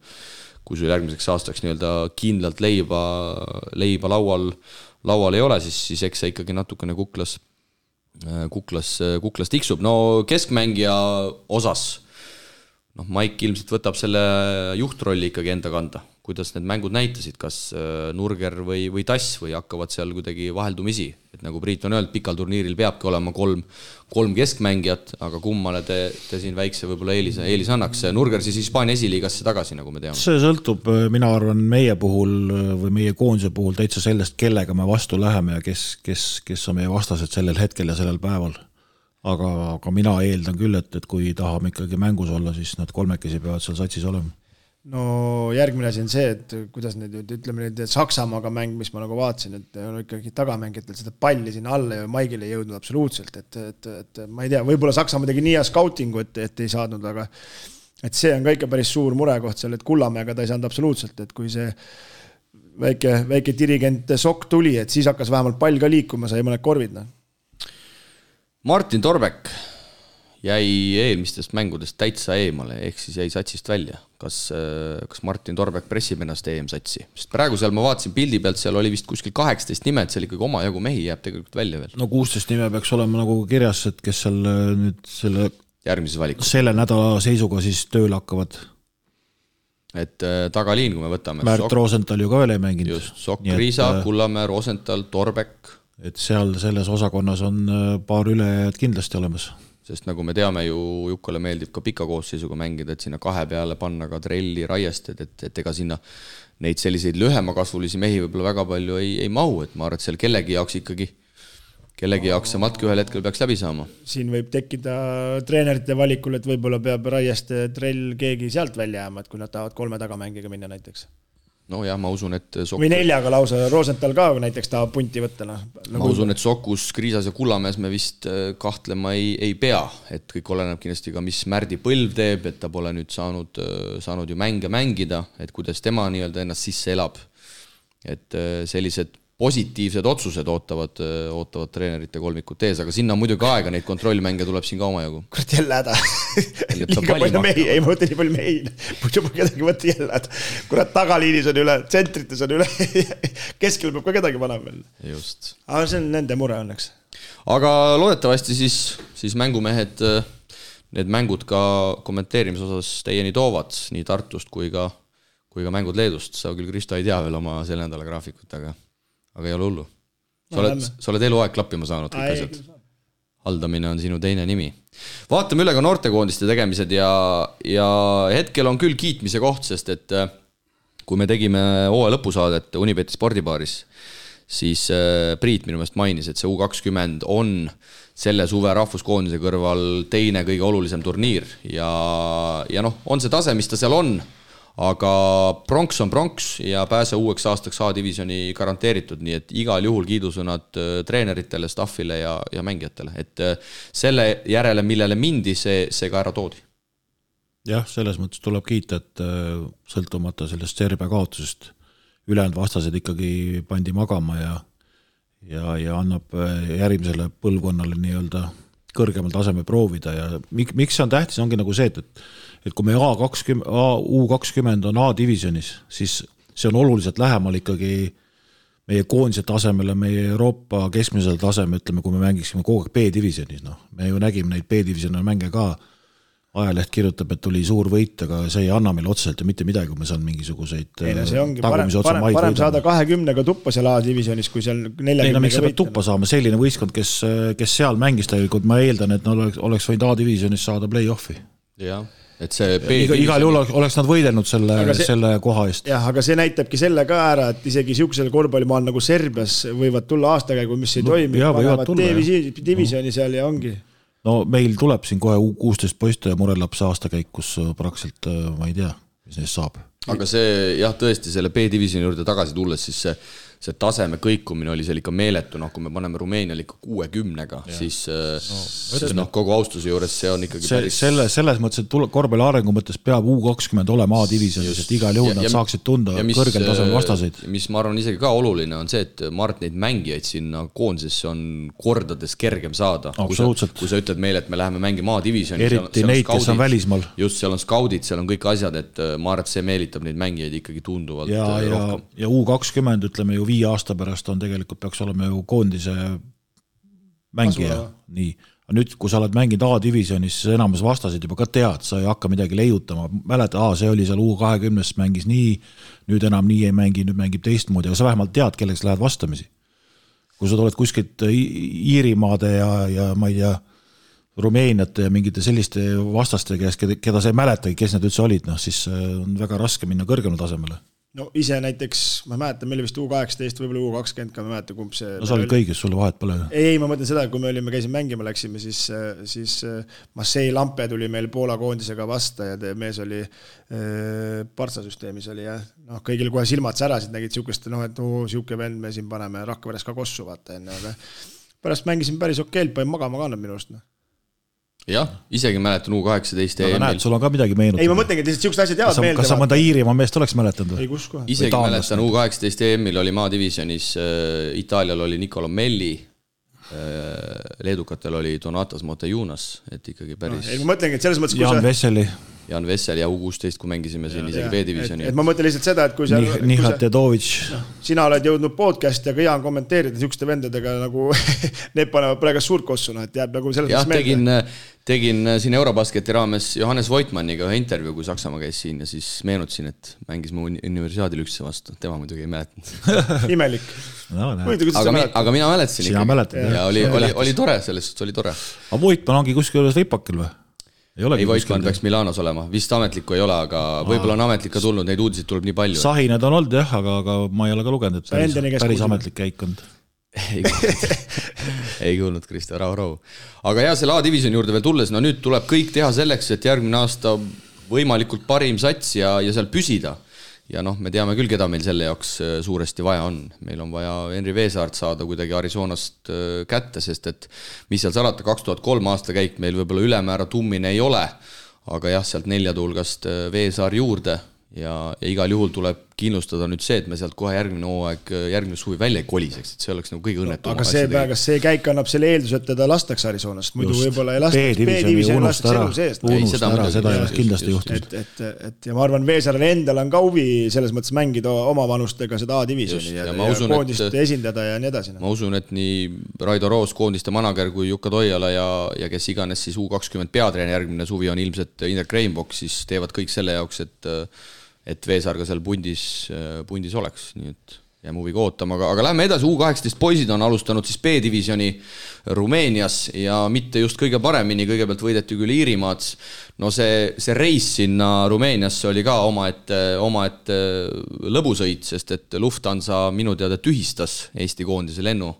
järgmiseks aastaks nii-öelda kindlalt leiba laual ei ole, siis eks see ikkagi natukene kuklas tiksub. No keskmängija osas, Maik ilmselt võtab selle juhtrolli ikkagi enda kanda. kuidas need mängud näitasid, kas Nurger või Tass või hakkavad seal kuidagi vaheldumisi, et nagu Priit on öelnud, pikal turniiril peabki olema kolm keskmängijat, aga kummale te siin väikse võib-olla eelis annaks. Nurger siis Hispaania esiliigasse tagasi, nagu me teame. See sõltub, mina arvan, meie puhul või meie koondise puhul täitsa sellest, kellega me vastu läheme ja kes on meie vastased sellel hetkel ja sellel päeval. Aga mina eeldan küll, et kui tahame ikkagi mängus olla, siis nad kolmekesi peavad seal satsis olema. No järgmine asi on see, et kuidas need, ütleme nüüd Saksamaaga mäng, mis ma nagu vaatasin, et on ikkagi tagamängijatel seda palli sinna alla ja Maigile ei jõudnud absoluutselt, et ma ei tea, võib-olla Saksamaa tegi nii hea scoutingu, et ei saadnud, aga et see on ka ikka päris suur murekoht seal, et Kullamäega ta ei saanud absoluutselt, et kui see väike dirigent Sokk tuli, et siis hakkas vähemalt pall ka liikuma, sai mõned korvid. Martin Torbek jäi eelmistest mängudest täitsa eemale, ehk siis jäi satsist välja. Kas Martin Torbek pressib ennast EM-satsi? Sest praegu seal ma vaatasin pildi pealt, seal oli vist kuskil 18 nimed, seal ikkagi oma jagu mehi jääb tegelikult välja veel. No 16 nime peaks olema nagu kirjas, et kes seal nüüd järgmises valikus. Selle nädala seisuga siis tööle hakkavad. Et tagaliin, kui me võtame. Märt Rosenthal ju ka veel ei mänginud. Just, Sokk, Riisa, Kullamäe, Rosenthal, Torbek. Et seal selles osakonnas on paar ülejääjad kindlasti olemas. Sest nagu me teame ju, Jukkale meeldib ka pika koosseisuga mängida, et sinna 2 peale panna ka Trelli, Raiested, et ega sinna neid selliseid lühemakasvulisi mehi võib-olla väga palju ei mahu, et ma arvan, et seal kellegi jaoks see matk ühel hetkel peaks läbi saama. Siin võib tekkida treenerite valikul, et võib-olla peab Raieste, Trell keegi sealt välja jääma, et kui nad tahavad 3 tagamängiga minna näiteks. No jah, ma usun, et või 4 lausa, Rosenthal ka näiteks tahab punti võtta. Ma usun, et Sokus, Kriisas ja Kullamäes me vist kahtlema ei pea, et kõik oleneb kindlasti ka, mis Märdi Põlv teeb, et ta pole nüüd saanud ju mänge mängida, et kuidas tema nii-öelda ennast sisse elab. Et sellised positiivsed otsused ootavad treenerite kolmikut ees, aga sinna on muidugi aega, neid kontrollmänge tuleb siin ka omajagu. Kurat, jälle häda. Liiga palju mehi, ei mõõta nii palju mehi. Muidu ma kedagi võtta jälle häda. Kurat, tagaliinis on üle, tsentrites on üle, keskel peab ka kedagi panema veel. Just. Aga see on nende mure õnneks. Aga loodetavasti siis mängumehed need mängud ka kommenteerimise osas teieni toovad, nii Tartust kui ka mängud Leedust. Sa küll, Kristo, ei tea veel oma selle nädala graafikut, aga ei ole hullu. Sa oled eluaeg klappima saanud kõik asjad. Haldamine on sinu teine nimi. Vaatame üle ka noortekoondiste tegemised ja hetkel on küll kiitmise koht, sest et kui me tegime hooaja lõpusaadet Unibeti spordibaaris, siis Priit minu meelest mainis, et see U20 on selle suve rahvuskoondise kõrval teine kõige olulisem turniir ja on see tase, mis ta seal on, aga pronks on pronks ja pääse uueks aastaks A-divisjoni garanteeritud, nii et igal juhul kiidusõnad treeneritele, staffile ja mängijatele, et selle järele, millele mindi, see ka ära toodi. Jah, selles mõttes tuleb kiita, et sõltumata sellest Serbia kaotusest ülejäänud vastased ikkagi pandi magama ja annab järgmisele põlvkonnale nii-öelda kõrgemal taseme proovida ja miks see on tähtis, ongi nagu see, et kui me U20 on A-divisionis, siis see on oluliselt lähemal ikkagi meie koondise tasemele, meie Euroopa keskmisel taseme, ütleme, kui me mängiksime kogu aeg B-divisionis. Me ju nägime neid B-divisiooni mänge ka, ajaleht kirjutab, et tuli suur võit, aga see ei anna meil otseselt ja mitte midagi, kui me saan mingisuguseid see ongi parem saada 20-ga tuppa seal A-divisionis, kui seal 40-ga miks sa pead tuppa saama, selline võistkond, kes seal mängis tegelikult, ma eeldan, et oleks võinud A-divisionis saada play-offi. Jah, et see igal juhul oleks nad võidelnud selle koha eest. Jah, aga see näitabki selle ka ära, et isegi siuksel korvpallimaal nagu Serbias võivad tulla aastakäigu, mis ei toimi, panevad divisjoni seal ja ongi. No meil tuleb siin kohe U16 poiste ja Murelaps aastakäik, kus praktiliselt ma ei tea, mis neist saab. Aga see, jah, tõesti selle B-divisjoni juurde tagasi tulles, siis see taseme kõikumine oli seal ikka meeletu, kui me paneme Rumeenial ikka 60-ga, siis kogu austuse juures see on ikkagi päris... Selles mõttes, et korvpalli arengu mõttes peab U20 olema A-divisionis, et igal juhul nad saaksid tunda kõrgel tasemel vastaseid. Mis ma arvan isegi ka oluline on see, et Mart neid mängijaid sinna koondisesse on kordades kergem saada. Kui sa ütled meile, et me läheme mängima A-divisionis, eriti neid, kes on välismaal. Just, seal on skaudid, seal on kõik asjad, et ma arvan, et see meelitab neid mängijaid ikkagi tunduvalt rohkem. Ja U20, ütleme ju 5 aasta pärast on tegelikult peaks olema ju koondise mängija, nii. nüüd, kui sa oled mänginud A-divisionis, siis enamus vastasid juba ka tead, sa ei hakka midagi leiutama, mäleta, see oli seal U20 mängis nii, nüüd enam nii ei mängi, nüüd mängib teistmoodi, aga sa vähemalt tead, kelleks lähed vastamisi. Kui sa tuled kuskilt Iirimaade ja ma ei tea, Rumeeniate ja mingite selliste vastaste käes, keda sa ei mäletagi, kes need üldse olid, siis on väga raske minna kõrgemale tasemele. No ise näiteks, ma mäletan, meil vist U18, võib-olla U20, ka ma mäletan, kumb see... No sa olid kõigis, sulle vahet pole. Ei, ma mõtlen seda, kui me käisime mängima, läksime, siis Marseille Lampe tuli meil Poola koondisega vasta ja mees oli Partsa-süsteemis oli, jah. No, kõigil kohe silmad särasid, nägid siukest, et siuke vend me siin paneme Rakveres ka kossu, vaata enne, aga pärast mängisin päris okeilt, panin magama ka minu arust. Jah, isegi mäletan U18 aga näed, sul on ka midagi meenutada. Ei, ma mõtlengi, et lihtsalt siuksed asjad jäävad meelde. Kas sa mõnda Iirimaa meest oleks mäletanud? Ei, kus kohe. Isegi mäletan U18 EM-il oli maadivisionis, Itaalial oli Nicolo Melli, leedukatel oli Donatas Motejunas, et ikkagi päris... Ei, ma mõtlengi, et selles mõttes... Jan Vessel ja U16, kui mängisime siin isegi B-divisioni. Et ma mõtlen lihtsalt seda, et kui sa... Nihat Tedovic. Sina oled jõudnud podcast ja ka Jaan kommenteerida siukeste vendadega nagu need panevad praegu suurt kossuna, et jääb nagu selles mõttes meelde. Tegin siin Eurobasketi raames Johannes Voitmanniga ühe intervjuu, kui Saksamaa käis siin ja siis meenutasin, et mängis mu universiaadil ükse vastu. Tema muidugi ei mäletanud. Imelik. Aga mina mäletasin ikka. Ja oli tore, sellest oli tore. Aga Voitman ongi kuskil üles ripakil või? Ei Voitman peaks Milanos olema, vist ametlikku ei ole, aga võib-olla on ametlik ka tulnud, neid uudiseid tuleb nii palju. Sahinad on olnud jah, aga ma ei ole ka lugenud, et päris ametlik käikond. Ei kuulnud Kristo, rahu. Aga jah, selle A-divisioni juurde veel tulles, no nüüd tuleb kõik teha selleks, et järgmine aasta võimalikult parim sats ja seal püsida. Ja me teame küll, keda meil selle jaoks suuresti vaja on. Meil on vaja Henri Veesaart saada kuidagi Arizonast kätte, sest et mis seal salata, 2003 aasta käik meil võib-olla ülemäära tummine ei ole, aga jah, sealt 4 tulgast Veesaar juurde ja igal juhul tuleb kindlustada nüüd see, et me sealt kohe järgmine suvi välja ei koliseks, et see oleks nagu kõige õnnetum. Aga see käik annab selle eeldus, et teda lastakse Arizonast, muidu võib-olla ei lastaks B-divisiooni lastakse elu seest. Unustada ära, seda ei oleks kindlasti juhtunud. Ja ma arvan, Veesarel endal on ka huvi selles mõttes mängida oma vanustega seda A-divisiooni ja koondist esindada ja nii edasi. Ma usun, et nii Raido Roos, koondiste manager kui Jukka Toiala ja kes iganes siis U20 peatreen järgmine suvi on ilmselt Indrek Reinbock, siis teevad kõik selle jaoks, et Veesaar ka seal pundis oleks, nii et jääme huviga ootama, aga lähme edasi, U18 poisid on alustanud siis B-divisioni Rumeenias ja mitte just kõige paremini, kõigepealt võideti küll Iirimaad, no see reis sinna Rumeeniasse oli ka omaette lõbusõit, sest et Lufthansa minu teada tühistas Eesti koondise lennu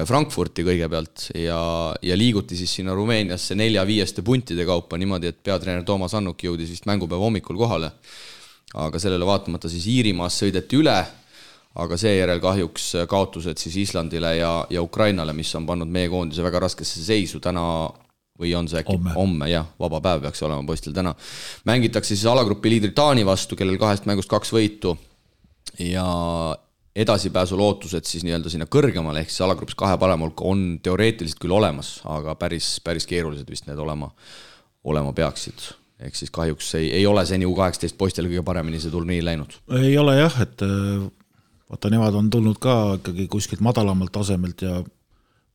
Frankfurti kõigepealt ja liiguti siis sinna Rumeeniasse 4-5 puntide kaupa niimoodi, et peatreener Toomas Annuk jõudis vist mängupäeva hommikul kohale. Aga sellele vaatamata siis Iirimaas sõideti üle, aga seejärel kahjuks kaotused siis Islandile ja Ukrainale, mis on pannud meie koondise väga raskesse seisu täna või on see äkki homme, jah, vaba päev peaks olema poistel täna. Mängitakse siis alagrupi liidri Taani vastu, kellel 2 mängust 2 võitu ja edasipääsu lootused siis nii-öelda sinna kõrgemale, ehk siis alagrupis 2 parema hulka on teoreetiliselt küll olemas, aga päris keerulised vist need olema peaksid. Ehk siis kahjuks ei ole seni U18 poistel kõige paremini see turniir läinud. Ei ole jah, et vaata, nemad on tulnud ka ikkagi kuskilt madalamalt tasemelt ja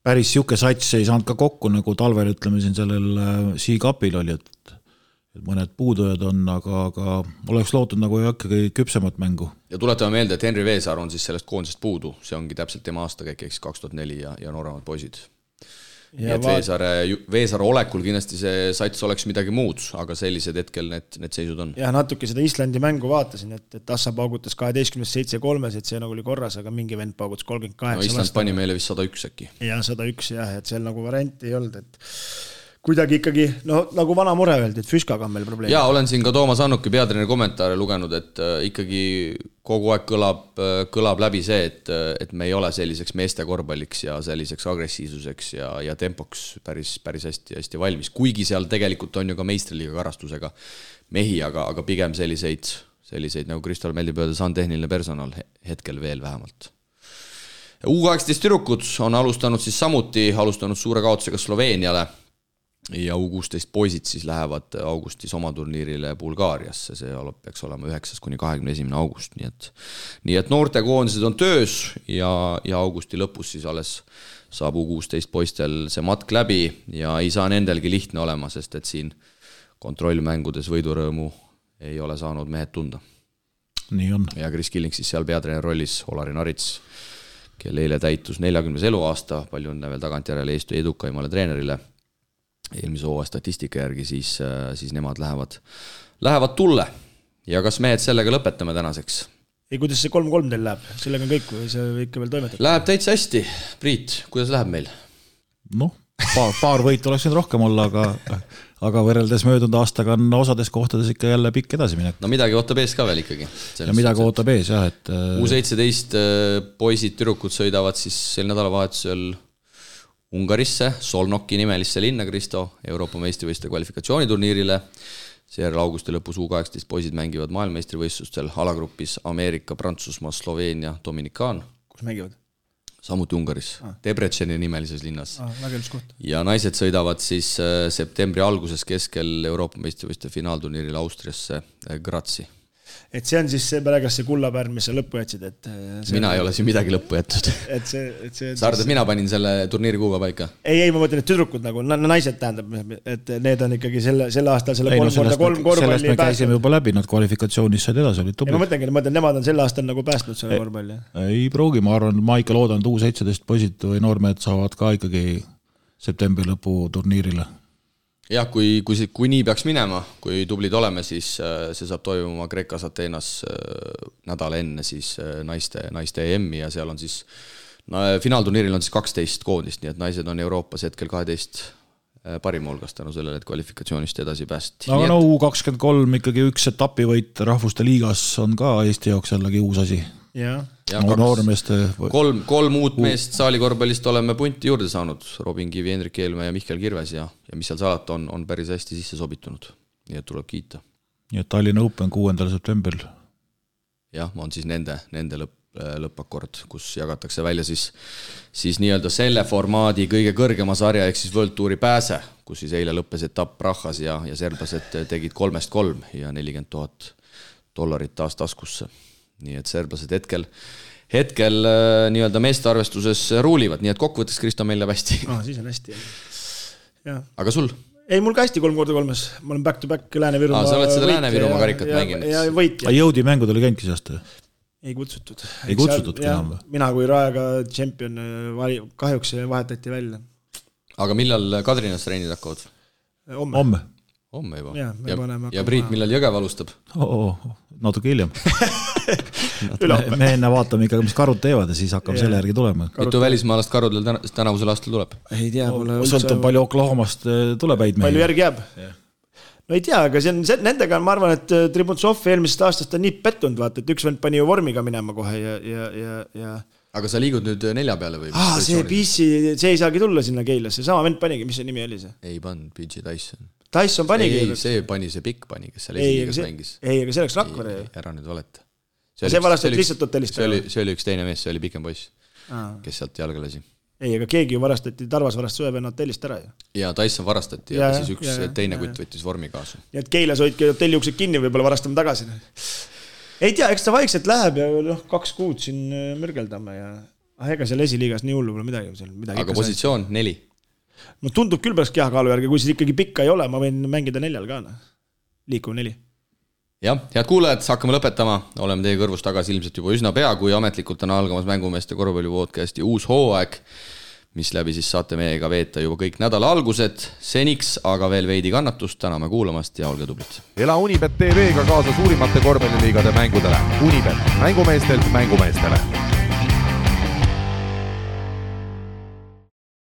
päris siuke sats ei saanud ka kokku, nagu talvel ütleme siin sellel C-Cupil oli, et mõned puudujad on, aga oleks lootud nagu ikkagi küpsemat mängu. Ja tuletame meelde, et Henri Veesaar on siis sellest koondisest puudu, see ongi täpselt tema aastakäik, ehk 2004 ja nooremad poisid. Ja et Veesaare olekul kindlasti see sats oleks midagi muud, aga sellised hetkel need seisud on. Ja natuke seda Islandi mängu vaatasin, et Assa paugutas 12-7-3, et see nagu oli korras, aga mingi vend paugutas 38. No Island pani meile vist 101 äkki. Ja 101 jah, et seal nagu varianti ei olnud, et kuidagi ikkagi, nagu vana mure öeldi, et Füskaga on meil probleem. Ja olen siin ka Toomas Annuki peatreeneri kommentaare lugenud, et ikkagi kogu aeg kõlab läbi see, et me ei ole selliseks meeste korvpalliks ja selliseks agressiivsuseks ja tempoks päris hästi valmis. Kuigi seal tegelikult on ju ka meistriliiga karastusega mehi, aga pigem selliseid nagu Kristal meeldib öelda, see on tehniline personal hetkel veel vähemalt. U18 tüdrukud on alustanud suure kaotusega Sloveeniale ja U16 poisid siis lähevad augustis oma turniirile Bulgaariasse, see peaks olema 9-21. august, nii et noortekoondised on töös ja augusti lõpus siis alles saab U16 poistel see matk läbi ja ei saa nendelgi lihtne olema, sest et siin kontrollmängudes võidurõõmu ei ole saanud mehed tunda. Nii on. Ja Kris Killing siis seal peatreener rollis, Olari Narits, kelle eile täitus 40. eluaasta, palju õnne veel tagantjärele Eesti edukaimale treenerile. Eelmise hooaja statistika järgi siis nemad lähevad tulle. Ja kas mehed sellega lõpetame tänaseks? Ei, kuidas see 3-3 teil läheb? Sellega on kõik või see ikka veel toimetab? Läheb täitsa hästi. Priit, kuidas läheb meil? Noh, paar võitu oleks nüüd rohkem olla, aga võrreldes möödunud aastaga on osades kohtades ikka jälle pikk edasi minek. No midagi ootab ees ka veel ikkagi. Ja midagi ootab ees, jah. Et... U17 poisid, tüdrukud sõidavad siis sel nädalavahetusel Ungarisse, Solnoki nimelisse linna, Kristo, Euroopa meistrivõistluste kvalifikatsiooniturniirile. Seejärel augusti lõpus U18 poisid mängivad maailmameistrivõistlustel alagrupis Ameerika, Prantsusmaa, Sloveenia, Dominikaan. Kus mängivad? Samuti Ungaris, Debreceni nimelises linnas. Väga ilus koht. Ja naised sõidavad siis septembri alguses keskel Euroopa meistrivõistluste finaalturniiril Austriasse Grazi. Et see on siis see pärast see kullapärn, mis sa lõppu jätsid, et mina ei ole siin midagi lõppu jättud. Sa arvad, et mina panin selle turniiri kuuga paika? Ei, ma mõtlen, et tüdrukud nagu, naised tähendab, et need on ikkagi selle aastal selle 3x3 korvpalli sellest me käisime juba läbi, nad kvalifikatsioonis said edasi, olid tublid. Ma mõtlengi, nemad on selle aastal nagu päästnud selle korvpalli. Ei pruugi, ma arvan, ma ikka loodan, et U17 poisid või noormehed saavad ka ikkagi septembri lõpu turniirile. Jah, kui nii peaks minema, kui tublid oleme, siis see saab toimuma Kreekas Ateenas nädal enne siis naiste EM-i ja seal on siis, finaalturniiril on siis 12 koondist, nii et naised on Euroopas hetkel 12 parima hulgas tänu sellele, et kvalifikatsioonist edasi päästi. Aga U23 ikkagi üks etapivõit Rahvuste liigas on ka Eesti jaoks jällegi uus asi. Ja kolm uut meest saalikorvpallist oleme punti juurde saanud, Robin Kivi, Hendrik Eelmäe ja Mihkel Kirves ja mis seal salata on päris hästi sisse sobitunud, nii et tuleb kiita. Nii et Tallinna Open 6. septembril. Jah, on siis nende lõppakord, kus jagatakse välja siis nii-öelda selle formaadi kõige kõrgema sarja ehk siis World Touri pääse, kus siis eile lõppes etapp Prahas ja serblased tegid 3-3 ja $40,000 taas taskusse. Nii et serblased hetkel nii-öelda meeste arvestuses ruulivad, nii et kokkuvõttes Kristo meil läheb hästi. Siis on hästi. Ja. Aga sul? Ei, mul ka hästi 3x3. Ma olen back-to-back Lääne-Virumaa sa oled seda Lääne-Virumaa karikat mänginud. Ja võit. Jõudi mängud oli känkis aasta? Ei kutsutud. Ei kutsutudki enam? Mina kui Raega tšempion kahjuks vahetati välja. Aga millal Kadrinas treenid hakkavad? Homme juba. Ja Priit, millal Jõgev alustab? Natuke hiljem. Me enne vaatame ikka, mis karud teevad ja siis hakkame selle järgi tulema. Mitu välismaalast karudel tänavusel aastal tuleb? Ei tea. Sõltub palju Oklahomast tuleb häid mehi. Palju järgi jääb? No ei tea, aga nendega ma arvan, et Tribuntsov eelmisest aastast on nii pettunud, vaata, et üks vend pani ju vormiga minema kohe ja... Aga sa liigud nüüd 4 peale või? See ei saagi tulla sinna Keilasse, sama vend panigi, mis see nimi oli see? Ei pannud, PG Tyson. Tyson panigi. See pani see pikk pani, kes seal esiliigas mängis. Ei, aga see oleks Rakvere. Ära nüüd valeta. See varastati lihtsalt hotellist. See oli üks teine mees, see oli pikem poiss, kes sealt jalga lasi. Ei, aga keegi ju varastati, Tarvas varastas Sõevenna hotellist ära. Ja Tyson varastati ja siis üks teine kutt võttis vormi kaasa. Nii et Keilas hoidki hotelliuksed kinni, võib-olla varastame tagasi. Ei tea, eks ta vaikselt läheb ja 2 kuud siin mürgeldame ja ega seal esiliigas nii hullu pole midagi. Aga positsioon 4. No tundub küll pärast kehakaalu järgi, kui siis ikkagi pikka ei ole, ma võin mängida 4 ka. Liikuv 4. Jah, head kuulajad, hakkame lõpetama. Oleme teie kõrvus tagasi ilmselt juba üsna pea, kui ametlikult on algamas Mängumeeste korvpallipodcasti uus hooaeg, mis läbi siis saate meiega veeta juba kõik nädala algused. Seniks aga veel veidi kannatust, täname kuulamast ja olge tublid. Ela Unibet TV-ga kaasa suurimate korvpalliliigade mängudele. Unibet, mängumeestelt mängumeestele.